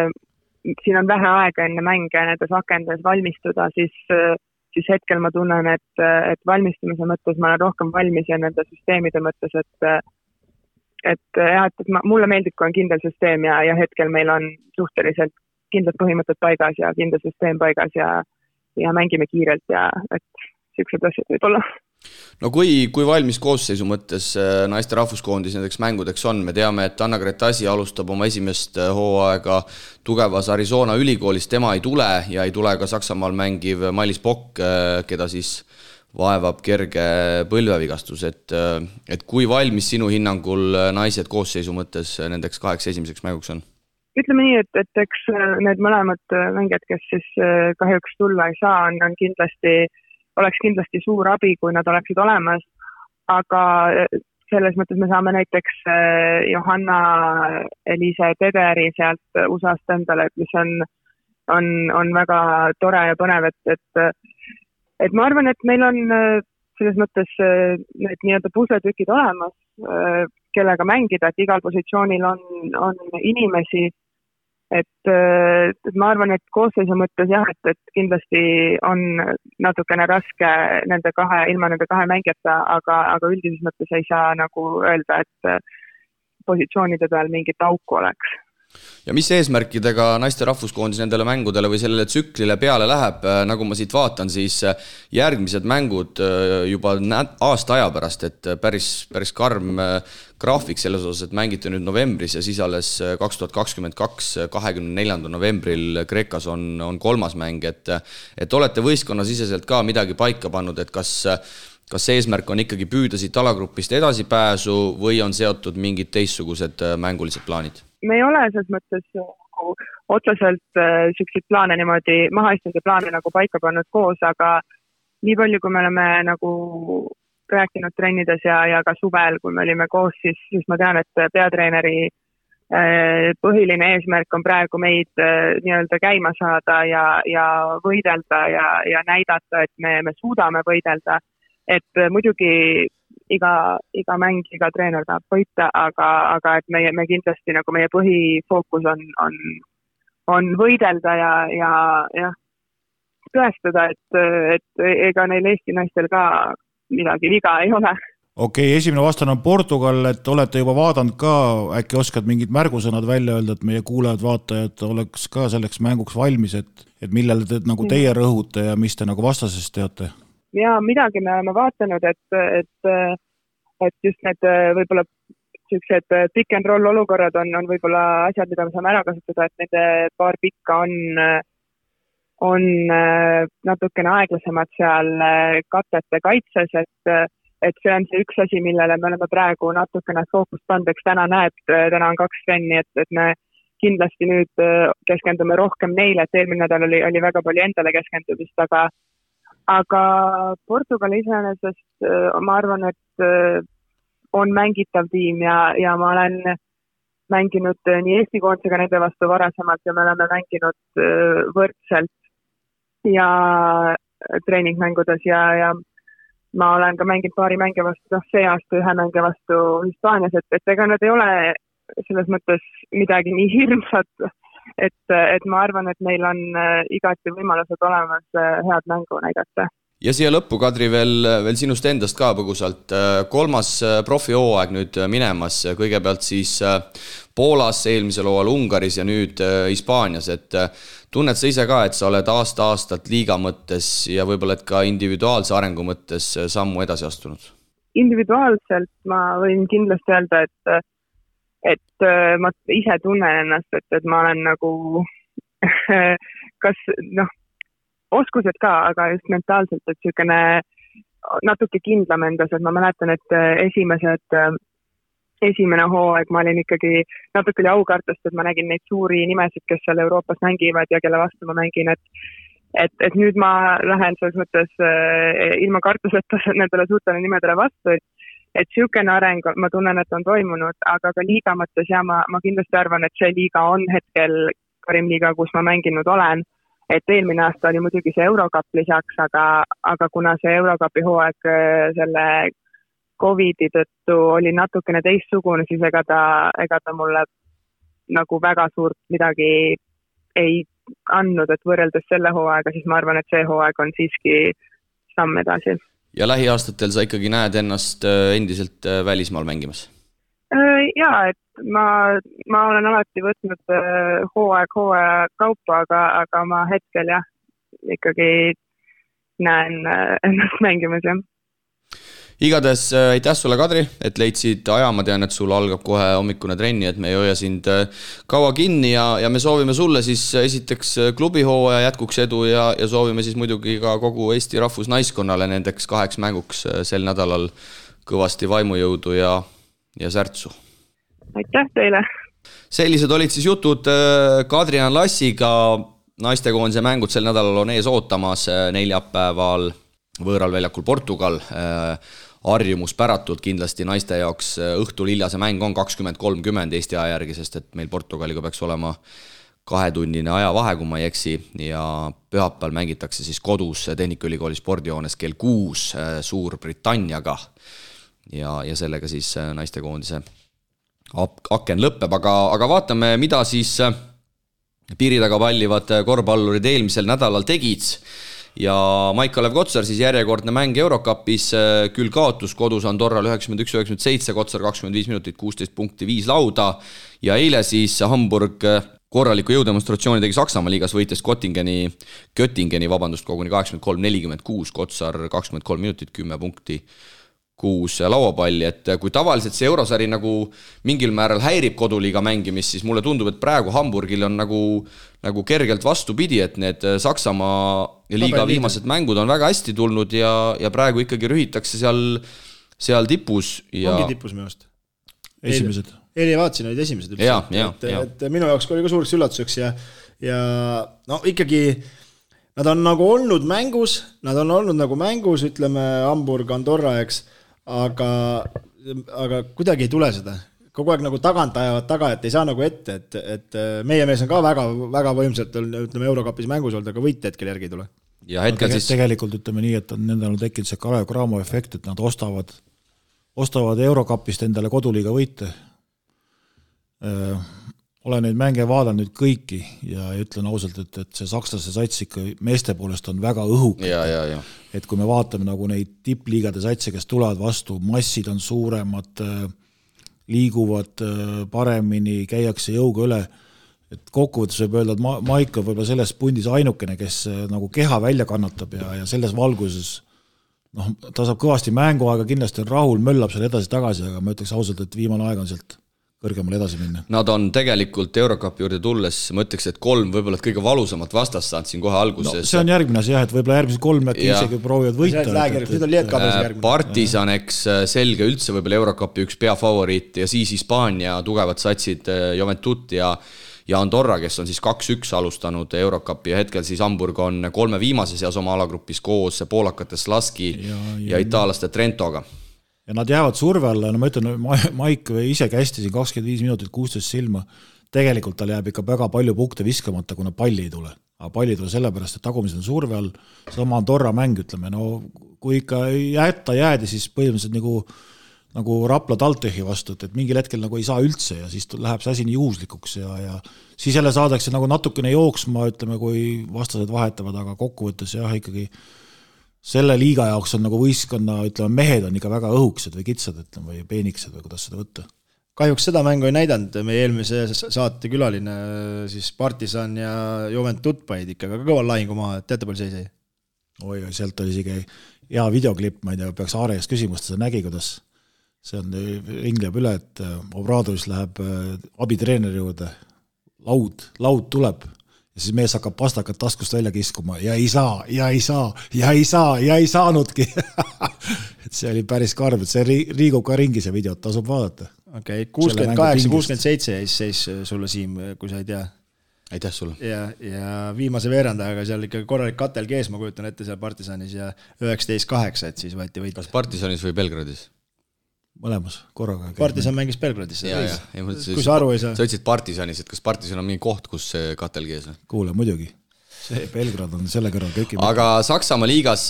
siin on vähe aega enne mänge nendes akendes valmistuda, siis hetkel ma tunnen, et valmistumise mõttes ma olen rohkem valmis ja nende süsteemide mõttes, et mulle meeldib, kui on kindel süsteem ja hetkel meil on suhteliselt kindlad põhimõtted paigas ja kindel süsteem paigas ja mängime kiirelt ja et sellised asjad võib olla. No kui valmis koosseisu mõttes naiste rahvuskoondis nendeks mängudeks on? Me teame, et Anna-Grete Asi alustab oma esimest hooaega tugevas Arizona ülikoolis, tema ei tule ja ei tule ka Saksamaal mängiv Mailis Pokk, keda siis vaevab kerge põlvevigastus, et kui valmis sinu hinnangul naised koosseisu mõttes nendeks 8 esimeseks mänguks on? Ütleme nii, et eks need mõlemad mängijad, kes siis kahjuks tulla ei saa, oleks kindlasti suur abi, kui nad oleksid olemas, aga selles mõttes me saame näiteks Johanna Eliise Tederi sealt USA-st endale, mis on väga tore ja põnev, et ma arvan, et meil on selles mõttes need nii-öelda pusletükid olemas, kellega mängida, et igal positsioonil on inimesi, et ma arvan, et koosseisu mõttes jah, et kindlasti on natukene raske ilma nende kahe mängijata, aga üldises mõttes ei saa nagu öelda, et positsioonide peal mingit auku oleks. Ja mis eesmärkidega naiste rahvuskoondis nendele mängudele või sellele tsüklile peale läheb, nagu ma siit vaatan, siis järgmised mängud juba aasta aja pärast, et päris karm graafik selles osas, et mängite nüüd novembris ja siis alles 2022, 24. novembril Kreekas on 3. mäng, et olete võistkonnasiseselt ka midagi paika pannud, et kas eesmärk on ikkagi püüda siit alagrupist edasipääsu või on seotud mingid teistsugused mängulised plaanid? Me ei ole selles mõttes otseselt selliseid plaane niimoodi mahaistunud plaane nagu paika pannud koos, aga nii palju, kui me oleme nagu rääkinud trennides ja ka suvel, kui me olime koos, siis ma tean, et peatreeneri põhiline eesmärk on praegu meid nii-öelda käima saada ja võidelda ja näidata, et me suudame võidelda. Et muidugi iga mäng, iga treener tahab võita, aga et me kindlasti nagu meie põhifookus on võidelda ja tõestada, et ega neil Eesti naistel ka midagi viga ei ole. Okei, esimene vastane on Portugal, et olete juba vaadanud ka, äkki oskad mingid märgusõnad välja öelda, et meie kuulajad, vaatajad oleks ka selleks mänguks valmis, et millele te nagu teie rõhute ja mis te nagu vastasest teate? Ja midagi me oleme vaatanud, et just need võib-olla sellised pick and roll olukorrad on võib-olla asjad, mida me saame ära kasutada, et nende paar pikka on natukene aeglasemad seal katete kaitses, et see on see üks asi, millele me oleme praegu natukene fookust pandeks. Täna on 2 trenni, et me kindlasti nüüd keskendume rohkem neile, et eelmine nädal oli väga palju endale keskendumist, aga Portugal iseenesest ma arvan, et on mängitav tiim ja ma olen mänginud nii Eesti koondisega nende vastu varasemalt ja me oleme mänginud võrdselt ja treeningmängudes ja ma olen ka mänginud paari mänge vastu, see aasta 1 mänge vastu Hispaanias, et ega nad ei ole selles mõttes midagi nii hirmsat, et ma arvan, et meil on igati võimalused olemas head mängu näidata. Ja siia lõppu, Kadri, veel sinust endast ka põgusalt. 3. profihooaeg nüüd minemas, kõigepealt siis Poolas, eelmisel hooajal Ungaris ja nüüd Hispaanias, et tunned sa ise ka, et sa oled aasta-aastalt liiga mõttes ja võib-olla et ka individuaalse arengu mõttes sammu edasi astunud? Individuaalselt ma võin kindlasti öelda, et ma ise tunnen ennast, et ma olen nagu kas oskused ka, aga just mentaalselt, et sükene natuke kindlam endas, et ma mäletan, et esimene hooaeg ma olin ikkagi natuke aukartust, et ma nägin neid suuri nimesid, kes seal Euroopas mängivad ja kelle vastu ma mängin, et nüüd ma lähen selles mõttes ilma kartuseta nendele suurtele nimedele vastu, et sükene areng, ma tunnen, et on toimunud, aga ka liiga mõttes ja ma kindlasti arvan, et see liiga on hetkel Karim liiga, kus ma mänginud olen. Et eelmine aasta oli muidugi see Eurocup lisaks, aga kuna see Eurocupi hooaeg selle COVID-i tõttu oli natukene teistsugune, siis ega ta mulle nagu väga suurt midagi ei andnud, et võrreldes selle hooaega, siis ma arvan, et see hooaeg on siiski samm edasi. Ja lähiaastatel sa ikkagi näed ennast endiselt välismaal mängimas? Jaa, et ma olen alati võtnud hooaja kaupa, aga ma hetkel ikkagi näen ennast mängimas, jah. Igades aitäh sulle, Kadri, et leidsid aja, ma tean, et sul algab kohe hommikune trenni, et me ei hoia sind kaua kinni ja me soovime sulle siis esiteks klubihooaja jätkuks edu ja soovime siis muidugi ka kogu Eesti rahvusnaiskonnale nendeks 2 mänguks sel nädalal kõvasti vaimujõudu ja särtsu. Aitäh teile! Sellised olid siis jutud Kadrian Lassiga. Naistekoondise mängud sel nädalal on ees ootamas neljapäeval võõral väljakul Portugal. Harjumuspäratult kindlasti naiste jaoks õhtul hiljase mäng on 20:30 Eesti aja järgi, sest et meil Portugaliga peaks olema 2-tunnine ajavahe, kui ma ei eksi, ja pühapäeval mängitakse siis kodus Tehnikaülikooli spordijoones kell 6 Suurbritanniaga ja sellega siis naistekoondise aken lõpeb, aga vaatame, mida siis piiri taga pallivad korvpallurid eelmisel nädalal tegid. Ja Maik-Kalev Kotsar siis järjekordne mäng Eurocupis, küll kaotus kodus Andorral 91-97, Kotsar 25 minutit, 16 punkti, 5 lauda ja eile siis Hamburg korraliku jõudemonstratsiooni tegi Saksamaa liigas, võites Göttingeni koguni 83-46, Kotsar 23 minutit, 10 punkti, 6 lauapalli, et kui tavaliselt see eurosari nagu mingil määral häirib koduliiga mängimist, siis mulle tundub, et praegu Hamburgil on nagu kergelt vastupidi, et need Saksamaa liiga viimased mängud on väga hästi tulnud ja praegu ikkagi rühitakse seal tipus. Ongi tipus meelest. Esimesed. Eile vaatasin, olid esimesed üldse. Et minu jaoks oli ka suureks üllatuseks ja no ikkagi nad on nagu olnud mängus, ütleme Hamburg, Andorra, eks, aga kuidagi ei tule seda. Kogu aeg nagu tagant ajavad taga, et ei saa nagu ette, et meie mees on ka väga, väga võimsalt, ütleme, Eurocupis mängus olnud, aga võit hetkel järgi ei tule. Ja hetkel siis tegelikult ütleme nii, et nendel on tekkinud see Kalev Cramo efekt, et nad ostavad ostavad Eurocupist endale koduliiga võite. Olen neid mänge vaadanud nüüd kõiki ja ütlen ausalt, et see sakslaste sats ikka meeste poolest on väga õhuk. Et kui me vaatame nagu neid tippliigade satse, kes tulevad vastu, massid on suuremad, liiguvad paremini, käiakse jõuga üle, et kokkuvõttes võib öelda, et Maik on võib-olla selles pundis ainukene, kes nagu keha välja kannatab ja selles valguses ta saab kõvasti mänguaega, kindlasti on rahul, möllab seal edasi-tagasi, aga ma ütleks ausalt, et viimane aeg on sealt kõrgemale edasi minna. Nad on tegelikult Eurocupi juurde tulles, ma ütleks, et 3 võib-olla kõige valusamat vastast saanud siin kohe alguses. See on järgmine asi, et võib-olla järgmised 3 isegi proovivad võita. Partisan, eks selge üldse võib-olla Eurocupi üks peafavoriit ja siis Hispaania tugevad satsid Juventud ja Andorra, kes on siis 2-1 alustanud Eurocupi ja hetkel siis Hamburg on 3 viimase seas oma alagrupis koos poolakate Slaski ja itaalaste Trentoga. Ja nad jäävad surve alla, ma ütlen, Maik ise kästi siin 25 minutit 16 silma, tegelikult tal jääb ikka väga palju punkte viskamata, kuna palli ei tule. Aga palli ei tule sellepärast, et tagumised on surve all, sama Andorra mäng, ütleme, kui ikka jäädi, siis põhimõtteliselt nagu Rapla Taltehi vastu, et mingil hetkel nagu ei saa üldse ja siis läheb see asi nii juhuslikuks ja siis jälle saadakse nagu natukene jooksma, ütleme, kui vastased vahetavad, aga kokkuvõttes jah, ikkagi selle liiga jaoks on nagu võistkonna, ütleme, mehed on ikka väga õhuksed või kitsad, ütleme, või peeniksed või kuidas seda võtta. Kahjuks seda mängu ei näidanud, meie eelmise saate külaline siis Partisan ja Juventud paid ikka väga kõval lahingu maha, et teate palju seis ei? Oi, sealt oli isegi hea videoklipp, ma ei tea, peaks Aarejast küsimust, seda nägi, kuidas see on, ringleb üle, et Obradovis läheb abitreeneri juurde, laud tuleb ja siis mees hakkab pastakat taskust välja kiskuma ja ei saanudki. Et see oli päris karm, et see riigub ka ringi see videot, tasub vaadata. Okei, 68-67 seis sulle, Siim, kui sa ei tea. Aitäh sulle. Ja viimase veerandajaga seal ikka korralik katel kees, ma kujutan ette seal Partisanis ja 19-8, et siis võeti võit. Kas Partisanis või Belgradis? Mõlemas korraga. Partisan mängis Belgradis. Kui sa aru ei saa. Sa ütlesid Partisanis, et kas Partisan on mingi koht, kus see katel kees on? Kuule, muidugi. See Belgrad on selle kõrval kõiki. Aga Saksamaa liigas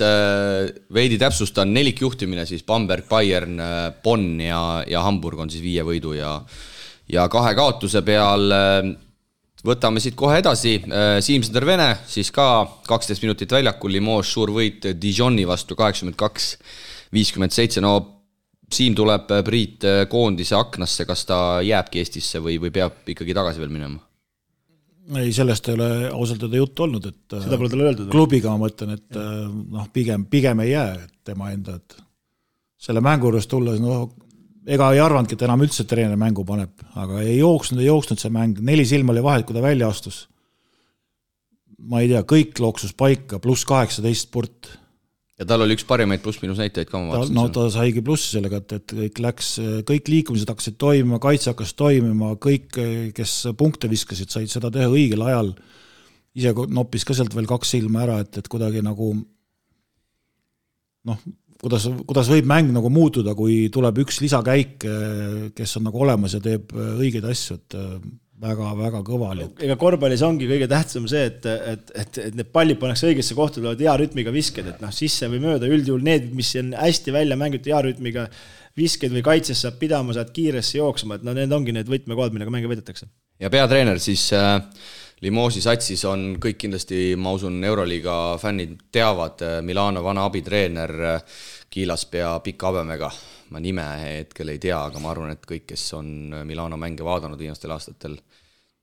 veidi täpsustan 4 juhtimine, siis Bamberg, Bayern, Bonn ja Hamburg on siis 5 võidu ja 2 kaotuse peal. Võtame siit kohe edasi. Siim-Sander Vene, siis ka 12 minutit väljakul, Limoges suur võit Dijoni vastu 82-57. No Siim tuleb Priit koondise aknasse, kas ta jääbki Eestisse või peab ikkagi tagasi veel minema? Ei, sellest ei ole ausalt öelda juttu olnud, et seda pole talle öeldud. Klubiga ma mõtlen, et pigem ei jää tema enda, et selle mängu juures tulles, ega ei arvandki, et enam üldse treener mängu paneb, aga ei jooksnud see mäng, 4 silma oli vahet, kui ta välja astus. Ma ei tea, kõik looksus paika, pluss 18 sport. Ja tal oli üks parimaid pluss-minus näitajaid ka ma vaatasin. Ta saigi plussi sellega, et kõik liikumised hakkasid toimima, kaitse hakkas toimima, kõik, kes punkte viskasid, said seda teha õigel ajal. Ise noppis ka sealt veel 2 silma ära, et kuidagi nagu kuidas võib mäng nagu muutuda, kui tuleb üks lisakäik, kes on nagu olemas ja teeb õigeid asju, et väga kõva oli. Ega korvpallis ongi kõige tähtsam see, et need pallid pannakse õigesse kohta, tulevad hea rütmiga visked, et sisse või mööda, üldjuhul need, mis on hästi välja mängitud hea rütmiga visked või kaitses saab pidama, saad kiiresse jooksma, et need ongi need võtmekohad, millega mänge võidetakse. Ja peatreener siis Limoge'i satsis on kõik kindlasti, ma usun, Euroliiga fännid teavad, Milano vana abitreener Kiilaspea pika habemega. Ma nime hetkel ei tea, aga ma arvan, et kõik, kes on Milano mänge vaadanud viimastel aastatel,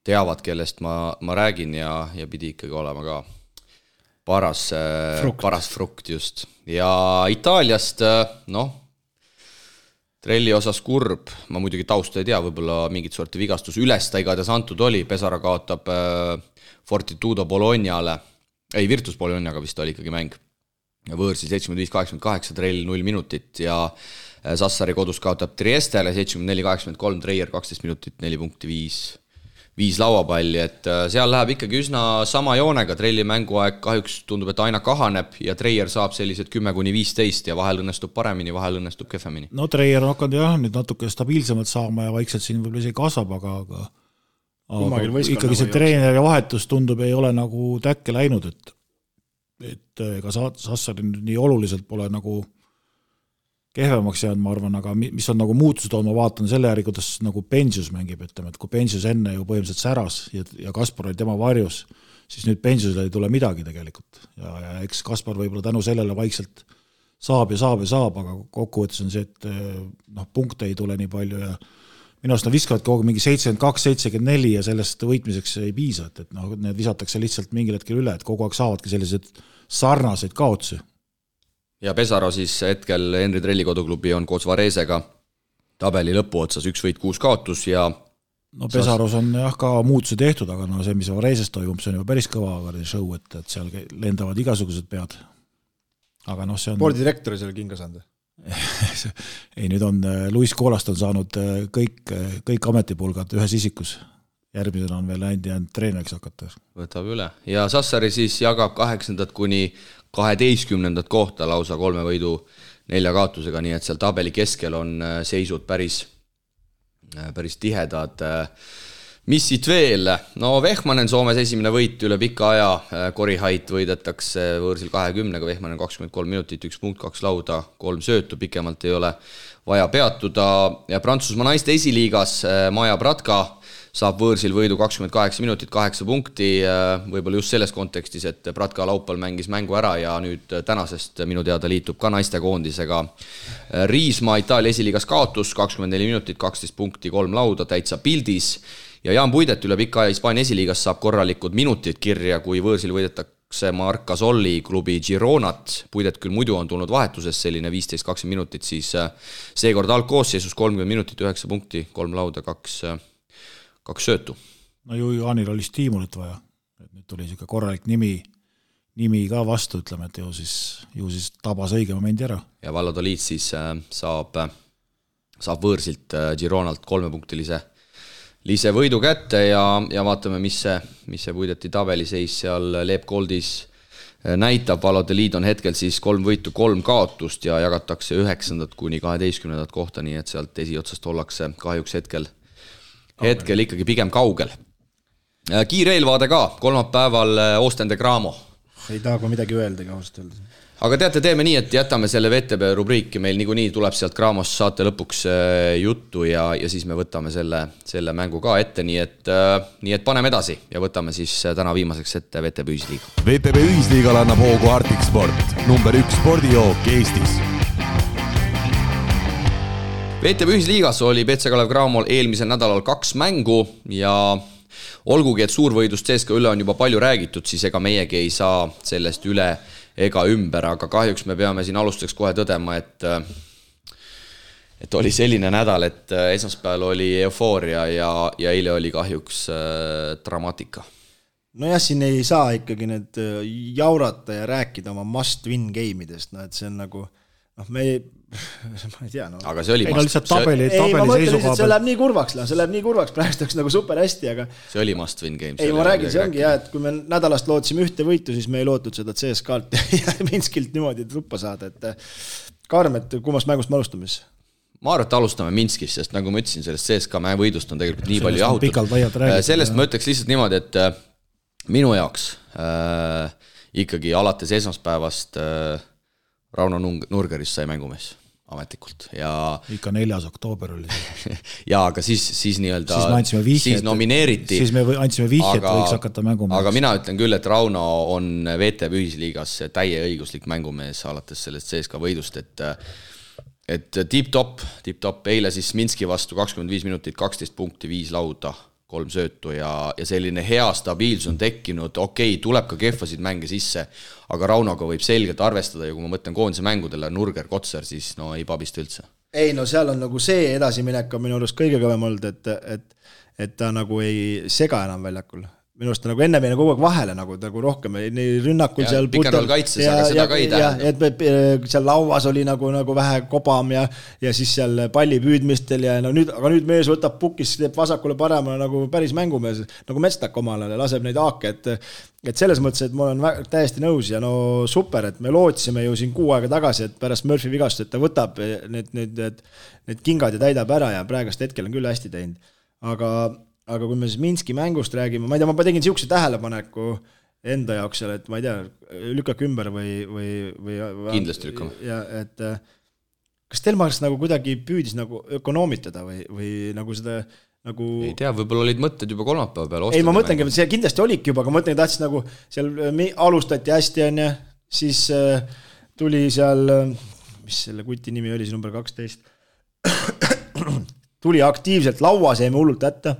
teavad, kellest ma räägin ja pidi ikkagi olema ka paras frukt just. Ja Itaaliast, Trelli osas kurb, ma muidugi tausta ei tea, võib-olla mingit sorti vigastus üles ta igatahes antud oli, Pesara kaotab Fortitudo Bolognale, Virtus Bolognaga vist oli ikkagi mäng, võõrsi 75-88, Trell 0 minutit ja Sassari kodus kaotab Triestele 74-83, Treier 12 minutit, 4 punkti, 5 lauapalli, et seal läheb ikkagi üsna sama joonega, Trelli mänguaeg kahjuks tundub, et aina kahaneb ja Treier saab sellised 10-15 ja vahel õnnestub paremini, vahel õnnestub kehvemini. No Treier on hakanud jah, nüüd natuke stabiilsemalt saama ja vaikselt siin võib-olla isegi kasvab, aga ikkagi see treeneri vahetus tundub, ei ole nagu täkke läinud, et ega Sassari nii oluliselt pole nagu kehvemaks jäänud, ma arvan, aga mis on nagu muutused olnud, ma vaatan selle järgi, kuidas nagu Pensius mängib, ütleme, et kui Pensius enne ju põhimõtteliselt säras ja Kaspar oli tema varjus, siis nüüd Pensiusele ei tule midagi tegelikult. Ja eks Kaspar võib-olla tänu sellele vaikselt saab, aga kokkuvõttes on see, et punkte ei tule nii palju ja minu arust nad viskavad kogu mingi 72-74 ja sellest võitmiseks ei piisa, et need visatakse lihtsalt mingil hetkel üle, et kogu aeg saavadki sellised sarnaseid kaotsi. Ja Pesaro siis hetkel Henri Trelli koduklubi on koos Varesega tabeli lõpu otsas 1 võit 6 kaotus ja Pesaros on jah ka muutusi tehtud, aga see, mis Vareses toimub, see on juba päris kõva show, et seal lendavad igasugused pead. Aga see on... Spordidirektori seal kinga saanud? Ei, nüüd on Luis Koolast on saanud kõik ametipulgad ühes isikus. Järgmisena on veel jäänud treeneriks hakata. Võtab üle. Ja Sassari siis jagab 8. kuni 12. kohta lausa 3 võidu 4 kaotusega, nii et seal tabeli keskel on seisud päris tihedad. Mis siit veel? Vehmanen Soomes esimene võit üle pika aja, Korihait võidetakse võõrsil 20-ga, Vehmanen 23 minutit, 1 punkt, 2 lauda, 3 söötu, pikemalt ei ole vaja peatuda. Ja Prantsusmaa naiste esiliigas Maja Bratka saab võõrsil võidu 28 minutit, 8 punkti, võib-olla just selles kontekstis, et Bratka laupal mängis mängu ära ja nüüd tänasest minu teada liitub ka naistekoondisega. Riismaa Itaalia esiliigas kaotus, 24 minutit, 12 punkti, 3 lauda, täitsa pildis. Ja Jaan Puidet üle pika aja Hispaania esiliigas saab korralikud minutid kirja, kui võõrsil võidetakse Marc Gasolli klubi Gironat. Puidet küll muidu on tulnud vahetuses selline 15-20 minutit, siis seekord algkoosseisus 30 minutit, 9 punkti, 3 lauda, 2 söötu. Ju Jaanil oli stiimulit vaja. Nüüd tuli siuke korralik nimi ka vastu, ütleme, et ju siis tabas õige momendi ära. Ja Valladolid siis saab võõrsilt Gironalt 3-punktilise võidu kätte ja vaatame, mis see Puideti tabeliseis seal Leep Goldis näitab. Valladolid on hetkel siis 3 võitu, 3 kaotust ja jagatakse 9. kuni 12. kohta, nii et sealt esiotsast ollakse kahjuks hetkel ikkagi pigem kaugel. Kiire eelvaade ka, kolmapäeval Ostende Gramo. Ei taha ka midagi öeldagi ausalt öelda. Aga teate, teeme nii, et jätame selle VTB rubriiki, meil niikuinii tuleb sealt Gramos saate lõpuks juttu ja siis me võtame selle mängu ka ette, nii et paneme edasi ja võtame siis täna viimaseks ette VTB Ühisliiga. VTB Ühisliigal annab hoogu Arctic Sport, number 1 spordijook Eestis. VTB Ühisliigas oli BC Kalev Cramol eelmisel nädalal 2 mängu ja olgugi, et suurvõidust CSKA üle on juba palju räägitud, siis ega meiegi ei saa sellest üle ega ümber, aga kahjuks me peame siin alustuseks kohe tõdema, et oli selline nädal, et esmaspäeval oli eufooria ja eile oli kahjuks dramaatika. Nojah, siin ei saa ikkagi need jaurata ja rääkida oma must-win game'idest, et see on nagu, ma ei tea. Aga see oli tabeli seisukoha. See läheb nii kurvaks, praegu oleks nagu super hästi, aga see oli must-win game. Ei, ma räägin, see ongi et kui me nädalast lootsime 1 võitu, siis me ei lootnud seda CSKA-lt ja Minskilt niimoodi truppa saada, et Karm, et kummast mängust me alustame siis? Ma arvan, et alustame Minskis, sest nagu ma ütlesin, sellest CSKA võidust on tegelikult nii palju jahutud. Sellest ma ütleks lihtsalt niimoodi, et minu jaoks ikkagi alates esmaspäevast Rauno Nurgerist sai mängumees ametlikult ja ikka 4. oktoober oli ja aga siis nii-öelda siis nomineeriti siis me andsime vihjet, võiks hakata mängumees. Aga mina ütlen küll, et Rauno on VTB Ühisliigas täie õiguslik mängumees alates sellest CSKA võidust, et tip-top, eile siis Minski vastu 25 minutit, 12 punkti, 5 lauda, 3 söötu ja selline hea stabiilsus on tekkinud, okei, tuleb ka kehvasid mänge sisse, aga Raunoga võib selgelt arvestada ja kui ma mõtlen koondise mängudele Nurger, Kotser, siis ei pabista üldse. Ei, seal on nagu see edasiminek on minu arust kõige kõvem olnud, et ta nagu ei sega enam väljakul. Minu arust nagu enne meile kogu aeg vahele nagu rohkem rünnakul ja, seal pikendal kaitses, aga seda ka ei tähendab. Et seal lauas oli nagu vähe kobam ja siis seal palli püüdmistel ja aga nüüd mees võtab pukis, teeb vasakule paremale nagu päris mängumees, nagu Mestak omale laseb neid aake, et selles mõttes, et ma olen täiesti nõus ja super, et me lootsime ju siin 6 aega tagasi, et pärast Murphy vigast, et ta võtab need kingad ja täidab ära ja praegast hetkel on küll hästi teinud, aga kui me siis Minski mängust räägime, ma ei tea, ma tegin siukse tähelepaneku enda jaoks seal, et ma ei tea, lükkake ümber või kindlasti lükkame. Ja kas Stelmachers nagu kuidagi püüdis nagu ökonoomitada või nagu seda nagu... Ei tea, võib-olla olid mõtted juba kolmapäeva peale. Ei, ma mõtlengi, et see kindlasti olidki juba, aga ma mõtlengi, tahtis nagu seal alustati hästi, on ja siis tuli seal, mis selle kuti nimi oli, see number 12, tuli aktiivselt lauas, jäime hullult ätta.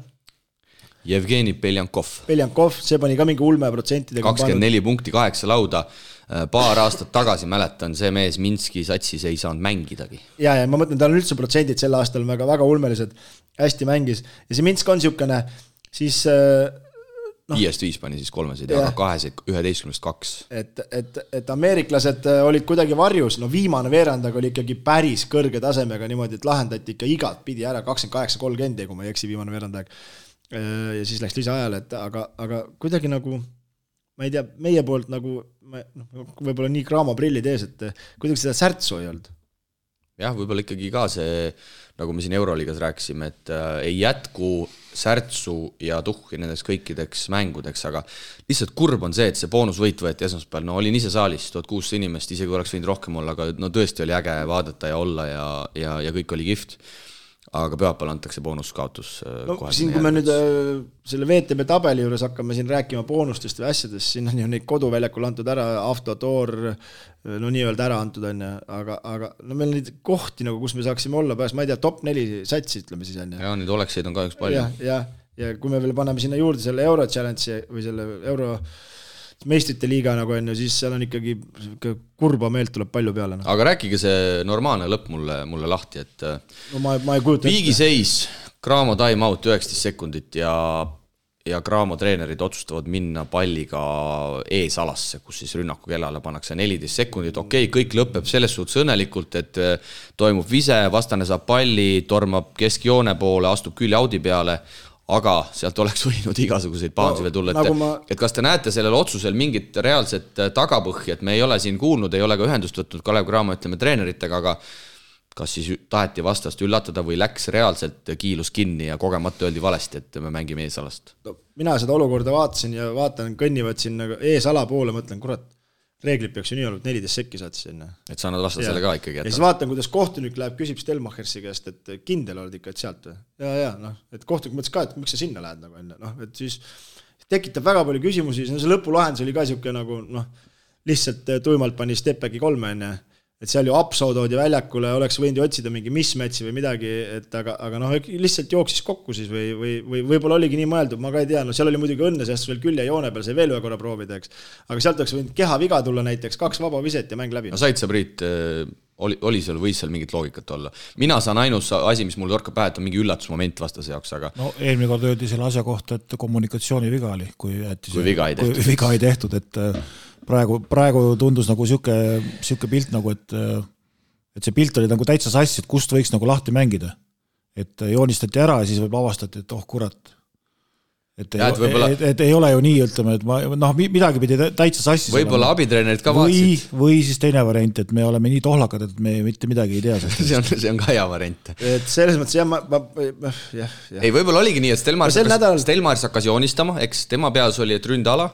Jevgeni Beljankov, see pani ka mingi ulmeprotsentidega. 24 punkti, 8 lauda. Paar aastat tagasi mäletan, see mees Minski satsis ei saanud mängidagi. Ja ma mõtlen, tal on üldse protsendid sel aastal väga, väga ulmelised, hästi mängis. Ja see Minsk on niisugune, siis... 5-5 pani siis 3, aga 11-2. Et ameeriklased olid kuidagi varjus, viimane veerand, aga oli ikkagi päris kõrge tasemega niimoodi, et lahendati ikka igat pidi ära 28-30, kui ma ei eksi viimane veerand aeg. Ja siis läks lisaajale, aga kuidagi nagu, ma ei tea, meie poolt nagu, võib-olla nii kraama prillid ees, et kuidagi seda särtsu ei olnud. Jah, võib-olla ikkagi ka see, nagu me siin Euroliigas rääkisime, et ei jätku särtsu ja tuhhi nendeks kõikideks mängudeks, aga lihtsalt kurb on see, et see boonusvõit võeti esmaspäeval, olin ise saalis, 1600 inimest, isegi oleks võinud rohkem olla, aga tõesti oli äge vaadata ja olla ja kõik oli kihvt. Aga pühapäeval antakse boonuskaotus. Siin kui me nüüd selle VTB tabeli juures hakkame siin rääkima boonustest või asjadest, siin on ju neid koduväljakul antud ära, Avtotoor, nii-öelda ära antud on, aga meil neid kohti, nagu, kus me saaksime olla pääs, ma ei tea, top 4 satsi, ütleme siis on. Ja neid olekseid on ka üks palju. Ja kui me veel paneme sinna juurde selle Euro Challenge või selle Euro meistrite liiga nagu on, siis seal on ikkagi kurba meelt tuleb palju peale. Aga rääkige see normaalne lõpp mulle lahti, et ma ei kujuta viigiseis, Graamo time out 19 sekundit ja Graamo treenerid otsustavad minna palliga eesalasse, kus siis rünnaku kellale pannakse 14 sekundit. Okei, kõik lõpeb selles suhtes õnnelikult, et toimub vise, vastane saab palli, tormab keskjoone poole, astub külje audi peale, aga sealt oleks võinud igasuguseid pahansi veel tulla. Et kas te näete sellel otsusel mingit reaalset tagapõhja, et me ei ole siin kuulnud, ei ole ka ühendust võtnud Kalev Cramo, ütleme, treeneritega, aga kas siis taheti vastast üllatada või läks reaalselt kiilus kinni ja kogemata öeldi valesti, et me mängime eesalast? Mina seda olukorda vaatasin ja vaatan, kõnnivad siin eesala poole, mõtlen, kurat, reeglid peaks ju nii olnud, 14 sekki saad sinna. Et sa annad vastasele ka ikkagi. Ja siis vaatan, kuidas kohtunik läheb, küsib Stelmachersi käest, et kindel oled ikka, et sealt või? Ja, et kohtunik mõtles ka, et miks sa sinna lähed nagu enne. Et siis tekitab väga palju küsimusi, see lõpulahendus oli ka siuke nagu, lihtsalt tuimalt pani Stepbacki 3 enne. Et seal ju Apso toodi väljakule, oleks võinud ju otsida mingi mismatchi või midagi, et aga lihtsalt jooksis kokku siis või võib-olla oligi nii mõeldud, ma ka ei tea, seal oli muidugi õnne, sest veel külje joone peal, see veel ühe korra proovida, eks. Aga sealt oleks võinud keha viga tulla näiteks, 2 vaba viset ja mäng läbi. Said sa, Priit, oli seal, võis seal mingit loogikat olla? Mina saan ainus asi, mis mul torkab pähe, et on mingi üllatusmoment vastase jaoks, aga... eelmine kord öeldi selle asja kohta, et kommunikatsiooni viga oli, kui viga ei tehtud, et praegu tundus nagu siuke pilt nagu, et see pilt oli nagu täitsa sassi, et kust võiks nagu lahti mängida. Et joonistati ära ja siis võib avastati, et kurat. Et ei ole ju nii, ütleme, et midagi pidi täitsa sassi. Võib-olla abitreenerid ka vaatsid. Või siis teine variant, et me oleme nii tohlakad, et me mitte midagi ei tea. see on ka hea variant. Et selles mõttes, ei, võib-olla oligi nii, et Stelmachers hakkas joonistama, eks tema peas oli, et ründala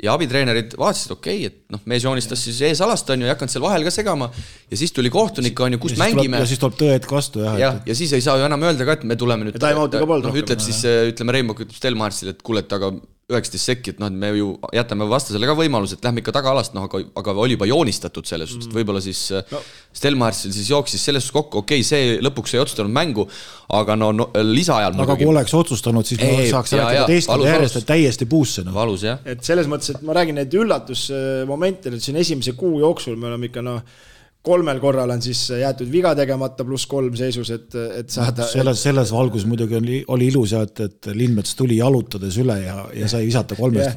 ja abitreenerid vaatasid, okei, et mees joonistas siis eesalast, on ju, ei hakanud seal vahel ka segama ja siis tuli kohtunik, on ju, kus mängime. Ja siis tuleb tõed vastu. Ja siis ei saa ju enam öelda ka, et me tuleme nüüd. Ütleb siis, ütleme Reimok, ütleb Stelmachersile, et kuule, aga 19 sekki, et me ju jätame vastasele ka võimalus, et lähme ikka tagaalast, aga oli juba joonistatud selles, võib-olla siis Stelmachersil siis jooksis selles kokku, okei, see lõpuks ei otsustanud mängu, aga lisaajal aga kui oleks otsustanud, siis me saaks rääkida teistkond järjest, et täiesti puusse. Valus, jah. Et selles mõttes, et ma räägin neid üllatusmomente, et siin esimese kuu jooksul me oleme ikka 3 korral on siis jäetud viga tegemata +3 seisus, et saada... Selles valgus muidugi oli ilus, et Lindmets tuli jalutades üle ja sai visata 3,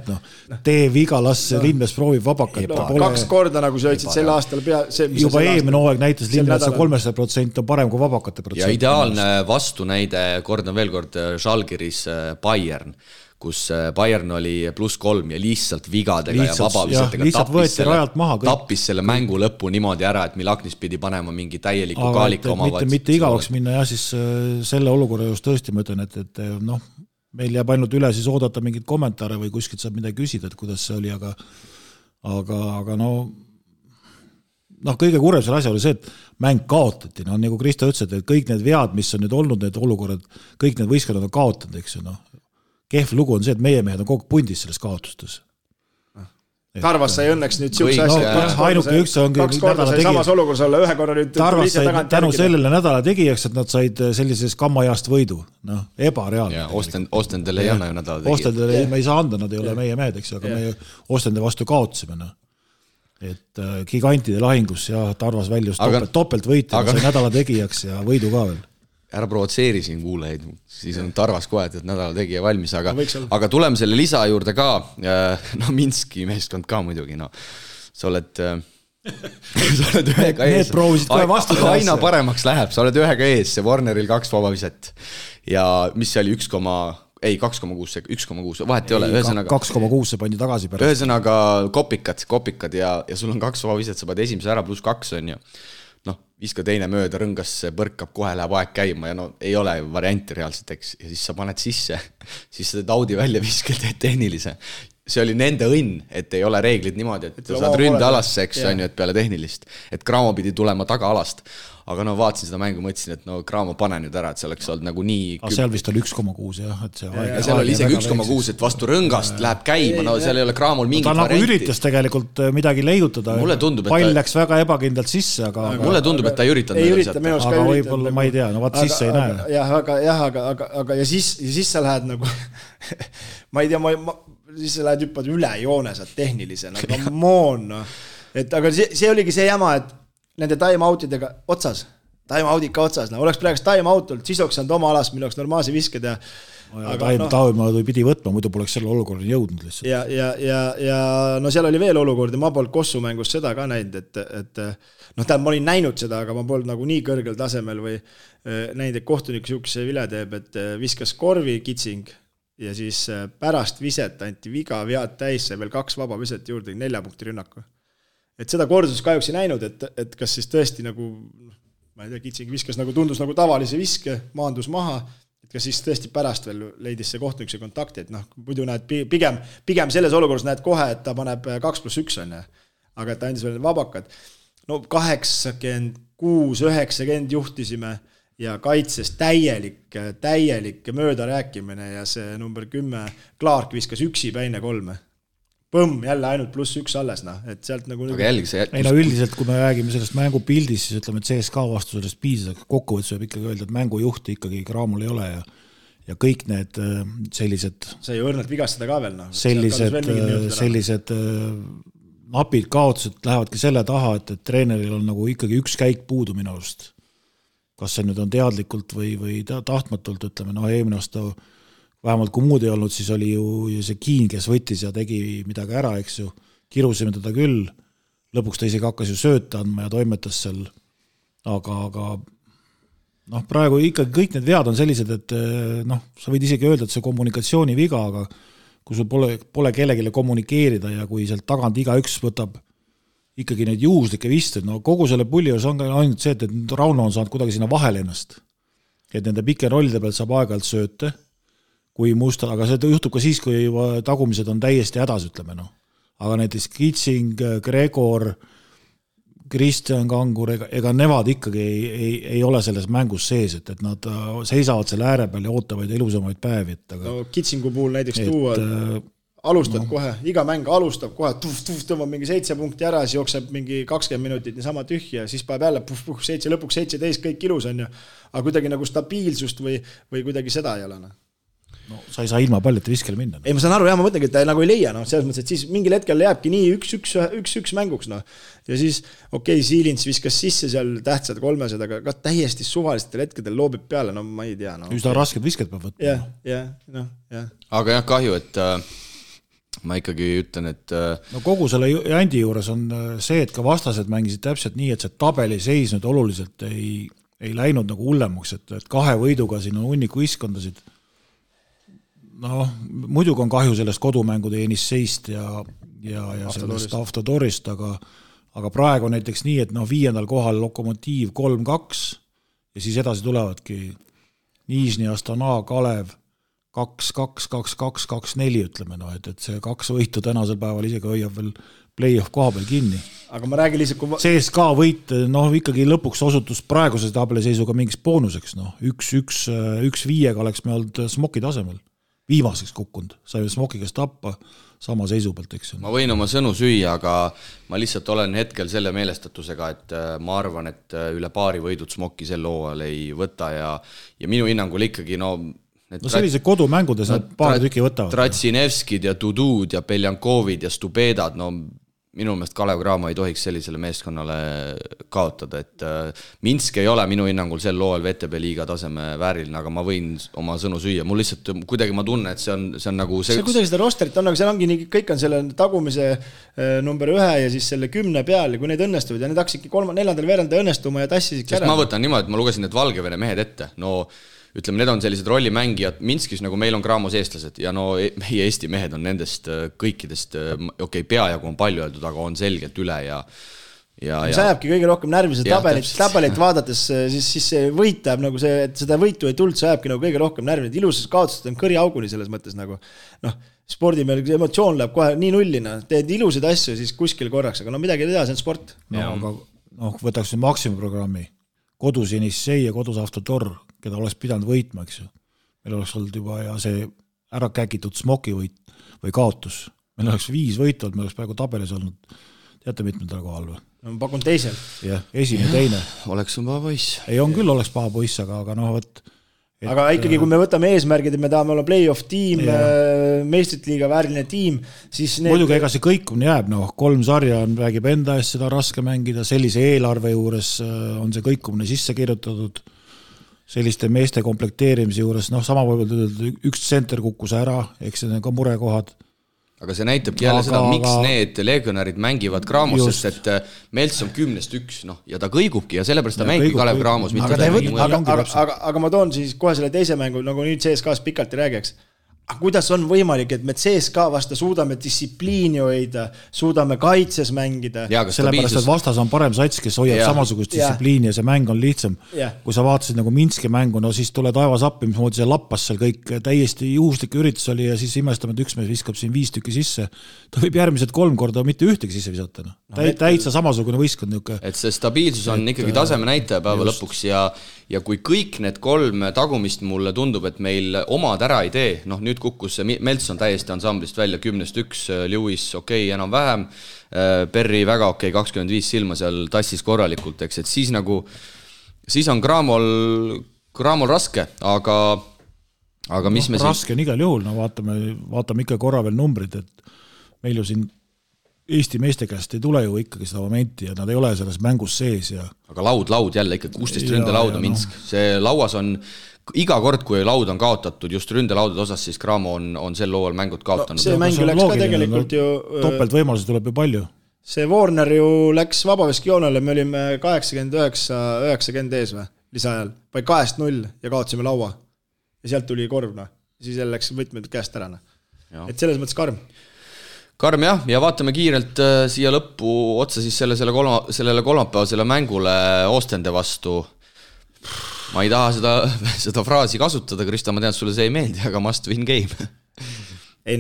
tee viga, las Lindmets proovib vabakat. 2 korda, nagu sa ütlesid, sel aastal juba eelmine hooaeg näitas Lindmetsa 300% on parem kui vabakate protsent. Ja ideaalne vastunäide, kordan veel kord, Žalgiris Bayern, kus Bayern oli +3 ja lihtsalt vigadega ja vabavisetega tappis selle mängu lõppu niimoodi ära, et Milaknis pidi panema mingi täieliku kaalika omavad. Mitte igavaks minna ja siis selle olukorra just tõesti ma ütlen, et meil jääb ainult üle siis oodata mingid kommentaare või kuskilt saab midagi küsida, et kuidas see oli, aga kõige kurvem selle asja oli see, et mäng kaotati, nagu Kristo ütles, et kõik need vead, mis on nüüd olnud, need olukorrad, kõik need võistkonnad on kaotanud, eks ju, kehv lugu on see, et meie mehed on kogu pundis selles kaotustes. Tarvas sai õnneks nüüd siukse asja, kaks korda sai samas olukorras olla, ühe korra nüüd Tarvas sai tänu sellele nädala tegijaks, et nad said sellises kammajast võidu, ebareaalne. Ostendele ei anna ju nädala tegijad. Ostendele me ei saa anda, nad ei ole meie mehed, eks, aga me Ostende vastu kaotasime. Et gigantide lahingus ja Tarvas väljus topelt võit ja sai nädala tegijaks ja võidu ka veel. Ära provotseeri siin kuulajaid, siis on Tarvas kohe, et nädala tegija valmis, aga tuleme selle lisa juurde ka, Minski meeskond ka muidugi, sa oled ühega ees, aina paremaks läheb, sa oled ühega ees, see Warneril 2 vabaviset ja mis see oli 2,6, vahet ei ole, ühesõnaga 2,6 see pandi tagasi pärast. Ühesõnaga kopikad ja sul on 2 vabaviset, sa paned esimese ära +2 on ju. Viska teine mööda, rõngas põrkab, kohe läheb aeg käima ja ei ole varianti reaalselt, eks, ja siis sa paned sisse, siis sa teed Audi välja viskil, teed tehnilise. See oli nende õnn, et ei ole reeglid niimoodi, et saad ründe alasse, eks, on ju, et peale tehnilist, et Graamo pidi tulema taga alast. Aga vaatasin seda mängu, mõtlesin, et Graamo pane nüüd ära, et see oleks olnud nagu nii... Aga seal vist oli 1,6 jah, et see aeg... Ja seal oli isegi 1,6, et vastu rõngast läheb käima, seal ei ole Graamol mingit varianti. Ta nagu üritas tegelikult midagi leiutada. Pall läks väga ebakindlalt sisse, aga... Mulle tundub, et ta ei üritanud. Aga võib-olla ma ei tea, vaat sisse ei näe. Aga ja siis sa lähed nagu... Ma ei tea, siis sa lähed hüppad üle joone, saad tehnilise, nagu moon. Aga see oligi see jama, et nende time-outidega otsas, time-outid ka otsas, oleks praegu time-out olnud, siis oleks saanud oma alast, mille oleks normaalse visked ja time-out pidi võtma, muidu poleks selle olukorda jõudnud lihtsalt. Ja seal oli veel olukord ja ma polnud Kossu mängust seda ka näinud, et ma olin näinud seda, aga ma polnud nagu nii kõrgel tasemel või näinud, et kohtunik siukse vile teeb, et viskas korvi kitsing ja siis pärast viset anti viga vead täis, sai veel 2 vaba viset juurde, 4 punkti rünnaku. Et seda kordus kahjuks ei näinud, et kas siis tõesti nagu, ma ei tea, kitsing viskas nagu tundus nagu tavalise viske, maandus maha, et kas siis tõesti pärast veel leidis see kohtunik see kontakti, et muidu näed pigem selles olukorras näed kohe, et ta paneb 2+1 on, aga et ta andis veel vabakad. 86-90 juhtisime ja kaitses täielik mööda rääkimine ja see number 10 Clark viskas üksi päine 3. Põmm, jälle ainult +1 alles, et sealt nagu... Aga jälgi see... Üldiselt, kui me räägime sellest mängupildist, siis ütleme, et CSK vastu sellest piisas, aga kokkuvõttes võib ikkagi öelda, et mängujuhti ikkagi Graamol ei ole ja kõik need sellised... See ei õrnalt vigastada ka veel, Sellised napid kaotused lähevadki selle taha, et treeneril on nagu ikkagi üks käik puudu minu arust. Kas see nüüd on teadlikult või tahtmatult, ütleme, eelmine aasta vähemalt kui muud ei olnud, siis oli ju see Kiin, kes võttis ja tegi midagi ära, eks ju, kirusime teda küll, lõpuks ta isegi hakkas ju sööta andma ja toimetas seal, aga praegu ikkagi kõik need vead on sellised, et sa võid isegi öelda, et see kommunikatsiooni viga, aga kui sul pole kellegile kommunikeerida ja kui sealt tagant igaüks võtab ikkagi neid juhuslikke visted, kogu selle pulli on ainult see, et Rauno on saanud kuidagi sinna vahele ennast, et nende pike rollide pealt saab aeg-ajalt sööte, kui musta, aga see juhtub ka siis, kui tagumised on täiesti hädas, ütleme. Aga näiteks Kitsing, Gregor, Kristjan Kangur, ega nevad ikkagi ei ole selles mängus sees, et nad seisavad selle ääre peal ja ootavad ilusamaid päevi. Kitsingu puhul näiteks alustad kohe, iga mäng alustab kohe, tõmbab mingi 7 punkti ära, siis jookseb mingi 20 minutit niisama tühja, siis päev jälle lõpuks 17, kõik ilus on ju, aga kuidagi nagu stabiilsust või kuidagi seda ei ole. Sa ei saa ilma paljete viskele minna. Ei, ma saan aru, ma mõtlengi, et ta nagu ei leia, selles mõttes, et siis mingil hetkel jääbki nii 1-1 mänguks. Ja siis, Siilins viskas sisse seal tähtsad 300, aga täiesti suvalistel hetkedel loobib peale, ma ei tea. Üsna rasked visked peab võtma. Jah. Aga jah, kahju, et ma ikkagi ütlen, et... kogu selle Jandi juures on see, et ka vastased mängisid täpselt nii, et see tabeli seis nüüd oluliselt ei läinud nagu hullemaks, et 2 võiduga siin on hunniku iskondasid. Muidugi on kahju sellest kodumängude Enisseist ja sellest Avtodorist, aga praegu näiteks nii, et 5. kohal Lokomotiiv 3-2 ja siis edasi tulevadki Nižni, Astana, Kalev 2-2, 2-2, 2-4 ütleme, et see 2 võitu tänasel päeval isegi hoiab veel play-off koha peal kinni. aga ma räägin lihtsalt, kui CSKA võit, ikkagi lõpuks osutus praeguse tabeliseisuga mingiks boonuseks, 1-5 oleks me olnud Smoki tasemel. Viimaseks kukkunud, saime Smoki käest tappa sama seisu pealt, eks. Ma võin oma sõnu süüa, aga ma lihtsalt olen hetkel selle meelestatusega, et ma arvan, et üle paari võidud Smoki sel hooajal ei võta ja minu hinnangul ikkagi sellised kodumängudes nad paar tükki võtavad. Tratsinevskid ja Tudud ja Beljankovid ja Stubedad, minu meelest Kalev Cramo ei tohiks sellisele meeskonnale kaotada, et Minsk ei ole minu hinnangul sel lool VTB liiga taseme vääriline, aga ma võin oma sõnu süüa. Mul lihtsalt kuidagi ma tunnen, et see on nagu see kuidagi seda rosterit on, aga seal ongi nii, kõik on selle tagumise number 1 ja siis selle 10 peal ja kui need õnnestuvad ja need hakkasidki 3.4. veeranda õnnestuma ja tassisid ära. Ma võtan niimoodi, et ma lugesin need Valgevene mehed ette, ütleme, need on sellised rollimängijad, Minskis nagu meil on Cramos eestlased ja meie Eesti mehed on nendest kõikidest, peajagu on palju öeldud, aga on selgelt üle ja see ajabki kõige rohkem närvi, see tabelit vaadates, siis see võit ajab nagu see, et seda võitu ei tulnud, see ajabki nagu kõige rohkem närvi, et ilusas kaotused on kõri auguni selles mõttes nagu, spordi meil emotsioon läheb kohe nii nullina, teed ilusaid asju siis kuskil korraks, aga midagi ei tea, see on sport. Aga võtaks Maxima programmi, kodus Jenissei ja kodus Avtotor, keda oleks pidanud võitma, eks ju. Meil oleks olnud juba ja see ära käkitud Smoki võit või kaotus. Meil oleks 5 võitud, meil oleks praegu tabelis olnud. Teate mitmendal kohal või? Ma pakun teisel. Jah, esimene, teine. Oleks on paha poiss. Ei, on küll oleks paha poiss, aga võt. Aga ikkagi, kui me võtame eesmärgid, et me tahame olla play-off tiim, meistrite liiga vääriline tiim, siis muidugi ega see kõikumine jääb, 3 sarja räägib enda eest seda raske mängida, sellise eelarve juures on see kõikumine sisse kirjutatud. Selliste meeste komplekteerimise juures, sama võib-olla üks tsenter kukkus ära, eks see on ka murekohad. Aga see näitabki jälle seda, miks need legionärid mängivad Cramos, sest et Melts on 10-1, ja ta kõigubki ja sellepärast ta mängib Kalev Cramos. Aga ma toon siis kohe selle teise mängu, nagu nüüd CSKA-s pikalt ei räägiks. Kuidas on võimalik, et me CSKA vasta suudame distsipliini hoida, suudame kaitses mängida? Sellepärast, et vastas on parem sats, kes hoiab samasugust distsipliini ja see mäng on lihtsam. Kui sa vaatasid nagu Minski mängu, siis tule taevas appi, mis moodi see lappas seal kõik täiesti juhuslik üritus oli ja siis imestame, et üks mees viskab siin 5 tükki sisse. Ta võib järgmised 3 korda mitte ühtegi sisse visata. Täitsa samasugune võistkond niuke. Et see stabiilsus on ikkagi taseme näitaja päeva lõpuks ja kui kõik need 3 tagumist mulle tundub, et meil omad ära ei tee, nüüd kukkus see Melts on täiesti ansamblist välja 10-1, Lewis enam-vähem, Perri väga 25 silma seal tassis korralikult, eks, et siis on Cramol raske, aga mis me raske on igal juhul, vaatame ikka korra veel numbrid, et meil ju siin Eesti meeste käest ei tule ju ikkagi seda momenti ja nad ei ole selles mängus sees. Aga laud jälle ikka 16 ründelauda Minsk. See lauas on iga kord, kui laud on kaotatud just ründelaudade osas, siis Cramo on sel looval mängud kaotanud. See mäng läks ka tegelikult ju... Topelt võimalusi tuleb ju palju. See Warner ju läks vabaveskijoonele, me olime 89-90 ees või, lisaajal. Vai 2-0 ja kaotasime laua. Ja sealt tuli korv, siis jälle läks võtmed käest ära. Et selles mõttes karm. Karm jah, ja vaatame kiirelt siia lõppu otsa siis sellele kolmapäevasele mängule Oostende vastu. Ma ei taha seda fraasi kasutada, Krista, ma tean, sulle see ei meeldi, aga must win game. Ei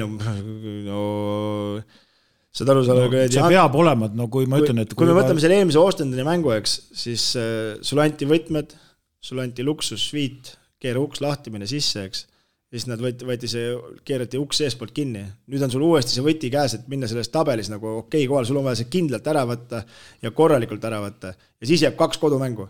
seda aru see peab olema, et kui ma ütlen, et kui me võtame selle eelmise Oostendeni mängu, eks, siis sulle anti võtmed, sulle anti luksusviit, keera uks lahti, mine sisse, eks. Siis nad keerati uks eespoolt kinni. Nüüd on sul uuesti see võti käes, et minna selles tabelis nagu kohal, sul on vaja see kindlalt ära võtta ja korralikult ära võtta. Ja siis jääb 2 kodumängu.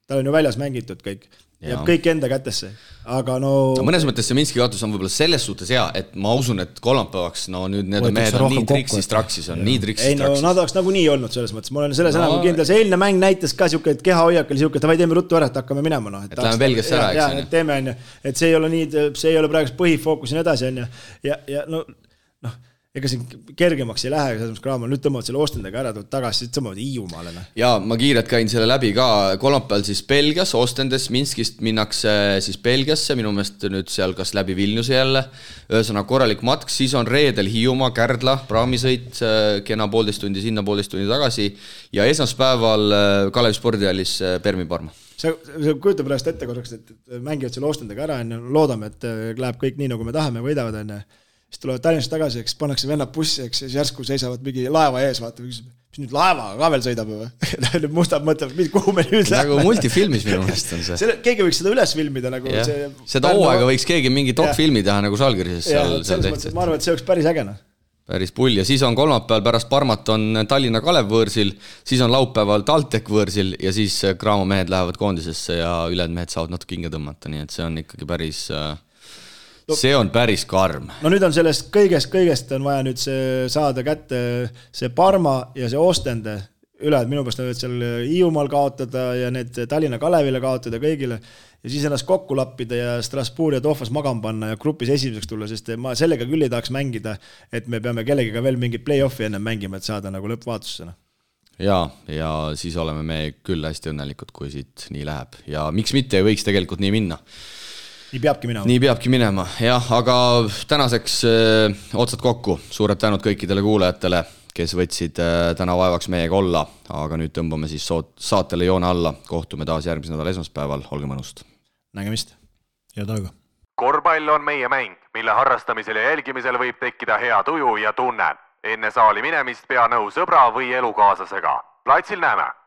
Tal on ju väljas mängitud kõik. Jääb kõik enda kätesse. Aga mõnes mõttes see Minski kaotus on võib-olla selles suhtes hea, et ma usun, et kolmapäevaks nüüd need mehed on nii triksist traksis. Nad oleks nagu nii olnud selles mõttes. Ma olen selles enam kindel. See eelne mäng näitas ka siuke, et keha hoiak oli siuke, et teeme ruttu ära, et hakkame minema. Et läheme Belgiasse ära, eks. Teeme, et see ei ole nii, see ei ole praegu põhifookus ja nii edasi. Ja ega siin kergemaks ei lähe, selles mõttes Cramo, nüüd tõmbavad selle Oostendega ära, tagasi, siis tõmbavad Hiiumaale. Ja ma kiirelt käin selle läbi ka, kolmapäeval siis Belgias, Oostendes, Minskist minnakse siis Belgiasse, minu meelest nüüd seal kas läbi Vilniuse jälle, ühesõnaga korralik matk, siis on reedel Hiiumaa, Kärdla, praamisõit, kena 1,5 tundi sinna, 1,5 tundi tagasi ja esmaspäeval Kalevi spordihallis Permi Parma. See kujutab pärast ette korraks, et mängivad selle Oostendega ära, loodame, et läheb kõik nii, nagu me tahame, võidavad enne. siis tulevad Tallinnast tagasi, eks pannakse vennad bussi, eks siis järsku seisavad mingi laeva ees, vaata, mis nüüd laeva ka veel sõidab või? Nüüd mustad mõtlevad, kuhu me nüüd läheme. Nagu multifilmis minu mõnest on see. Keegi võiks seda üles filmida nagu see... Seda hooaega võiks keegi mingi dokfilmi teha nagu Žalgirises seal tehtud. Ma arvan, et see oleks päris ägena. Päris pull ja siis on kolmapäeval pärast Parmat on Tallinna Kalev võõrsil, siis on laupäeval TalTech võõrsil ja siis Graamo mehed lähevad koondisesse ja ülejäänud mehed saavad natuke hinge tõmmata, nii et see on ikkagi päris... See on päris karm. No nüüd on sellest kõigest on vaja nüüd saada kätte see Parma ja see Ostende üle, et minu pärast on seal Hiiumaal kaotada ja need Tallinna Kalevile kaotada kõigile ja siis ennast kokku lappida ja Strasbourg ja Tohvas magama panna ja grupis esimeseks tulla, sest ma sellega küll ei tahaks mängida, et me peame kellegiga veel mingit play-offi enne mängima, et saada nagu lõppvaatussena. Ja siis oleme me küll hästi õnnelikud, kui siit nii läheb ja miks mitte ei võiks tegelikult nii minna. Nii peabki minema, jah, aga tänaseks otsad kokku. Suured tänud kõikidele kuulajatele, kes võtsid täna vaevaks meiega olla, aga nüüd tõmbame siis saatele joone alla. Kohtume taas järgmise nädala esmaspäeval, olge mõnust. Nägemist. Head aega. Korvpall on meie mäng, mille harrastamisel ja jälgimisel võib tekkida hea tuju ja tunne. Enne saali minemist pea nõu sõbra või elukaaslasega. Platsil näeme!